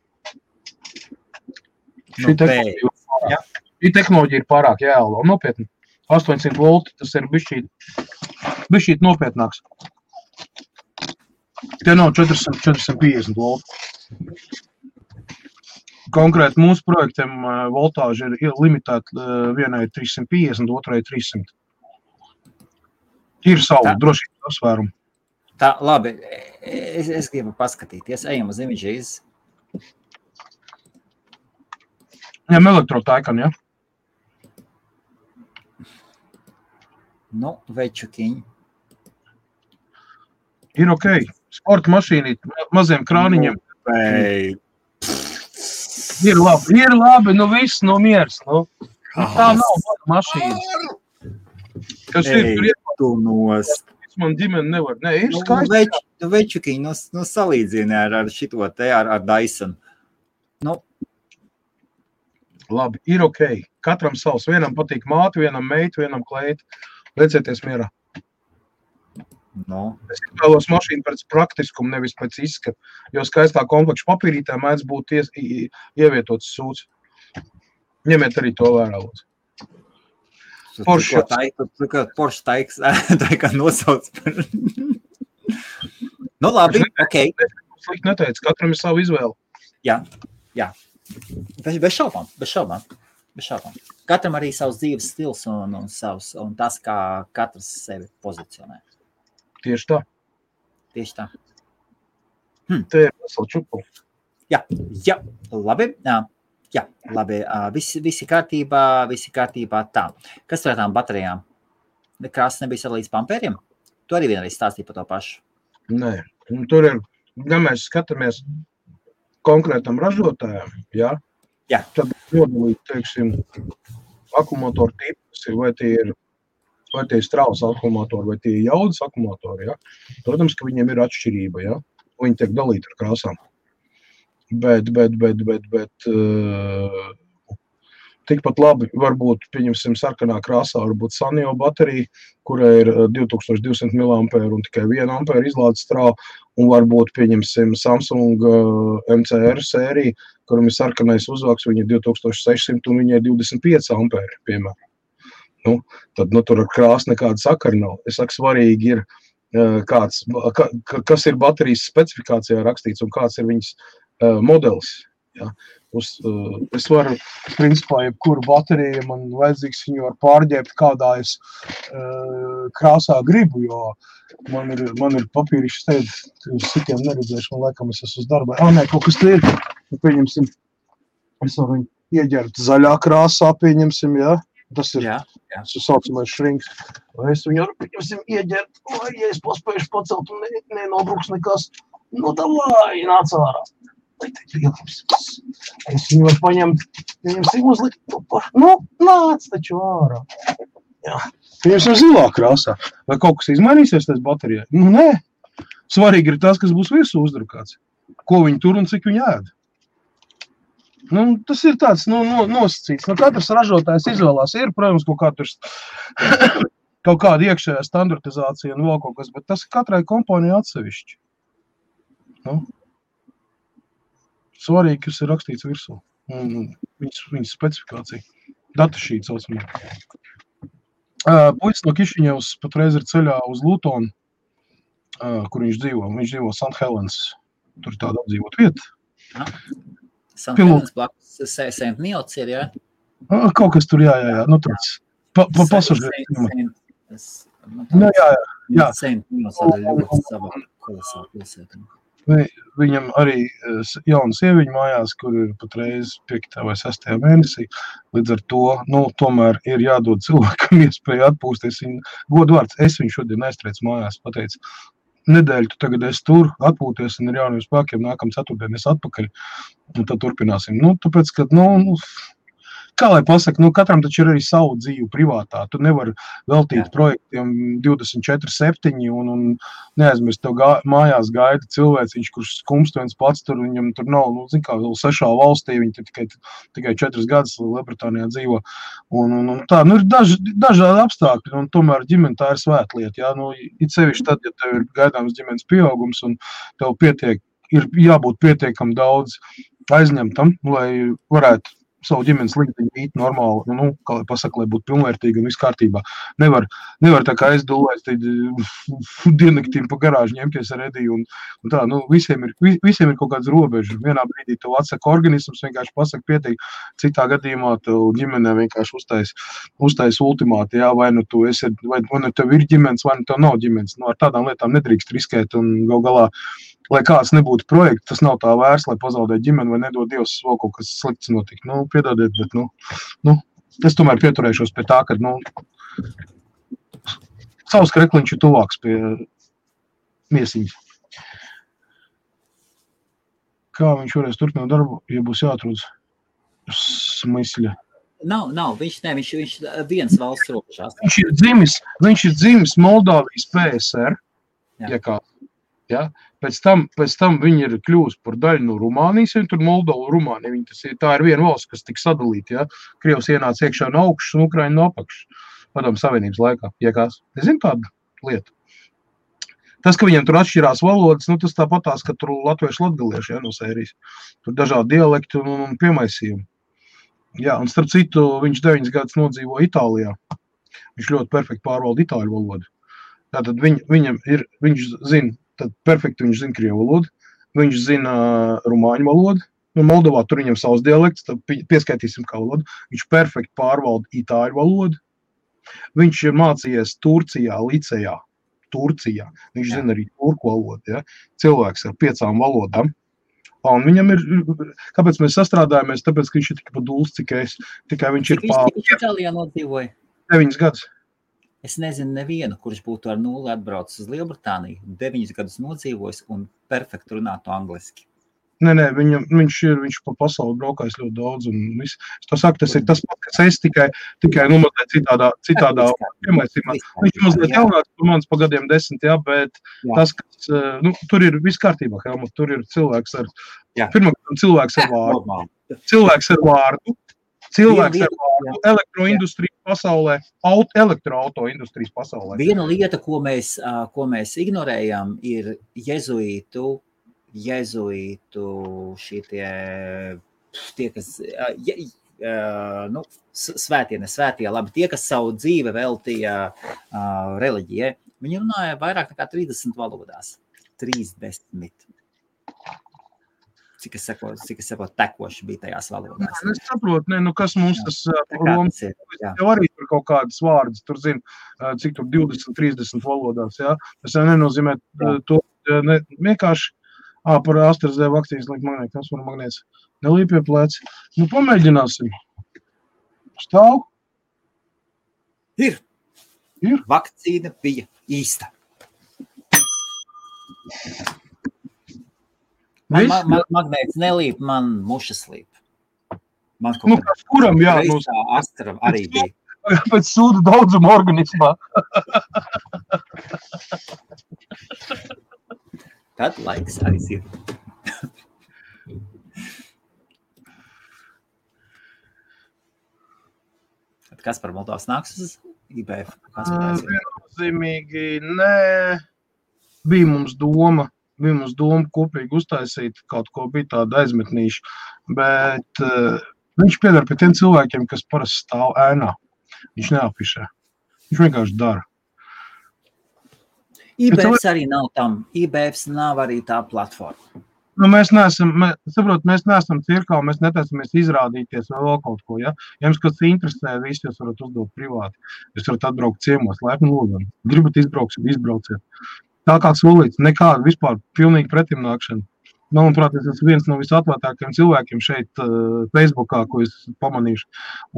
Šī tehnoloģija ir pārāk jēla, un nopietni. 800 volti, tas ir bišķīt nopietnāks. Te nav 450 volti. Konkrēti mūsu projektiem voltāža ir limitēta, vienai 350, otrai 300. Ir savu drošības apsvērumu. Tā, labi, es gribu paskatīties, ejam uz images. Ņem elektrotaikan, ja? Nu, večukiņi. Ir ok. Sporta mašīnīt, maziem krāniņiem. Ir labi, nu viss, nu miers, nu. Tā nav mašīnas. Kas ir, tur tu nost. Man ģimene nevar. Nē, ir skaisti. Nu, večukiņi, nu salīdzini ar šito te, ar Dyson. Nu. Labi, ir ok. Katram savs. Vienam patīk māte, vienam meitu, vienam kleitu. Liecieties mierā. No. Es vēlos mašīnu pēc praktiskumu, nevis pēc izskata, jo skaistā komplekša papīrītē mēdz būt ievietots sūds. Ņemiet arī to vērā, lūdzu. Porsche Taycan nosauc. Nu labi, ok. Slikt neteicu, katram ir savu izvēli. Jā. Bez šaubām. Katram arī savs dzīves stils un tas, kā katrs sevi pozicionē. Tieši tā. Te ir vesela čupa. Jā, labi. Jā, labi. Visi kārtībā tā. Kas tur ar tām baterijām? Krāsas nebija sadalīts pa ampēriem? Tu arī vienreiz stāstīji par to pašu. Nē, tur ir, ja mēs skatāmies konkrētam ražotājām, jā. Tad nodalīt, teiksim, akumulātoru tipas, vai tie ir straujas akumulātori, vai tie ir jaudas akumulātori, jā. Protams, ka viņiem ir atšķirība, jā. Viņi tiek dalīti ar krāsām. Bet tikpat labi varbūt, pieņemsim, sarkanā krāsā varbūt Sanyo baterija, kurai ir 2200 mAh un tikai 1 ampēra izlādes strāva, un varbūt, pieņemsim, Samsung MCR sērija, kuram ir sarkanais uzvaks, viņa ir 2600 un viņa ir 25 ampēri, piemēram. Tad tur ar krāsu nekāda sakara nav. Es saku, svarīgi ir, kas ir baterijas specifikācijā rakstīts un kāds ir viņas modelis. Ja. Es varu, principā, jebkuru bateriju, man vajadzīgs viņu var pārģēbt, kādā es krāsā gribu, jo man ir papīrišs teikt, uz citiem neredzēšu, man laikam es esmu uz darbā. Nē, kaut kas te ir, pieņemsim, es varu viņu ieģert zaļā krāsā, pieņemsim, ja. Tas ir saucamais šrinks. Vai es viņu varu, pieņemsim, ieģert, vai ja es paspējuši pacelt un nenobruks nekas, nu davai, nāc ārā. Es viņu varu paņemt, pieņemsim uzlikt, nāc taču ārā. Jā. Pieņemsim zilā krāsā. Vai kaut kas izmainīsies tās baterijai? Nē. Svarīgi ir tas, kas būs virsū uzdrukāts. Ko viņi tur un cik viņi ēd. Tas ir tāds nosacīts. Katrs ražotājs izvēlās. Ir, protams, kaut kāda iekšējā standartizācija un vēl kaut kas, bet tas katrai kompānijai atsevišķi. Svarīgi, kas ir rakstīts virsū. Viņas specifikācija. Datašīta saucamā. Puicis no Kišiņevs patreiz ir ceļā uz Lutonu, kur viņš dzīvo. Viņš dzīvo St. Helens. Tur ir tāda apdzīvot vieta. St. Helens blakus St. Milts ir, jā? Kaut kas tur, jā. Tāds pasažieru. Jā. St. Milts ir ļoti sava kolosāla pilsēta. Viņam arī jauna sieviņa mājās, kur ir patreiz 5. vai 6. mēnesī. Līdz ar to, tomēr ir jādod cilvēkam iespēju atpūsties. Godvārds, es viņu šodien aiztrēcu mājās, pateicu, nedēļu tu tagad esi tur, atpūties un ar jauniem spēkiem nākam ceturtdien es atpakaļ. Un tad turpināsim. Tāpēc, ka, kā lai pasaka, katram taču ir arī savu dzīvi privātā. Tu nevari veltīt projektiem 24/7 un neaizmirst, tev mājās gaida cilvēciņš, kurš skumst viens pats tur, viņam tur nav, vēl 6 valstī, viņi tikai 4 gadus Lielbritānijā dzīvo. Un tā, ir dažādi apstākļi, un tomēr ģimene tā ir svētlieta. Jā, it sevišķi tad, ja tev ir gaidāms ģimenes pieaugums, un tev ir jābūt pietiekam daudz aizņemtam, lai varētu savu ģimenes līdziņu īt normāli, kā lai pasaka, lai būtu pilnvērtīgi un viss kārtībā. Nevar tā kā es dulēs diennaktīm pa garāžu ņemties ar Ediju un tā, visiem ir kaut kāds robežs. Vienā brīdī tev atsaka organisms, vienkārši pasaka pietiek, citā gadījumā tev ģimenē vienkārši uztais ultimāti, jā, vai nu tev ir ģimenes, vai nu tev nav ģimenes. Ar tādām lietām nedrīkst riskēt un gal galā, lai kāds nebūtu projekts, tas nav tā vērts, lai pazaudētu ģimeni vai nedod Dievs vēl kaut kas slikts notikt. Piedodiet, bet, es tomēr pieturēšos pie tā, ka, savs krekliņš ir tuvāks pie miesiņas. Kā viņš varēs turpināt darbu, ja būs jāatrod smysļa? Nav, viņš viens valsts robežās. Viņš ir dzimis Moldāvijas PSR, ja kā. Ja? Pēc tam viņi ir kļūst par daļu no Rumānijas, un tur Moldova un Rumānija. Tā ir viena valsts, kas tika sadalīta. Ja? Krievs ienāca iekšā no augšas un Ukraina no apakšas. Padomu Savienības laikā. Ja kāds? Es zinu tādu lietu. Tas, ka viņiem tur atšķirās valodas, tas tāpatās, ka tur latvieši latgalieši, ja, no sērijas. Tur dažādi dialekti un piemaisījumi. Jā, un starp citu, viņš 9 gadus nodzīvo Itālijā. Viņš ļoti perfekti pārvalda itāļu valodu. Tātad viņš zina, tad perfekti viņš zina krievu valodu, viņš zina rumāņu valodu, Moldovā tur viņam savs dialekts, tad pieskaitīsim kā valodu, viņš perfekti pārvalda itāļu valodu, viņš ir mācījies Turcijā, licejā, viņš zina arī turku valodu, ja? Cilvēks ar 5 valodām, un viņam ir, kāpēc mēs sastrādājamies, tāpēc, ka viņš ir tik paduls, cik es, tikai viņš ir Viņš Itālijā nodzīvoja? 9 gadus. Es nezinu nevienu, kurš būtu ar 0 atbraucis uz Lielbritāniju, 9 gadus nodzīvojis un perfekti runātu angliski. Nē, viņš pa pasauli braukājis ļoti daudz un viss. Es to saku, tas ir tas pats, kas es tikai mazliet citādā piemaisījumā. Viņš ir mazliet jaunāks par manis pa gadiem 10, jā, bet tas, kas, tur ir viss kārtībā, Helmut, tur ir cilvēks ar, pirmkārt, cilvēks ar vārdu, elektroindustrijas pasaulē, elektroauto industrijas pasaulē. Viena lieta, ko mēs ignorējam, ir jezuītu tie, kas, svētie, labi, tie, kas savu dzīve veltīja reliģijai, viņi runāja vairāk nekā 30 valodās. 30. Cik es saprotu, tekoši bija tajās valodās. Es saprotu, kas mums tas Romas jau arī tur kaut kādas vārdas, tur zina, cik tur 20-30 valodās, jā. Tas jau nenozīmē to, vienkārši, par AstraZeneca vakcīnas liek magnēt, kas var magnēts, nelīp pie pleci. Pamēģināsim. Stāv? Ir. Vakcīna bija īsta. Magnēts nelīp, man mušas līp. Kuram, jā. Astra arī bija. Pēc sūdu daudzuma organismā. Tad laiks aiziet. Kas par Moldovas nāks uz IBF? Viennozīmīgi, nē. Bija mums doma kopīgi uztaisīt kaut ko, bija tāda aizmetnīša, bet viņš piedara pie tiem cilvēkiem, kas parasti stāv ēnā. Viņš neapišē. Viņš vienkārši dara. IBFs arī nav tam. IBFs nav arī tā platforma. Mēs neesam cirkā, mēs netaisamies izrādīties vai vēl kaut ko, ja? Ja jums kas interesē, visi jūs varat uzdot privāti. Jūs varat atbraukt ciemos, laipni lūdzam. Gribat izbrauciet. Tā kā solīts, nekāda vispār pilnīgi pretimnākšana. Manuprāt, es esmu viens no visatvērtākajiem cilvēkiem šeit Facebookā, ko es pamanīšu.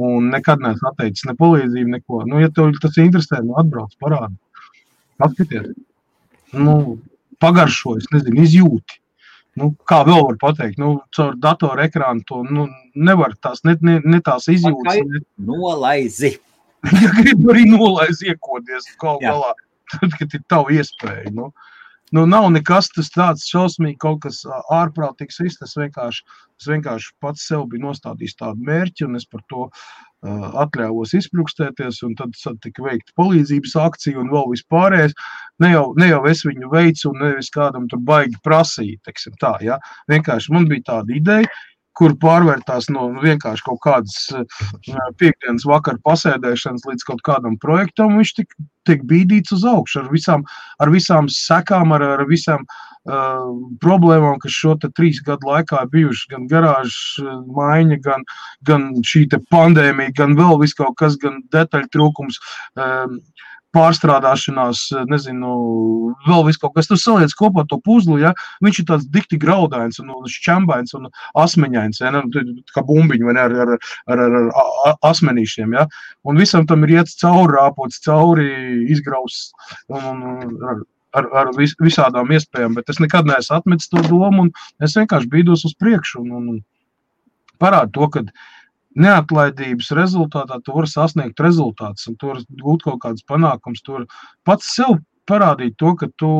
Un nekad neesmu atteicis ne palīdzību, neko. Ja tev tas interesē, atbrauc, parādi. Paskaties. Pagaršo, es nezinu, izjūti. Kā vēl var pateikt? Caur datoru ekrānu to nevar tās, ne tās izjūtas. Nolaizi. Ja gribu arī nolaizi iekodies kaut galā. Tad, kad ir tavu iespēju. Nav nekas tas tāds šausmīgi, kaut kas ārprātīgs viss. Es vienkārši pats sev biju nostādījis tādu mērķi, un es par to atļāvos izpļukstēties, un tad tika veikta palīdzības akcija un vēl vispārējais. Ne jau es viņu veicu, un nevis kādam tur baigi prasīja, teiksim tā, ja. Vienkārši man bija tāda ideja, kur pārvērtās no vienkārši kaut kādas piekdienas vakara pasēdēšanas līdz kaut kādam projektam, viņš tiek bīdīts uz augšu ar visām sekām, ar visām problēmām, kas šo te 3 gadu laikā bijuši, gan garāžas maiņa, gan šī te pandēmija, gan vēl viss kaut kas, gan detaļu trūkums, pārstrādāšanās, nezinu, vēl viss kaut kas, tu saliec kopā to puzlu, ja, viņš ir tāds dikti graudains un šķembains un asmeņains, ja, kā bumbiņi, vai ne, ar asmenīšiem, ja, un visam tam ir iet cauri, rāpots cauri, izgrausts un ar visādām iespējām, bet es nekad neesmu atmetis to domu un es vienkārši bīdos uz priekšu un parādu to, ka neatlaidības rezultātā tu vari sasniegt rezultātus un tu vari gūt kaut kādas panākums, tu vari pats sev parādīt to, ka tu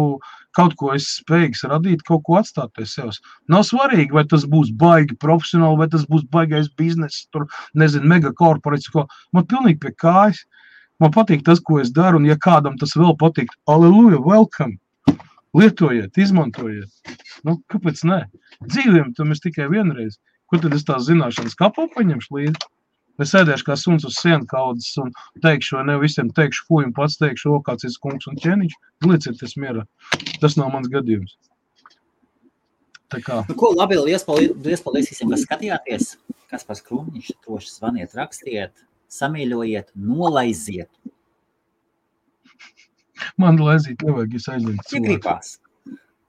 kaut ko esi spējīgs radīt, kaut ko atstāt pie sevis. Nav svarīgi, vai tas būs baigi profesionāli, vai tas būs baigais bizness, tur, nezinu, megakorporāts, ko. Man pilnīgi pie kājas. Man patīk tas, ko es daru, un ja kādam tas vēl patīk, aleluja, welcome, lietojiet, izmantojiet. Nu, kāpēc ne? Dzīviem tam es tikai vienreiz. Kur tad es tās zināšanas kapā paņemšu līdzi? Es sēdēšu kā suns uz sienu kaudzes un teikšu, vai ne visiem teikšu, fuj, un pats teikšu, kāds ir kungs un ķēniņš, liecieties mierā. Tas nav mans gadījums. Tā kā. Nu, ko, labi, liels paldies visiem, kas skatījāties. Kaspars Krūmiņš, droši zvaniet, rakstiet, samīļojiet, nolaiziet. Man laizīt nevajag, es aizliet cilvēku.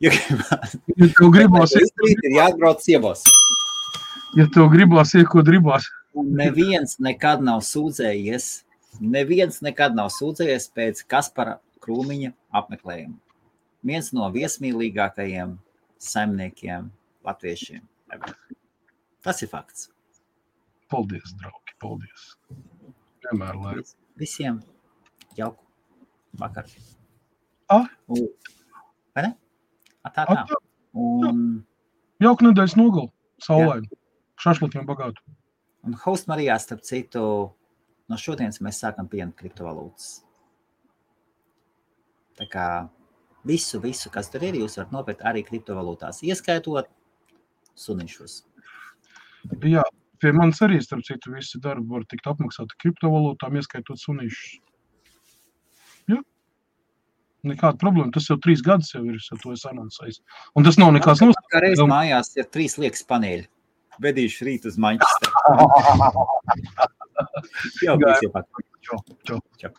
Ja gribās. Ja tev gribās, ir jāatbrauc ciemos. Ja tev gribās, ko gribās. Neviens nekad nav sūdzējies pēc Kaspara Krūmiņa apmeklējuma. Viens no viesmīlīgākajiem saimniekiem latviešiem. Tas ir fakts. Paldies, draugi, paldies. Vienmēr lai. Visiem jauku vakar. Vai ne? Tā. Jauku nedēļas nogali, saulaini. Šašlikiem bagātu. Un Host Marijā, starp citu, no šodienas mēs sākam pieņemt kriptovalūtas. Tā kā visu, kas tur ir, jūs varat nopirkt arī kriptovalūtās, ieskaitot sunišus. Jā, pie manis arī, starp citu, visi darbi var tikt apmaksāti kriptovalūtām, ieskaitot sunišus. Jā. Nekāda problēma, tas jau 3 gadus jau ir, to es anoncējis. Un tas nav nekāds nosaka. Kā reiz mājās ir 3 liekas paneļi. Vedīšu rīt uz Manchesteru. Jau. Čau.